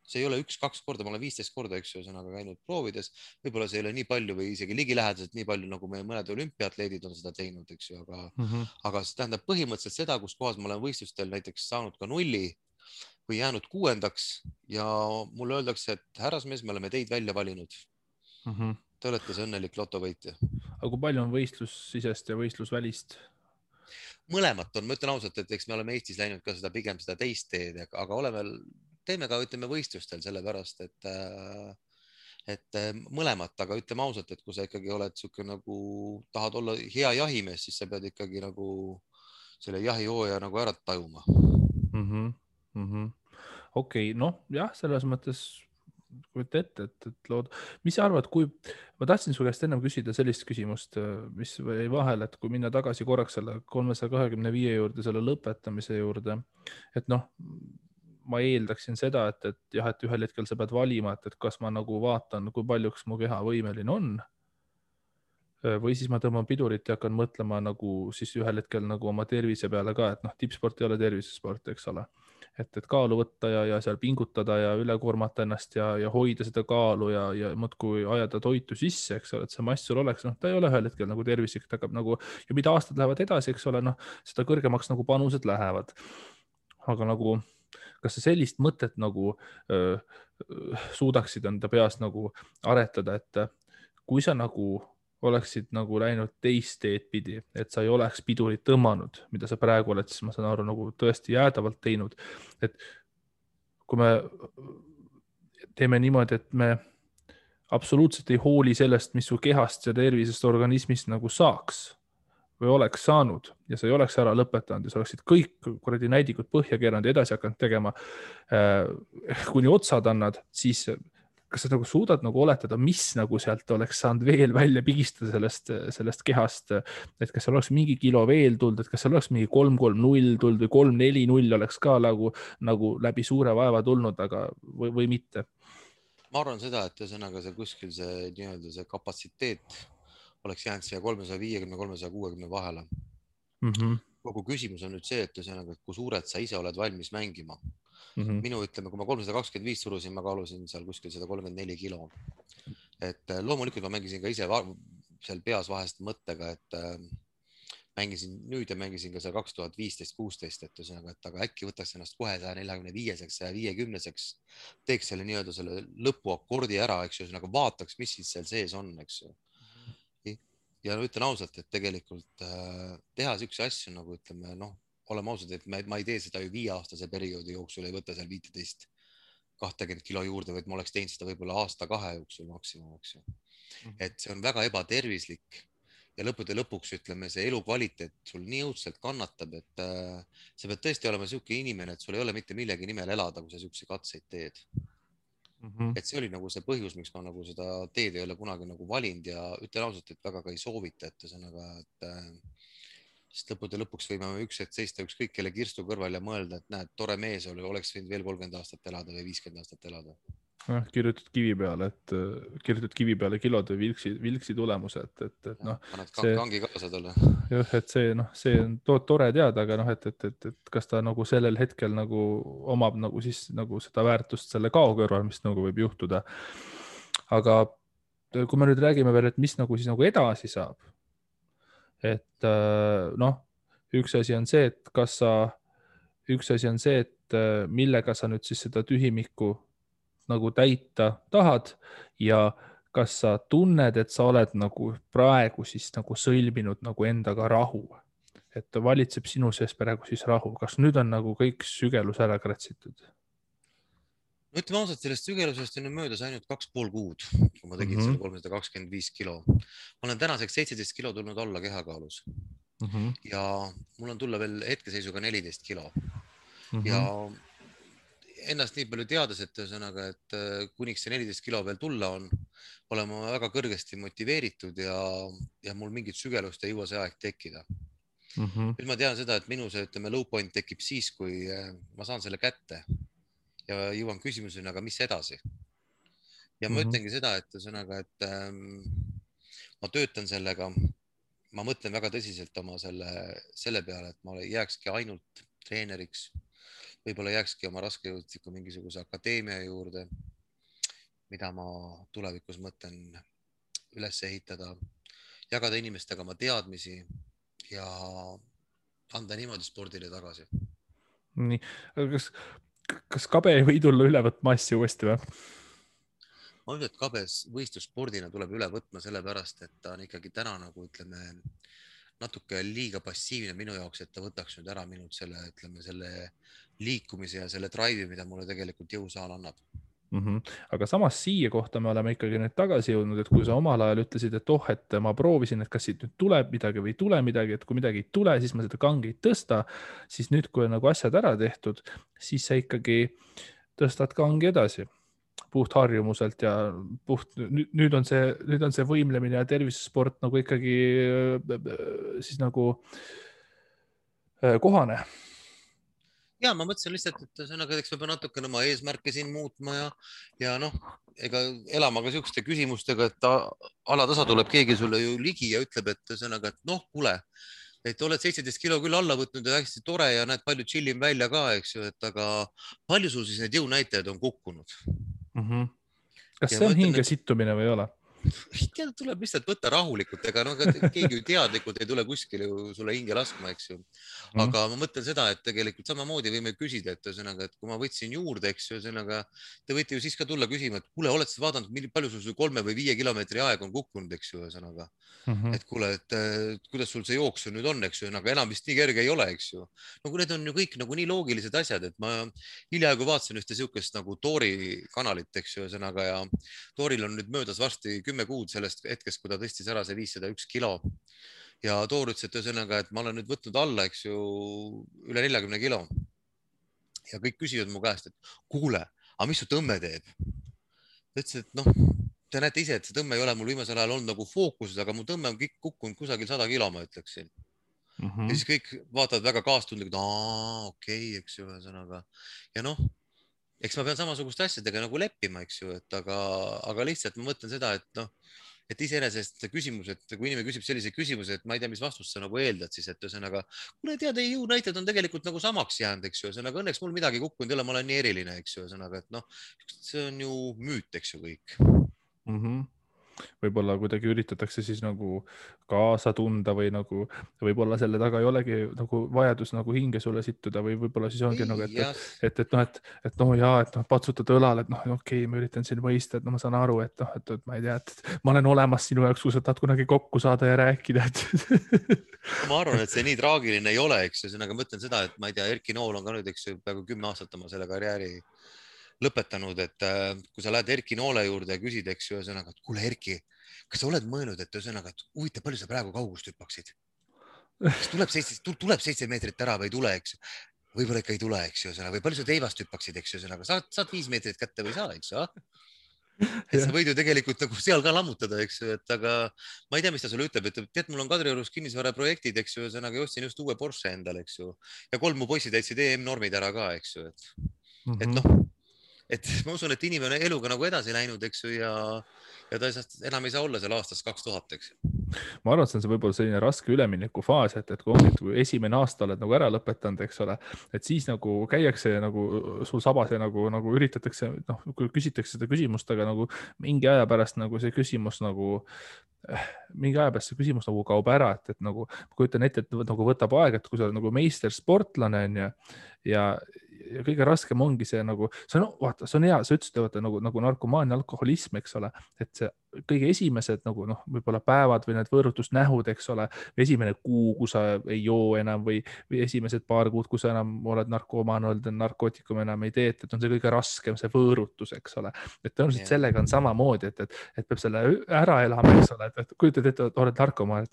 See ei ole 1-2 korda, ma olen 15 korda, eks ju, ühesõnaga käinud proovides. Võib-olla see ei ole nii palju või isegi ligilähedaselt nii palju, nagu meie mõned olümpiaatleedid on seda teinud, eks ju, aga see tähendab põhimõtteliselt seda, kus kohas ma olen võistlustel näiteks saanud ka 0 või jäänud 6. ja mulle öeldakse, et härrasmees, me oleme teid välja valinud. Te olete see õnnelik lotovõitja. Aga kui palju on võistlussisest ja võistlusvälist? Mõlemat on, ma ütlen ausalt, et eks me oleme Eestis läinud ka seda pigem seda teist teed, aga teeme ka, ütleme, võistlustel sellepärast, et mõlemat, aga ütleme ausalt, et kui sa ikkagi oled siuke nagu tahad olla hea jahimees, siis sa pead ikkagi nagu selle jahihooja nagu ära tajuma. Okei, noh jah, selles mõttes kujuta ette, et lood, mis sa arvad, kui ma tahtsin su käest ennem küsida sellist küsimust, mis jäi vahel, et kui minna tagasi korraks selle 325 juurde, selle lõpetamise juurde, et noh, ma eeldaksin seda, et jah, et ühel hetkel sa pead valima, et kas ma nagu vaatan, kui paljuks mu keha võimeline on või siis ma tõmban pidurit ja hakkan mõtlema nagu siis ühel hetkel nagu oma tervise peale ka, et noh, tippsport ei ole tervisesport, eks ole. Et kaalu võtta ja seal pingutada ja üle koormata ennast ja hoida seda kaalu ja muudkui ajada toitu sisse, eks ole, et see mass sul oleks, noh, ta ei ole ühel hetkel nagu tervislik, ta hakkab nagu, ja mida aastad lähevad edasi, eks ole, noh, seda kõrgemaks nagu panused lähevad. Aga nagu, kas sa sellist mõtet nagu suudaksid enda peas nagu aretada, et kui sa nagu oleksid nagu läinud teist teed pidi, et sa ei oleks pidurit tõmmanud, mida sa praegu oled, siis ma saan aru nagu tõesti jäädavalt teinud. Et kui me teeme niimoodi, et me absoluutselt ei hooli sellest, mis su kehast ja tervisest organismist nagu saaks või oleks saanud ja sa ei oleks ära lõpetanud ja sa oleksid kõik kuradi näidikud põhja keeranud ja edasi hakanud tegema, kuni otsad annad, siis kas sa nagu suudad nagu oletada, mis nagu sealt oleks saanud veel välja pigistada sellest kehast, et kas seal oleks mingi kilo veel tulnud, et kas seal oleks mingi 3-3-0 tulnud või 3-4-0 oleks ka nagu läbi suure vaeva tulnud, aga või mitte? Ma arvan seda, et ühesõnaga see kuskil see nii-öelda see kapatsiteet oleks jäänud siia 350-360 vahele. Kogu küsimus on nüüd see, et ühesõnaga, et kui suured sa ise oled valmis mängima. Minu ütleme, kui ma 325 surusin, ma kaalusin seal kuskil 134 kilo. Et loomulikult ma mängisin ka ise seal peas vahest mõttega, et mängisin nüüd ja mängisin ka seal 2015-16, et ühesõnaga, et aga äkki võtaks ennast kohe 145-seks, 150-seks, teeks selle nii-öelda selle lõpuakordi ära, eks ju, ühesõnaga vaataks, mis siis seal sees on, eks ju. Ja ütlen ausalt, et tegelikult teha siukse asju nagu ütleme, noh, oleme ausad, et ma ei tee seda ju 5-aastase perioodi jooksul, ei võta seal 15-20 kilo juurde, vaid ma oleks teinud seda võib-olla aasta-2 jooksul maksimum, eks ju. Et see on väga ebatervislik ja lõppude lõpuks ütleme, see elukvaliteet sul nii õudselt kannatab, et sa pead tõesti olema siuke inimene, et sul ei ole mitte millegi nimel elada, kui sa siukse katseid teed. Et see oli nagu see põhjus, miks ma nagu seda teed ei ole kunagi nagu valinud ja ütlen ausalt, et väga ka ei soovita, et ühesõnaga, sest lõppude lõpuks võime üks hetk seista ükskõik kelle kirstu kõrval ja mõelda, et näed, tore mees oleks võinud veel 30 aastat elada või 50 aastat elada. kirjutad kivi peale, kirjutad kivi peale kilode vilksi tulemuse, et noh, paned see kangi kaasa talle. jah, et see on tore teada, aga noh, et kas ta nagu sellel hetkel nagu omab nagu siis nagu seda väärtust selle kao kõrval, mis nagu võib juhtuda. Aga kui me nüüd räägime veel, et mis nagu siis nagu edasi saab, et noh, üks asi on see, et millega sa nüüd siis seda tühimikku nagu täita tahad ja kas sa tunned, et sa oled nagu praegu siis nagu sõlminud nagu endaga rahu, et valitseb sinu sees praegu siis rahu, kas nüüd on nagu kõik sügelus ära kratsitud? No ütleme ausalt, sellest sügelusest on möödas ainult 2,5 kuud, kui ma tegin selle 325 kilo. Ma olen tänaseks 17 kilo tulnud alla kehakaalus ja mul on tulla veel hetkeseisuga 14 kilo ja ennast nii palju teades, et ühesõnaga, et kuniks see 14 kilo veel tulla on, olen ma väga kõrgesti motiveeritud ja mul mingit sügelust ei jõua see aeg tekkida. Nüüd ma tean seda, et minu see, ütleme, low point tekib siis, kui ma saan selle kätte ja jõuan küsimuseni, aga mis edasi? Ja ma ütlengi seda, et ühesõnaga, et ma töötan sellega, ma mõtlen väga tõsiselt oma selle peale, et ma jääkski ainult treeneriks, võib-olla jääkski oma raskejõudliku mingisuguse akadeemia juurde, mida ma tulevikus mõtlen üles ehitada, jagada inimestega oma teadmisi ja anda niimoodi spordile tagasi. Nii, kas kabe ei või tulla üle võtma asju uuesti või? Ma ütlen, et kabes võistlusspordina tuleb üle võtma sellepärast, et ta on ikkagi täna nagu ütleme natuke liiga passiivne minu jaoks, et ta võtaks nüüd ära minult selle liikumise ja selle drive'i, mida mulle tegelikult jõusaal annab. Aga samas siia kohta me oleme ikkagi nüüd tagasi jõudnud, et kui sa omal ajal ütlesid, et et ma proovisin, et kas siit nüüd tuleb midagi või ei tule midagi, et kui midagi ei tule, siis ma seda kangi ei tõsta, siis nüüd, kui on nagu asjad ära tehtud, siis sa ikkagi tõstad kangi edasi puht harjumuselt ja nüüd on see võimlemine ja tervisesport nagu ikkagi siis nagu kohane. Ja ma mõtlesin lihtsalt, et sõnaga, eks ma pean natukene oma eesmärke siin muutma ja noh, ega elama ka siukeste küsimustega, et alatasa tuleb keegi sulle ju ligi ja ütleb, et sõnaga, et noh, kuule, et oled 17 kilo küll alla võtnud ja hästi tore ja näed palju chillim välja ka, eks ju, et aga palju sul siis need jõunäitajad on kukkunud? Kas see on hinge sittumine või ei ole? Tuleb lihtsalt võtta rahulikult, ega no keegi teadlikult ei tule kuskile sulle hinge laskma, eks ju. Aga ma mõtlen seda, et tegelikult samamoodi võime küsida, et ühesõnaga, et kui ma võtsin juurde, eks ju, ühesõnaga, te võite ju siis ka tulla küsima, et kuule, oled sa vaadanud, palju sul 3 või 5 kilomeetri aeg on kukkunud, eks ju, ühesõnaga. Et kuule, et kuidas sul see jooksu nüüd on, eks ju, aga enam vist nii kerge ei ole, eks ju. No kui need on ju kõik nagu nii loogilised asjad, et ma hiljaaegu vaatasin ühte siukest nagu Toori kanalit, eks ju, ühesõnaga ja Tooril on nüüd möödas varsti 10 kuud sellest hetkest, kui ta tõstis ära see 501 kilo. Ja Toor ütles, et ühesõnaga, et ma olen nüüd võtnud alla, eks ju, üle 40 kilo. Ja kõik küsivad mu käest, et kuule, aga mis su tõmme teeb? Ta ütles, et noh, te näete ise, et see tõmme ei ole mul viimasel ajal olnud nagu fookuses, aga mu tõmme on kõik kukkunud kusagil 100 kilo, ma ütleksin. Ja siis kõik vaatavad väga kaastundlikult, okei, eks ju, ühesõnaga. Ja noh, eks ma pean samasuguste asjadega nagu leppima, eks ju, et aga lihtsalt ma mõtlen seda, et noh, et iseenesest küsimus, et kui inimene küsib sellise küsimuse, et ma ei tea, mis vastust sa nagu eeldad, siis et ühesõnaga, kuule tead, ei jõunäitajad on tegelikult nagu samaks jäänud, eks ju, ühesõnaga õnneks mul midagi kukkunud ei ole, ma olen nii eriline, eks ju, ühesõnaga, et noh, see on ju müüt, eks ju kõik. Võib-olla kuidagi üritatakse siis nagu kaasa tunda või nagu võib-olla selle taga ei olegi nagu vajadus nagu hinge sulle sittuda või võib-olla siis ongi nagu, et noh, jaa, et noh, patsutad õlal, et noh, okei, ma üritan siin mõista, et noh, ma saan aru, et noh, et ma ei tea, et ma olen olemas sinu jaoks, kui sa tahad kunagi kokku saada ja rääkida, et ma arvan, et see nii traagiline ei ole, eks ju, aga ma ütlen seda, et ma ei tea, Erki Nool on ka nüüd, eks ju, peaaegu 10 aastat oma selle karjääri lõpetanud, et kui sa lähed Erki Noole juurde ja küsid, eks ju, ühesõnaga, et kuule Erki, kas sa oled mõelnud, et ühesõnaga, et huvitav, palju sa praegu kaugust hüppaksid? Kas tuleb 7 meetrit ära või ei tule, eks ju? Võib-olla ikka ei tule, eks ju, ühesõnaga, või palju sa teivast hüppaksid, eks ju, ühesõnaga, saad 5 meetrit kätte või ei saa, eks ju? Et sa võid ju tegelikult nagu seal ka lammutada, eks ju, et aga ma ei tea, mis ta sulle ütleb, et tead, mul on Kadriorus kinnisvaraprojektid, eks ju, ühesõnaga, ostsin just uue Porsche endale, eks ju, ja 3 mu poisid täitsid EM-normid ära ka, eks ju, et noh, et ma usun, et inimene on eluga nagu edasi läinud, eks ju, ja ta enam ei saa olla seal aastast 2000, eks ju. ma arvan, et see on võib-olla selline raske üleminekufaas, et kui ongi, et kui esimene aasta oled nagu ära lõpetanud, eks ole, et siis nagu käiakse nagu sul sabas ja nagu üritatakse, noh, kui küsitakse seda küsimust, aga nagu mingi aja pärast nagu see küsimus nagu mingi aja pärast see küsimus nagu kaob ära, et nagu ma kujutan ette, et nagu võtab aega, et kui sa oled nagu meistersportlane on ju ja kõige raskem ongi see nagu, see on, vaata, see on hea, sa ütlesid, vaata nagu narkomaania, alkoholism, eks ole, et see kõige esimesed nagu noh, võib-olla päevad või need võõrutusnähud, eks ole, või esimene kuu, kui sa ei joo enam või esimesed paar kuud, kui sa enam oled narkomaan olnud, narkootikume enam ei tee, et on see kõige raskem, see võõrutus, eks ole. et tõenäoliselt sellega on samamoodi, et peab selle ära elama, eks ole, et kujutad ette, et oled narkomaan,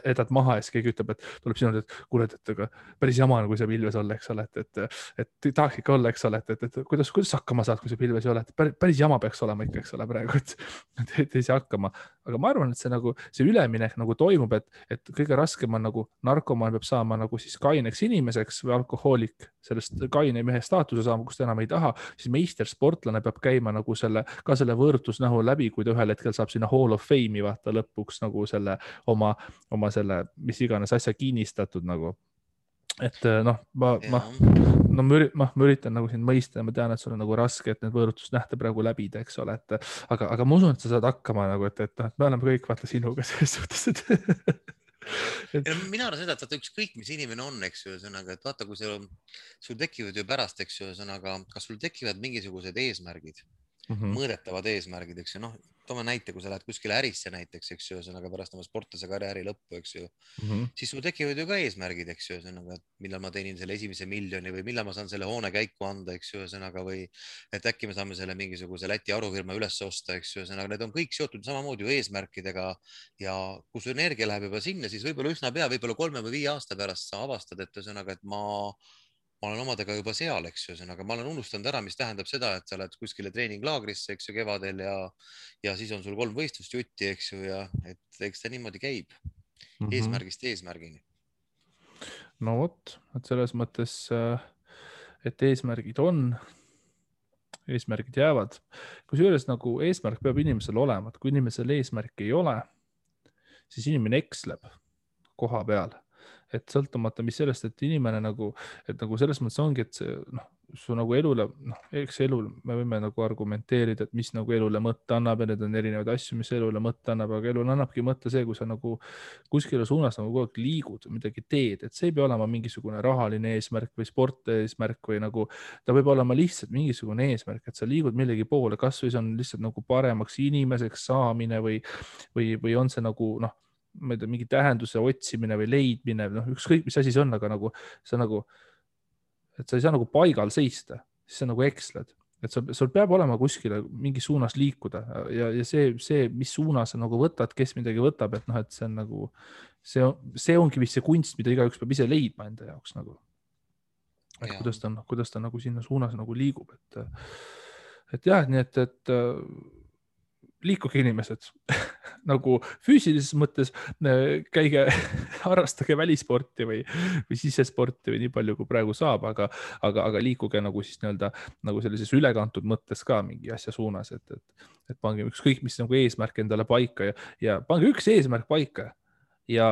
jätad maha ja siis keegi ütleb, et tuleb sinu, et kuule, et aga päris jama on, kui sa pilves olla, eks ole, et tahaks ikka olla, eks ole, et kuidas hakkama saad, kui sa pilves ei ole, et päris jama peaks olema ikka, eks ole, praegu, et ei saa hakkama. aga ma arvan, et see nagu see üleminek nagu toimub, et kõige raskem on nagu narkomaan peab saama nagu siis kaineks inimeseks või alkohoolik sellest kaine mehe staatuse saama, kus ta enam ei taha, siis meistersportlane peab käima nagu selle võõrutusnähu läbi, kui ta ühel hetkel saab sinna Hall of Fame'i vaata lõpuks nagu selle oma selle mis iganes asja kinnistatud nagu. et noh, ma üritan nagu sind mõista ja ma tean, et sul on nagu raske, et need võõrutusnähte praegu läbida, eks ole, aga ma usun, et sa saad hakkama nagu, et me oleme kõik vaata sinuga selles suhtes, Ja mina arvan seda, et vaata ükskõik, mis inimene on, eks ju, ühesõnaga, et vaata, kui sul tekivad ju pärast, eks ju, ühesõnaga, kas sul tekivad mingisugused eesmärgid, mõõdetavad eesmärgid, eks ju, noh, toome näite, kui sa lähed kuskile ärisse näiteks, eks ju, ühesõnaga pärast oma sportlase karjääri lõppu, eks ju, siis sul tekivad ju ka eesmärgid, eks ju, ühesõnaga, millal ma teenin selle esimese miljoni või millal ma saan selle hoone käiku anda, eks ju, ühesõnaga, või et äkki me saame selle mingisuguse Läti arufirma üles osta, eks ju, ühesõnaga, need on kõik seotud samamoodi ju eesmärkidega ja kui su energia läheb juba sinna, siis võib-olla üsna pea, võib-olla 3 või 5 aasta pärast sa avastad, et ühesõnaga, et ma olen omadega juba seal, eks ju, ühesõnaga ma olen unustanud ära, mis tähendab seda, et sa oled kuskile treeninglaagrisse, eks ju, kevadel ja siis on sul 3 võistlust jutti, eks ju, ja et eks ta niimoodi käib eesmärgist eesmärgini. no vot, et selles mõttes, et eesmärgid on, eesmärgid jäävad, kusjuures nagu eesmärk peab inimesel olema, et kui inimesel eesmärki ei ole, siis inimene eksleb koha peal, et sõltumata, mis sellest, et inimene nagu selles mõttes ongi, et see, noh, su nagu elule, noh, eks elul me võime nagu argumenteerida, et mis nagu elule mõtte annab ja need on erinevaid asju, mis elule mõtte annab, aga elul annabki mõtte see, kui sa nagu kuskile suunas nagu kogu aeg liigud, midagi teed, et see ei pea olema mingisugune rahaline eesmärk või spordieesmärk või nagu ta võib olema lihtsalt mingisugune eesmärk, et sa liigud millegi poole, kasvõi see on lihtsalt nagu paremaks inimeseks saamine või on see nagu noh, ma ei tea, mingi tähenduse otsimine või leidmine, noh, ükskõik mis asi see on, aga nagu sa nagu, et sa ei saa nagu paigal seista, siis sa nagu eksled, et sul peab olema kuskile mingi suunas liikuda ja see, mis suunas sa nagu võtad, kes midagi võtab, et noh, et see on nagu, see ongi vist see kunst, mida igaüks peab ise leidma enda jaoks nagu. et kuidas ta nagu sinna suunas nagu liigub, et jah, nii et liikuge inimesed nagu füüsilises mõttes käige, harrastage välisporti või sisesporti või nii palju, kui praegu saab, aga liikuge nagu siis nii-öelda nagu sellises ülekantud mõttes ka mingi asja suunas, et pange ükskõik, mis nagu eesmärk endale paika ja pange üks eesmärk paika ja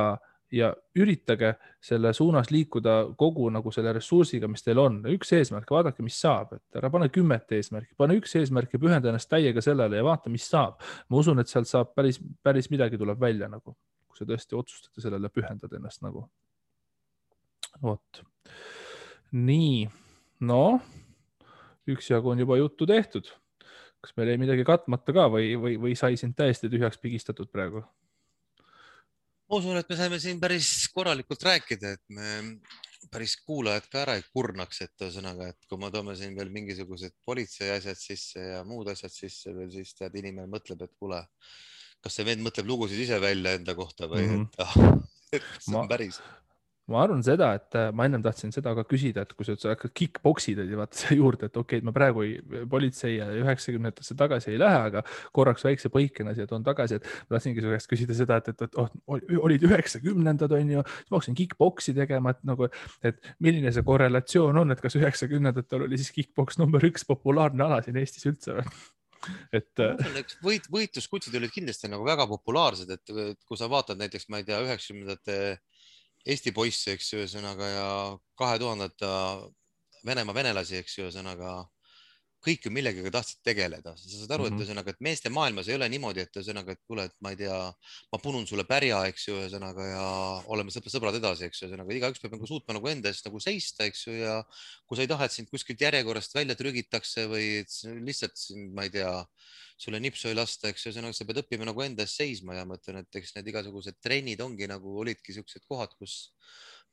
üritage selle suunas liikuda kogu nagu selle ressursiga, mis teil on. Üks eesmärk, vaadake, mis saab, et ära pane 10 eesmärki, pane üks eesmärk ja pühenda ennast täiega sellele ja vaata, mis saab. Ma usun, et sealt saab päris midagi tuleb välja nagu, kui sa tõesti otsustate sellele pühendada ennast nagu. Vot. Nii, no, üksjagu on juba juttu tehtud. Kas meil ei midagi katmata ka või sai sind täiesti tühjaks pigistatud praegu? Ma usun, et me saime siin päris korralikult rääkida, et me päris kuulajad ka ära ei kurnaks, et ühesõnaga, et kui me toome siin veel mingisugused politsei asjad sisse ja muud asjad sisse veel, siis tead, inimene mõtleb, et kuule, kas see vend mõtleb lugusid ise välja enda kohta või et see on päris. ma arvan seda, et ma ennem tahtsin seda ka küsida, et kui sa hakkad kick-boksid vaata siia juurde, et okei, et ma praegu politsei ja 90-ndasse tagasi ei lähe, aga korraks väikse põikena siia toon tagasi, et ma tahtsingi su käest küsida seda, et olid 90-ndad on ju, siis ma hakkasin kick-boksi tegema, et nagu, et milline see korrelatsioon on, et kas 90-ndatel oli siis kick-boks number 1 populaarne ala siin Eestis üldse või? Et ma usun, eks võitluskutsid olid kindlasti nagu väga populaarsed, et kui sa vaatad näiteks, ma ei tea, 90-ndate Eesti poisse, eks ju, ühesõnaga ja 2000-ndate Venemaa venelasi, eks ju, ühesõnaga kõik ju millegagi tahtsid tegeleda. Sa saad aru, et ühesõnaga, et meeste maailmas ei ole niimoodi, et ühesõnaga, et kuule, et ma ei tea, ma punun sulle pärja, eks ju, ühesõnaga ja oleme sõbrad edasi, eks ju, ühesõnaga igaüks peab nagu suutma nagu enda eest nagu seista, eks ju, ja kui sa ei taha, et sind kuskilt järjekorrast välja trügitakse või lihtsalt sind, ma ei tea, sulle nipsu ei lasta, eks ju, ühesõnaga sa pead õppima nagu enda eest seisma ja ma ütlen, et eks need igasugused trennid ongi nagu olidki siuksed kohad, kus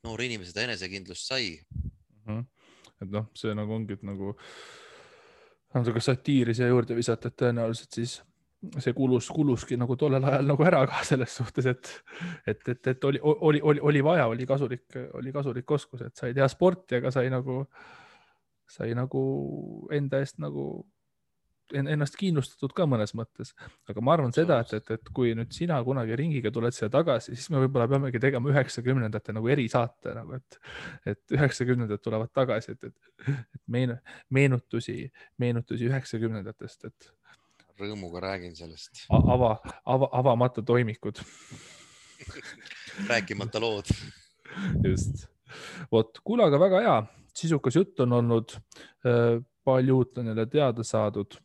noor inimene seda enesekindlust sai. et noh, see nagu ongi, et nagu natuke satiiri siia juurde visata, et tõenäoliselt siis see kuluski nagu tollel ajal nagu ära ka selles suhtes, et oli vaja, oli kasulik oskus, et sai teha sporti, aga sai nagu enda eest nagu ennast kindlustatud ka mõnes mõttes, aga ma arvan seda, et kui nüüd sina kunagi ringiga tuled siia tagasi, siis me võib-olla peamegi tegema 90-ndate nagu erisaate nagu, et 90-ndad tulevad tagasi, et meenutusi 90-ndatest, et Rõõmuga räägin sellest. avamata toimikud. Rääkimata lood. Just. Vot, kuule, aga väga hea, sisukas jutt on olnud, palju uut on jälle teada saadud.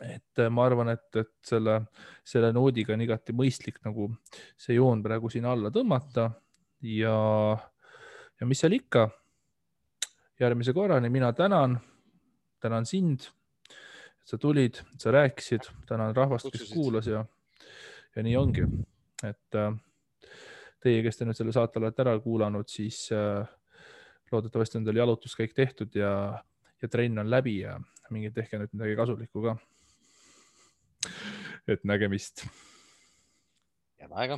Et ma arvan, et selle noodiga on igati mõistlik nagu see joon praegu siin alla tõmmata ja mis seal ikka, järgmise korrani mina tänan sind, et sa tulid, et sa rääkisid, tänan rahvast, kes kuulas ja nii ongi, et teie, kes te nüüd selle saate olete ära kuulanud, siis loodetavasti on teil jalutuskäik tehtud ja trenn on läbi ja mingi tehke nüüd midagi kasulikku ka. Et nägemist. Head aega.